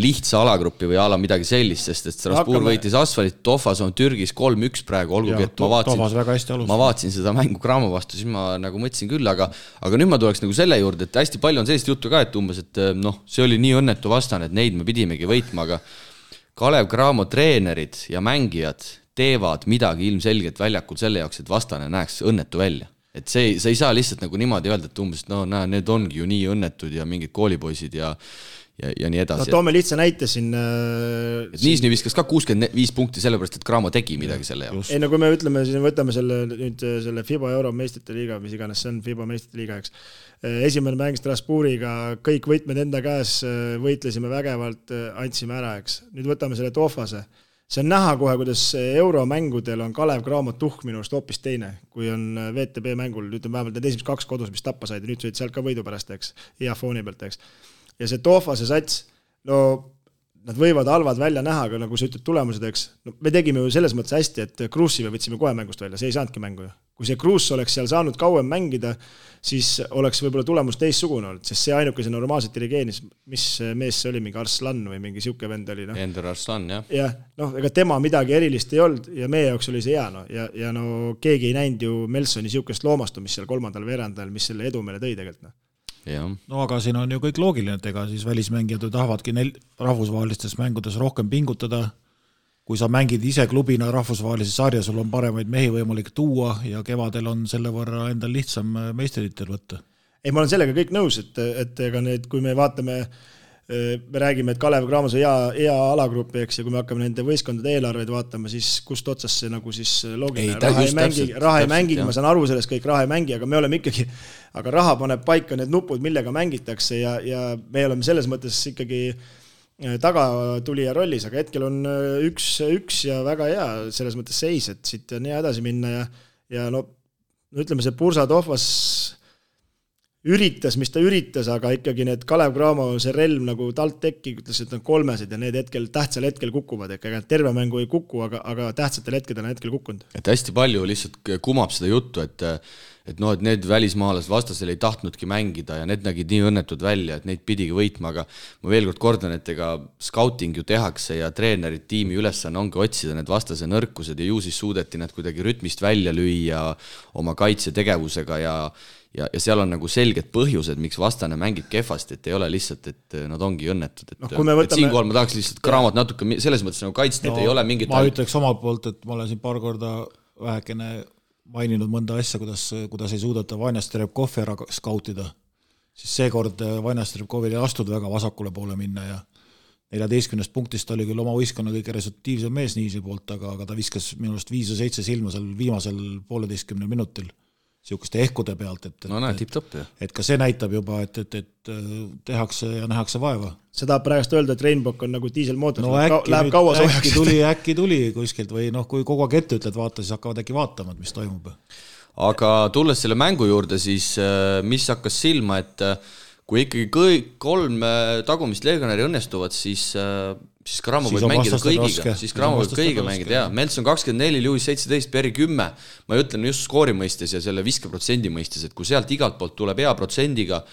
lihtsa alagrupi või ala midagi sellist, sest et Strasbourg võitis Asfalit, Toffas on Türgis 3-1 praegu, olgugi, et ma vaatsin seda mängu Cramo vastu, siis ma nagu mõtlesin küll, aga nüüd ma tuleks nagu selle juurde, et hästi palju on sellist juttu ka, et umbes, et see oli nii õnnetu vastane, et neid me pidimegi võitma, aga Kalev Cramo treenerid ja mängijad teevad midagi ilmselgelt väljakul selle jaoks, et vastane näeks õnnetu välja. Et sa ei saa lihtsalt nagu niimoodi öelda, et umbes, need ongi ju nii õnnetud ja mingid koolipoisid ja nii edasi. Toome lihtsa näite siin. Niisni viskas ka 65 punkti sellepärast, et Cramo tegi midagi selle jaoks. Ei, kui me ütleme, siis võtame selle FIBA Euro meistrite liiga, mis iganes see on FIBA meistrite liiga, eks. Esimene mäng Strasbourgiga, kõik võitmed enda käes, võitlesime vägevalt, andsime ära, eks. Nüüd võtame selle Toffase. See on näha kohe, kuidas euromängudel on Kalev Cramo tuhk minust hoopis teine, kui on VTB mängul, ütleme vähemalt need esimesed 2 kodus, mis tappa said ja nüüd sõid sealt ka võidu pärast, eks, hea fooni pealt, eks. Ja see Toffase sats, nad võivad halvad välja näha, aga nagu sa ütled tulemused, eks, me tegime ju selles mõttes hästi, et Kruusive võtsime kohe mängust välja, see ei saanudki mängu ju. kui see Kruus oleks seal saanud kauem mängida, siis oleks võib-olla tulemus teissugune olnud, sest see ainukese normaalselt dirigeenis, mis mees see oli, mingi Arslan või mingi siuke vend oli. Ender Arslan, jah. Jah, ega tema midagi erilist ei olnud ja meie jaoks oli see hea. Ja keegi ei näinud ju Melsoni siukest loomastumist seal 3. veerandajal, mis selle edu meile tõi tegelikult. Ja. No aga siin on ju kõik loogiline, et ega siis välismängijad tahavadki rahvusvahelistes mängudes rohkem pingutada. Kui sa mängid ise klubina rahvusvahelise sarja, sul on paremaid mehi võimalik tuua ja kevadel on selle võrra endal lihtsam meistrititel võtta. Ei, ma olen sellega kõik nõus, et ega need, kui me vaatame, me räägime, et Kalev Cramos on hea alagrupi, eks, ja kui me hakkame nende võistkondade eelarveid vaatama, siis kust otsas see nagu siis loogiline. Raha ei mängi, ma saan aru sellest kõik raha ei mängi, aga me oleme ikkagi, aga raha paneb paika need nupud, millega mängitakse ja me oleme selles mõttes ikkagi tagatulija rollis, aga hetkel on üks ja väga hea selles mõttes seis, et siit on hea edasi minna ja no ütleme, see Bursa Tohvas üritas, mis ta üritas, aga ikkagi need Kalev Cramo, see relv nagu talt tekki, ütles, et on 3 ja need tähtsal hetkel kukuvad, ega terve mängu ei kuku, aga tähtsatel hetkedel on hetkel kukkunud. Et hästi palju lihtsalt kumab seda juttu, et need välismaalased vastasel ei tahtnudki mängida ja need nägid nii õnnetud välja, et neid pidigi võitma, aga ma veel kord kordan, et ega scouting ju tehakse ja treenerid tiimi ülesanne ongi otsida need vastase nõrkused ja ju siis suudeti nad kuidagi rütmist välja lüüa oma kaitsetegevusega ja seal on nagu selged põhjused, miks vastane mängib kehvasti, et ei ole lihtsalt, et nad ongi õnnetud. Et siinkohal ma tahaks lihtsalt Cramot natuke selles mõttes nagu kaitsta, et ei ole mingit... Ma ütleks omalt poolt, et ma olen siin paar korda vähekene maininud mõnda asja, kuidas ei suudata Vanja Strebkovi ära skautida, siis seekord Vanja Strebkovil ei astud väga vasakule poole minna ja 14 punktist oli küll oma võistkonna kõige resultiivsem mees Niisi poolt, aga ta viskas minust 5 või 7 silma seal viimasel 1,5 minutil siukeste ehkude pealt, et ka see näitab juba, et tehakse ja nähakse vaeva. Seda praegust öelda, et Rainbow on nagu diiselmootor, läheb kaua soojaks. Äkki tuli kuskilt või kui kogu aeg ette ütled vaata, siis hakkavad äkki vaatama, mis toimub. Aga tulles selle mängu juurde, siis mis hakkas silma, et kui ikkagi kõik 3 tagumist legionäri õnnestuvad, siis Cramo võib mängida kõigiga, siis Cramo võib kõigiga mängida, jah. Melson 24, Lewis 17, Perry 10, ma ütlen just skoori mõistes ja selle viskeprotsendi mõistes, et kui sealt igalt poolt tuleb hea protsendiga,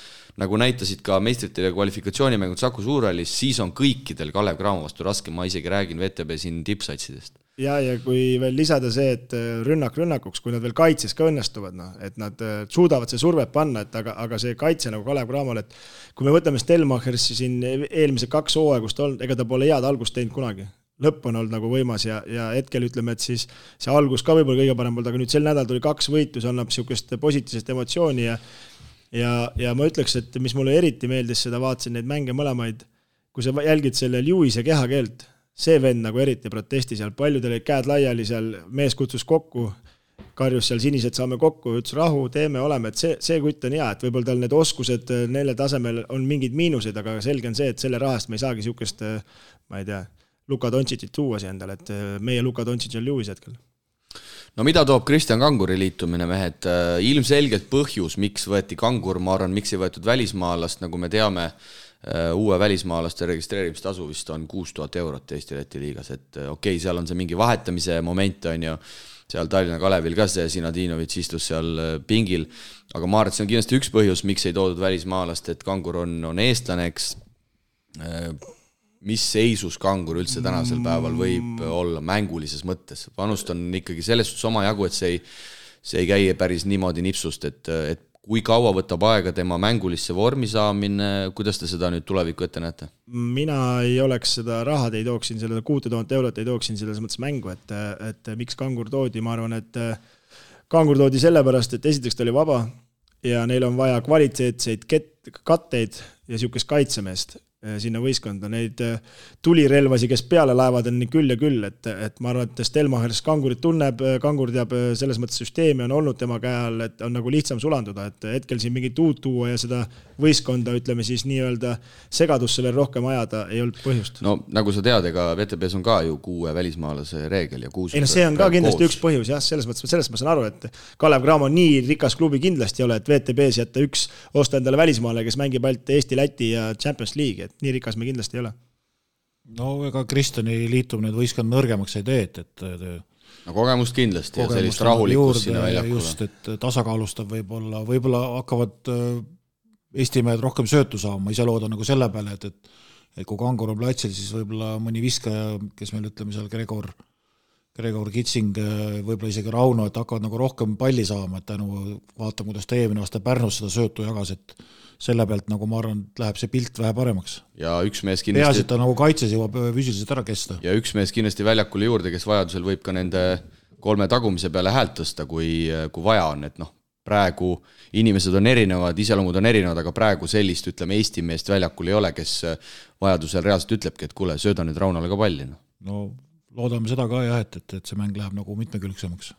nagu näitasid ka meistrite kvalifikatsioonimängud Saku Suurhallis, siis on kõikidel Kalev Cramo vastu raske, ma isegi räägin VTB siin tippsatsidest. Ja kui veel lisada see, et rünnakuks, kui nad veel kaitses ka õnnestuvad, et nad suudavad see survet panna, aga see kaitse nagu Kalev Cramol, et kui me võtame Stelmachersi siin eelmise 2 hooaegust olnud, ega ta pole head algust teinud kunagi. Lõpp on olnud nagu võimas ja hetkel ütleme, et siis see algus ka võib-olla kõige parem olnud, aga nüüd sel nädal tuli 2 võitu, see annab siukest positiivset emotsiooni ja ma ütleks, et mis mulle eriti meeldis, seda vaatasin neid mänge mõlemaid, kui sa jälgid selle Lewise kehakeelt, see vend nagu eriti protesti seal, paljudel käed laiali seal, mees kutsus kokku, karjus seal sinised saame kokku, ütles rahu, teeme, oleme, et see kutt on hea, et võib-olla tal need oskused neile tasemel on mingid miinused, aga selge on see, et selle rahast me ei saagi siukest, ma ei tea, Luka Doncicit tuua siia endale, et meie Luka Doncic on Lewis hetkel. No mida toob Kristjan Kanguri liitumine, mehed? Ilmselgelt põhjus, miks võeti Kangur, ma arvan, miks ei võetud välismaalast, nagu me teame, uue välismaalaste registreerimistasu vist on 6000 eurot Eesti-Läti liigas, et okei, seal on see mingi vahetamise moment, on ju, seal Tallinna Kalevil ka see Sinadinovitš istus seal pingil, aga ma arvan, et see on kindlasti üks põhjus, miks ei toodud välismaalast, et Kangur on eestlane, eks. Mis seisus Kangur üldse tänasel päeval võib olla mängulises mõttes? Panust on ikkagi selles suhtes oma jagu, et see ei käi päris niimoodi nipsust, et kui kaua võtab aega tema mängulisse vormi saamine, kuidas te seda nüüd tulevikku ette näete? Mina ei oleks seda rahad, ei tooksin selle 6000 eurot, ei tooksin selles mõttes mängu, et miks Kangur toodi, ma arvan, et Kangur toodi sellepärast, et esiteks ta oli vaba ja neil on vaja kvaliteetseid katteid ja siukest kaitsemeest sinna võiskonda, neid tulirelvasi, kes peale laevad on nii küll ja küll, et ma arvan, et Stelmachers Kangurit tunneb, Kangur teab selles mõttes süsteemi on olnud tema käe all, et on nagu lihtsam sulanduda, et hetkel siin mingit uut tuua ja seda võistkonda, ütleme siis nii-öelda segadusse veel rohkem ajada, ei olnud põhjust. No nagu sa tead, ega VTBs on ka ju 6 välismaalase reegel ja 6. Ei no see on ka kindlasti üks põhjus, jah, selles mõttes ma saan aru, et Kalev Cramo nii rikas klubi kindlasti ei ole, et VTBs jätta üks osta endale välismaale, kes mängib ainult Eesti, Läti ja Champions League, et nii rikas me kindlasti ei ole. No ega Kristjani liitumine võistkond nõrgemaks ei tee, et no kogemust kindlasti ja sellist rahulikkust sinna väljakule. Just, et tasakaalustab võib-olla hakkavad Eesti mehed rohkem söötu saama, ma ise loodan nagu selle peale, et kui Kangur on platsil, siis võib-olla mõni viskaja, kes meil ütleme seal Gregor Kitsing, võib-olla isegi Rauno, et hakkavad nagu rohkem palli saama, et tänu vaatame, kuidas ta eelmine aasta Pärnus seda söötu jagas, et selle pealt nagu ma arvan, et läheb see pilt vähe paremaks. Ja üks mees kindlasti... Peas, et ta nagu kaitses jõuab füüsiliselt ära kesta. Ja üks mees kindlasti väljakule juurde, kes vajadusel võib ka nende 3 tagumise peale häält tõsta, kui vaja on, et praegu inimesed on erinevad, iseloomud on erinevad, aga praegu sellist, ütleme, Eesti meest väljakul ei ole, kes vajadusel reaalselt ütlebki, et kuule, sööda nüüd Raunale ka palli. No loodame seda ka jah, et see mäng läheb nagu mitmekülgsemaks.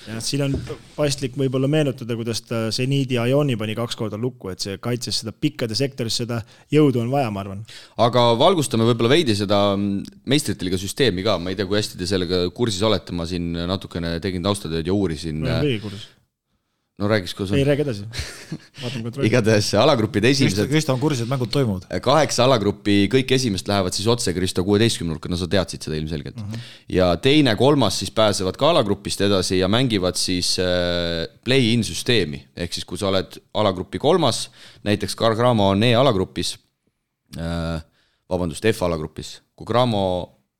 Ja siin on paslik võib-olla meenutada, kuidas ta Zeniidi Ajoni pani 2 korda lukku, et see kaitses seda pikkade sektoris, seda jõudu on vaja, ma arvan. Aga valgustame võib-olla veidi seda meistrite liiga süsteemi ka, ma ei tea, kui hästi te sellega kursis olete, ma siin natukene tegin taustatööd ja uurisin. No räägiks, kus on. Ei räägi edasi. Igatahes alagrupid esimesed. Kristo on kursis, et mängud toimuvad. 8 alagruppi, kõik esimest lähevad siis otse Kristo 16-nurka, no sa teadsid seda ilmselgelt. Ja teine, 3 siis pääsevad ka alagrupist edasi ja mängivad siis play-in süsteemi. Ehk siis, kui sa oled alagrupi 3, näiteks Gramo on E-alagrupis, F-alagrupis. Kui Gramo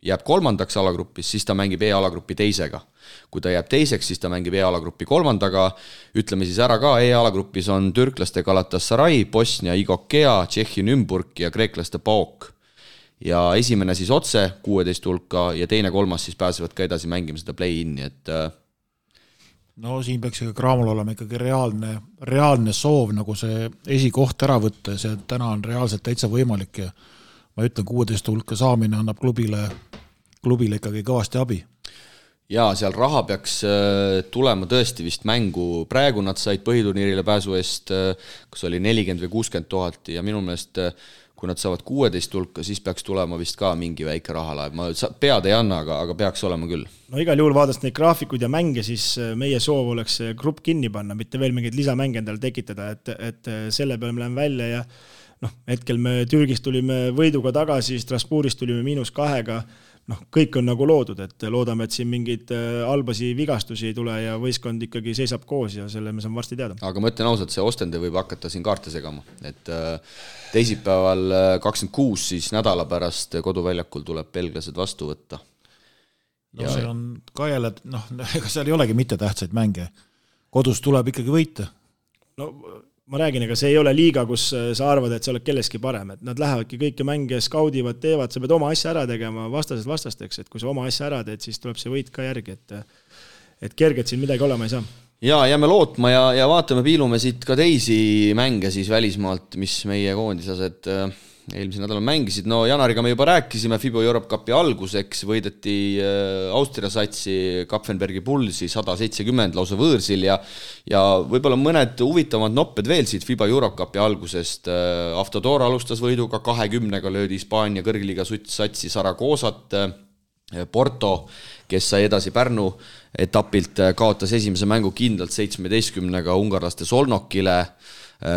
jääb 3. alagrupis, siis ta mängib E-alagrupi 2. Kui ta jääb 2, siis ta mängib E-alagrupi 3. Ütleme siis ära ka, E-alagrupis on türklaste Galatasaray, Bosnia Igokea, Tšehhi Nümburg ja kreeklaste PAOK. Ja esimene siis otse 16 hulka ja teine, 3 siis pääsevad ka edasi mängima seda play-in'i, et... No siin peaks Gramol olema ikkagi reaalne soov nagu see esikoht ära võtta ja see täna on reaalselt täitsa võimalik ja ma ütlen, 16 hulka saamine annab klubile ikkagi kõvasti abi. Jaa, seal raha peaks tulema tõesti vist mängu. Praegu nad said põhiturniirile pääsu eest, kus oli 40 või 60 000 ja minu meelest, kui nad saavad 16 hulka, siis peaks tulema vist ka mingi väike rahalaev. Ma pead ei anna, aga peaks olema küll. No igal juhul vaadast neid graafikuid ja mänge, siis meie soov oleks grupp kinni panna, mitte veel mingeid lisamänge endale tekitada, et selle peale me läheme välja ja hetkel me Türgist tulime võiduga tagasi, Strasbourgist tulime -2, kõik on nagu loodud, et loodame, et siin mingeid albasi vigastusi ei tule ja võistkond ikkagi seisab koos ja selle me saame varsti teada. Aga ma ütlen ausalt, see Ostende võib hakata siin kaarte segama, et teisipäeval 26 siis nädala pärast koduväljakul tuleb belglased vastu võtta. No see on ka jälle, ega seal ei olegi mitte tähtsaid mänge. Kodus tuleb ikkagi võita. No ma räägin, ega see ei ole liiga, kus sa arvad, et sa oled kelleski parem, et nad lähevadki kõiki mänge skaudivad, teevad, sa pead oma asja ära tegema vastasteks, et kui sa oma asja ära teed, siis tuleb see võit ka järgi, et kerged siin midagi olema ei saa. Ja jääme lootma ja vaatame, piilume siit ka teisi mänge siis välismaalt, mis meie koondislased eelmise nädala mängisid. No Janariga me juba rääkisime, FIBA Europe Cupi alguseks võideti Austria satsi Kapfenbergi Pulsi 170 lausa võõrsil ja võib-olla mõned huvitavad nopped veel siit FIBA Europe Cupi algusest. Aftador alustas võiduga 20-ga, löödi Hispaania kõrgliiga satsi Saragoosat, Porto, kes sai edasi Pärnu etapilt, kaotas esimese mängu kindlalt 17-ga ungarlaste Solnokile,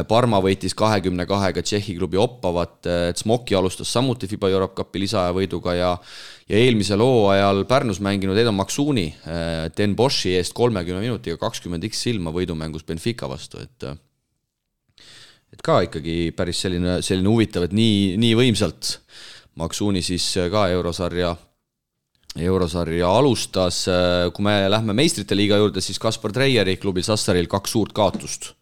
Parma võitis 22-ga Tšehhi klubi Oppavat, Smoki alustas samuti FIBA Europe Cupi lisaaja võiduga ja eelmisel hooajal Pärnus mänginud Edo Maksuni Den Boshi eest 30 minutiga 20x silma võidumängus Benfica vastu, et ka ikkagi päris selline huvitav, et nii võimsalt Maksuni siis ka eurosarja alustas. Kui me lähme meistrite liiga juurde, siis Kaspar Treieri klubil Sassaril 2 suurt kaotust.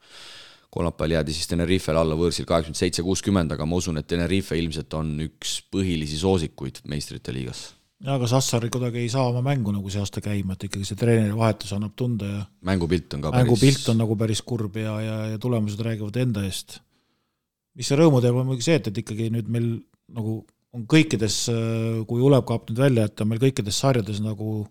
Kolmapäeval jäädi siis Tenerifel alla võõrsil 87-60, aga ma usun, et Tenerife ilmselt on üks põhilisi soosikuid meistrite liigas. Ja, aga Sassari kuidagi ei saa oma mängu nagu see aasta käima, et ikkagi see treeneri vahetus annab tunda ja mängupilt on nagu päris kurb ja tulemused räägivad enda eest. Mis see rõõmu teeb on muidugi see, et ikkagi nüüd meil nagu on kõikides, kui Ulev kaab nüüd välja, et on meil kõikides sarjades nagu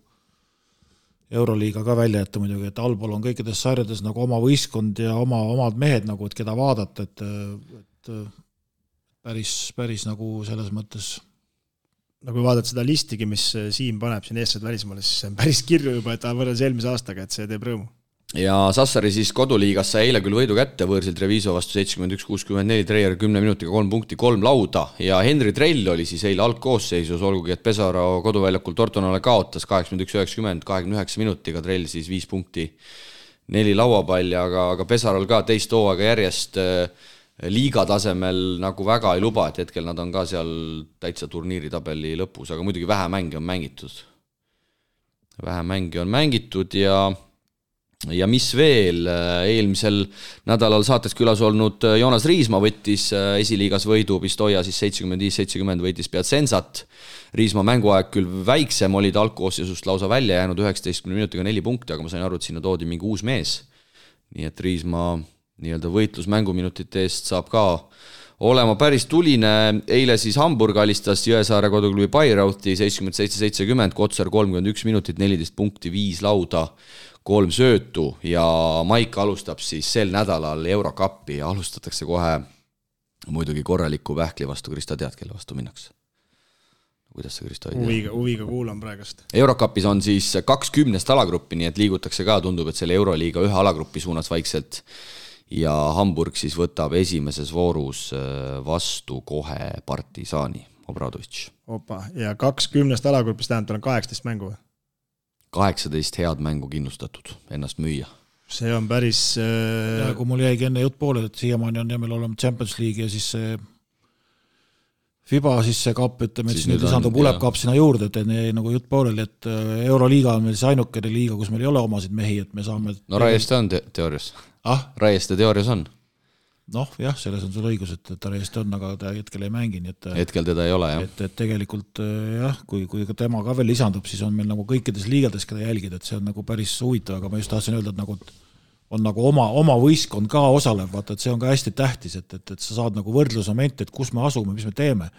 Euroliiga ka välja jätta muidugi, et allpool on kõikides sarjades nagu oma võistkond ja omad mehed nagu, et keda vaadata, et päris nagu selles mõttes. No kui vaadata seda listigi, mis Siim paneb siin eestlased välismaale, siis see on päris kirju juba, et ta võrreldes eelmise aastaga, et see teeb rõõmu. ja Sassari siis koduliigas sai eile küll võidu kätte võõrsil Treviso vastu 71-64, Treier 10 minutiga 3 punkti, 3 lauda ja Henri Trell oli siis eile algkoosseisus, olgugi et Pesaro koduväljakul Tortonale kaotas 81-90, 29 minutiga, Trell siis 5 punkti, 4 lauapalli, aga Pesarol ka teist hooaega järjest liiga tasemel nagu väga ei luba, et hetkel nad on ka seal täitsa turniiritabeli lõpus, aga muidugi vähe mänge on mängitud ja mis veel, eelmisel nädalal saates külas olnud Joonas Riisma võttis esiliigas võidu, Pistoia siis 75-70 võitis Piacenzat. Riisma mänguaeg küll väiksem, oli ta algkoosseisust lausa välja jäänud 19 minutiga 4 punkti, aga ma sain aru, et sinna toodi mingi uus mees. Nii et Riisma nii-öelda võitlus mänguminutite eest saab ka olema päris tuline. Eile siis Hamburg alistas Jõesaare koduklubi Bayreuthi 77-70, Kotsar 31 minutit, 14 punkti, 5 lauda, 3 söötu ja Maik alustab siis sel nädalal Eurokappi ja alustatakse kohe muidugi korraliku Pähkli vastu. Krista, tead, kelle vastu minnakse? Kuidas see, Krista, ei tea? Huviga kuulan praegust. Eurokapis on siis 20 alagruppi, nii et liigutakse ka, tundub, et selle Euroliiga ühe alagrupi suunas vaikselt ja Hamburg siis võtab esimeses voorus vastu kohe Partisaani, Obradovic. Opa, ja 20 alagrupis tähendab, on 18 mängu? 18 head mängu kindlustatud ennast müüa. See on päris... Ja kui mul jäigi enne jutt poole, et siiamaani on jämel olema Champions League ja siis see FIBA siis see kapp, ütleme, et siis nüüd lisandub Ulep kapp sinna juurde, et jäi nagu jutt pooleli, et Euroliiga on meil see ainukene liiga, kus meil ei ole omasid mehi, et me saame... No Raieste on teoorias. Raieste teoorias on. Noh, jah, selles on sul õigus, et ta Raieste on, aga ta hetkel ei mängi. Hetkel teda ei ole, jah. Et tegelikult, jah, kui tema ka veel lisandub, siis on meil nagu kõikides liigades, keda jälgida, et see on nagu päris huvitav, aga ma just tahtsin öelda, et nagu on nagu oma võistkond ka osalev, vaata, et see on ka hästi tähtis, et sa saad nagu võrdlusmomente, et kus me asume, mis me teeme.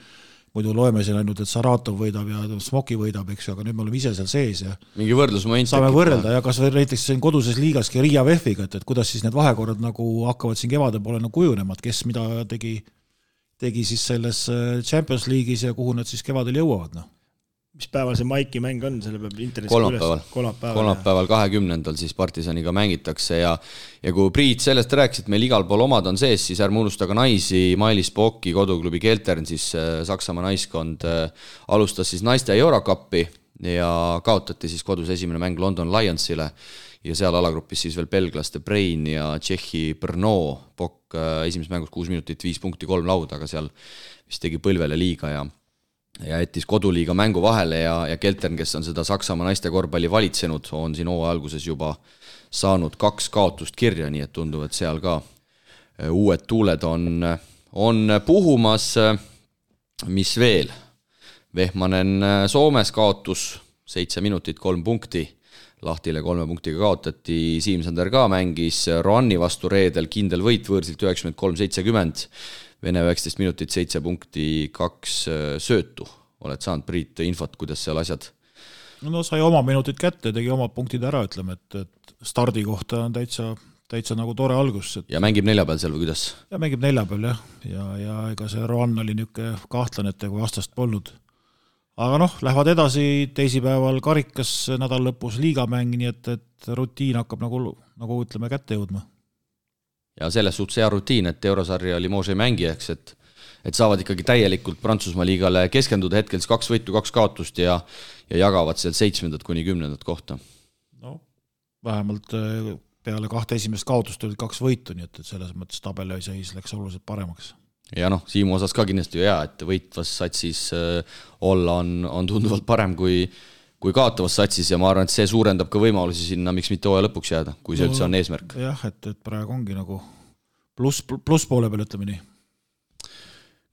Muidu loeme siin ainult, et Saratov võidab ja Smoki võidab, eks ju, aga nüüd me oleme ise seal sees ja mingi võrdlusmoment saame võrrelda ja kas näiteks siin koduses liigaski Riia VEF-iga, et kuidas siis need vahekorrad nagu hakkavad siin kevade poole nagu kujunema, et kes mida tegi siis selles Champions League'is ja kuhu nad siis kevadel jõuavad, noh. Mis päeval see Maiki mäng on, selle peab internetis kolmapäeval 20. siis Partisaniga mängitakse ja kui Priit sellest rääkis, et meil igal pool omad on sees, siis ärme unustaga naisi, Mailis Pokki koduklubi Keltern, siis Saksamaa naiskond alustas siis naiste Eurokappi ja kaotati siis kodus esimene mäng London Lionsile ja seal alagrupis siis veel belglaste Brain ja Tšehhi Brno. Pokk esimeses mängus 6 minutit, 5 punkti, 3 lauda, aga seal vist tegi põlvele liiga ja jättis koduliiga mängu vahele ja Keltern, kes on seda Saksamaa naiste korvpalli valitsenud, on siin hooaja alguses juba saanud 2 kaotust kirja, nii et tundub, et seal ka uued tuuled on puhumas. Mis veel? Vehmanen Soomes kaotus 7 minutit, 3 punkti, Lahtile 3 punktiga kaotati, Siimsander ka mängis Roanni vastu reedel, kindel võit võõrsilt 93-70, Vene 19 minutit, 7 punkti, 2 söötu. Oled saanud, Priit, infot, kuidas seal asjad? No sai oma minutid kätte, tegi omad punktid ära, ütleme, et stardi kohta on täitsa nagu tore algus. Ja mängib neljapäeval seal või kuidas? Ja mängib neljapäeval, jah. Ja ega see Roan oli niuke kahtlanete, kui vastast polnud. Aga noh, lähevad edasi teisipäeval karikas nädal lõpus liigamäng, nii et rutiin hakkab nagu ütleme kätte jõudma. Ja selles suhtes hea rutiin, et Eurosarja Limoges ei mängi, eks, et saavad ikkagi täielikult Prantsusmaa liigale keskenduda hetkel 2 võitu, 2 kaotust ja jagavad seal 7. kuni 10. kohta. No, vähemalt peale 2 esimest kaotust olid 2 võitu, nii et selles mõttes tabeli seis läks oluliselt paremaks. Ja noh, Siimu osas ka kindlasti ju hea, et võitvas satsis olla on tunduvalt parem kui kaotavas satsis ja ma arvan, et see suurendab ka võimalusi sinna, miks mitte hooaja lõpuks jääda, kui see üldse on eesmärk. Jah, et praegu ongi nagu pluss poole peal, ütleme nii.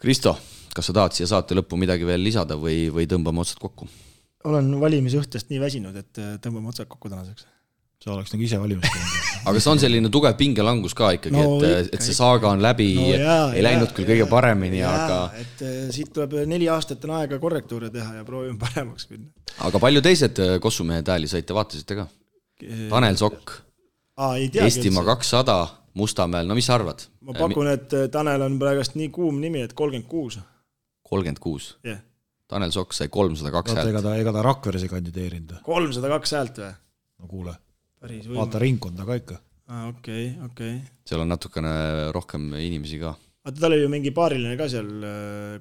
Kristo, kas sa tahad siia saate lõppu midagi veel lisada või tõmbame otsad kokku? Olen valimisõhtust nii väsinud, et tõmbame otsad kokku tänaseks. See oleks nagu ise valimist. Aga see on selline tugev pingelangus ka ikkagi, et see saaga on läbi, ei läinud küll kõige paremini, aga... Et siit tuleb 4 aastat on aega korrektuure teha ja proovime paremaks minna. Aga palju teised kossumehed hääli saite, vaatasite ka? Tanel Sokk, Eestimaa 200, Mustamäel, no mis sa arvad? Ma pakun, et Tanel on praegust nii kuum nimi, et 36. 36? Yeah. Tanel Sokk sai 302 häält. Ega ta Rakveres ei kandideerinud. 302 häält või? No kuule. vaata ringkonda ka ikka. Okei. seal on natukene rohkem inimesi ka. Aga tal oli ju mingi paariline ka seal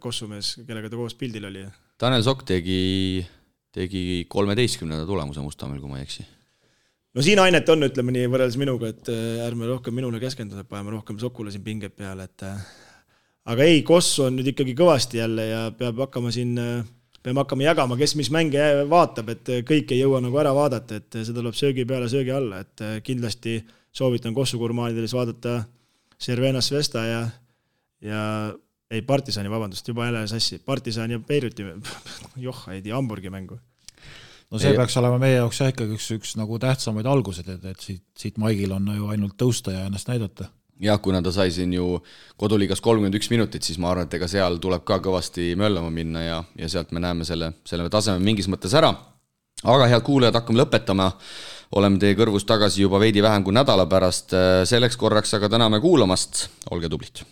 Kossumees, kellega ta koos pildil oli. Tanel Sokk tegi 13. tulemuse Mustamäel, kui ma ei eksi. No siin ainet on, ütleme nii, võrreldes minuga, et ärme rohkem minule keskenduda, paneme rohkem Sokule siin pinged peale, et aga ei, Kossu on nüüd ikkagi kõvasti jälle ja peame hakkama jagama, kes mis mänge vaatab, et kõik ei jõua nagu ära vaadata, et seda tuleb söögi peale, söögi alla, et kindlasti soovitan Kossu gurmaanidelis vaadata Cervena Svesta ja Partisani, vabandust, juba jälle sassi, Partisani ja Beiruti, ei tea, Hamburgi mängu. No see peaks olema meie jaoks ikkagi üks nagu tähtsamaid algused, et siit Maigil on ju ainult tõusta ja ennast näidata. Jah, kuna ta sai siin ju koduliigas 31 minutit, siis ma arvan, et ega seal tuleb ka kõvasti möllama minna ja sealt me näeme selle taseme mingis mõttes ära. Aga head kuulajad, hakkame lõpetama. Oleme teie kõrvus tagasi juba veidi vähem kui nädala pärast. Selleks korraks aga täname kuulamast. Olge tublid.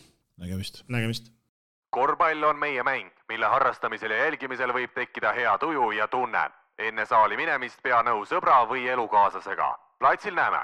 Nägemist. Korvpall on meie mäng, mille harrastamisel ja jälgimisel võib tekkida hea tuju ja tunne. Enne saali minemist pea nõu sõbra või elukaaslasega. Platsil näeme!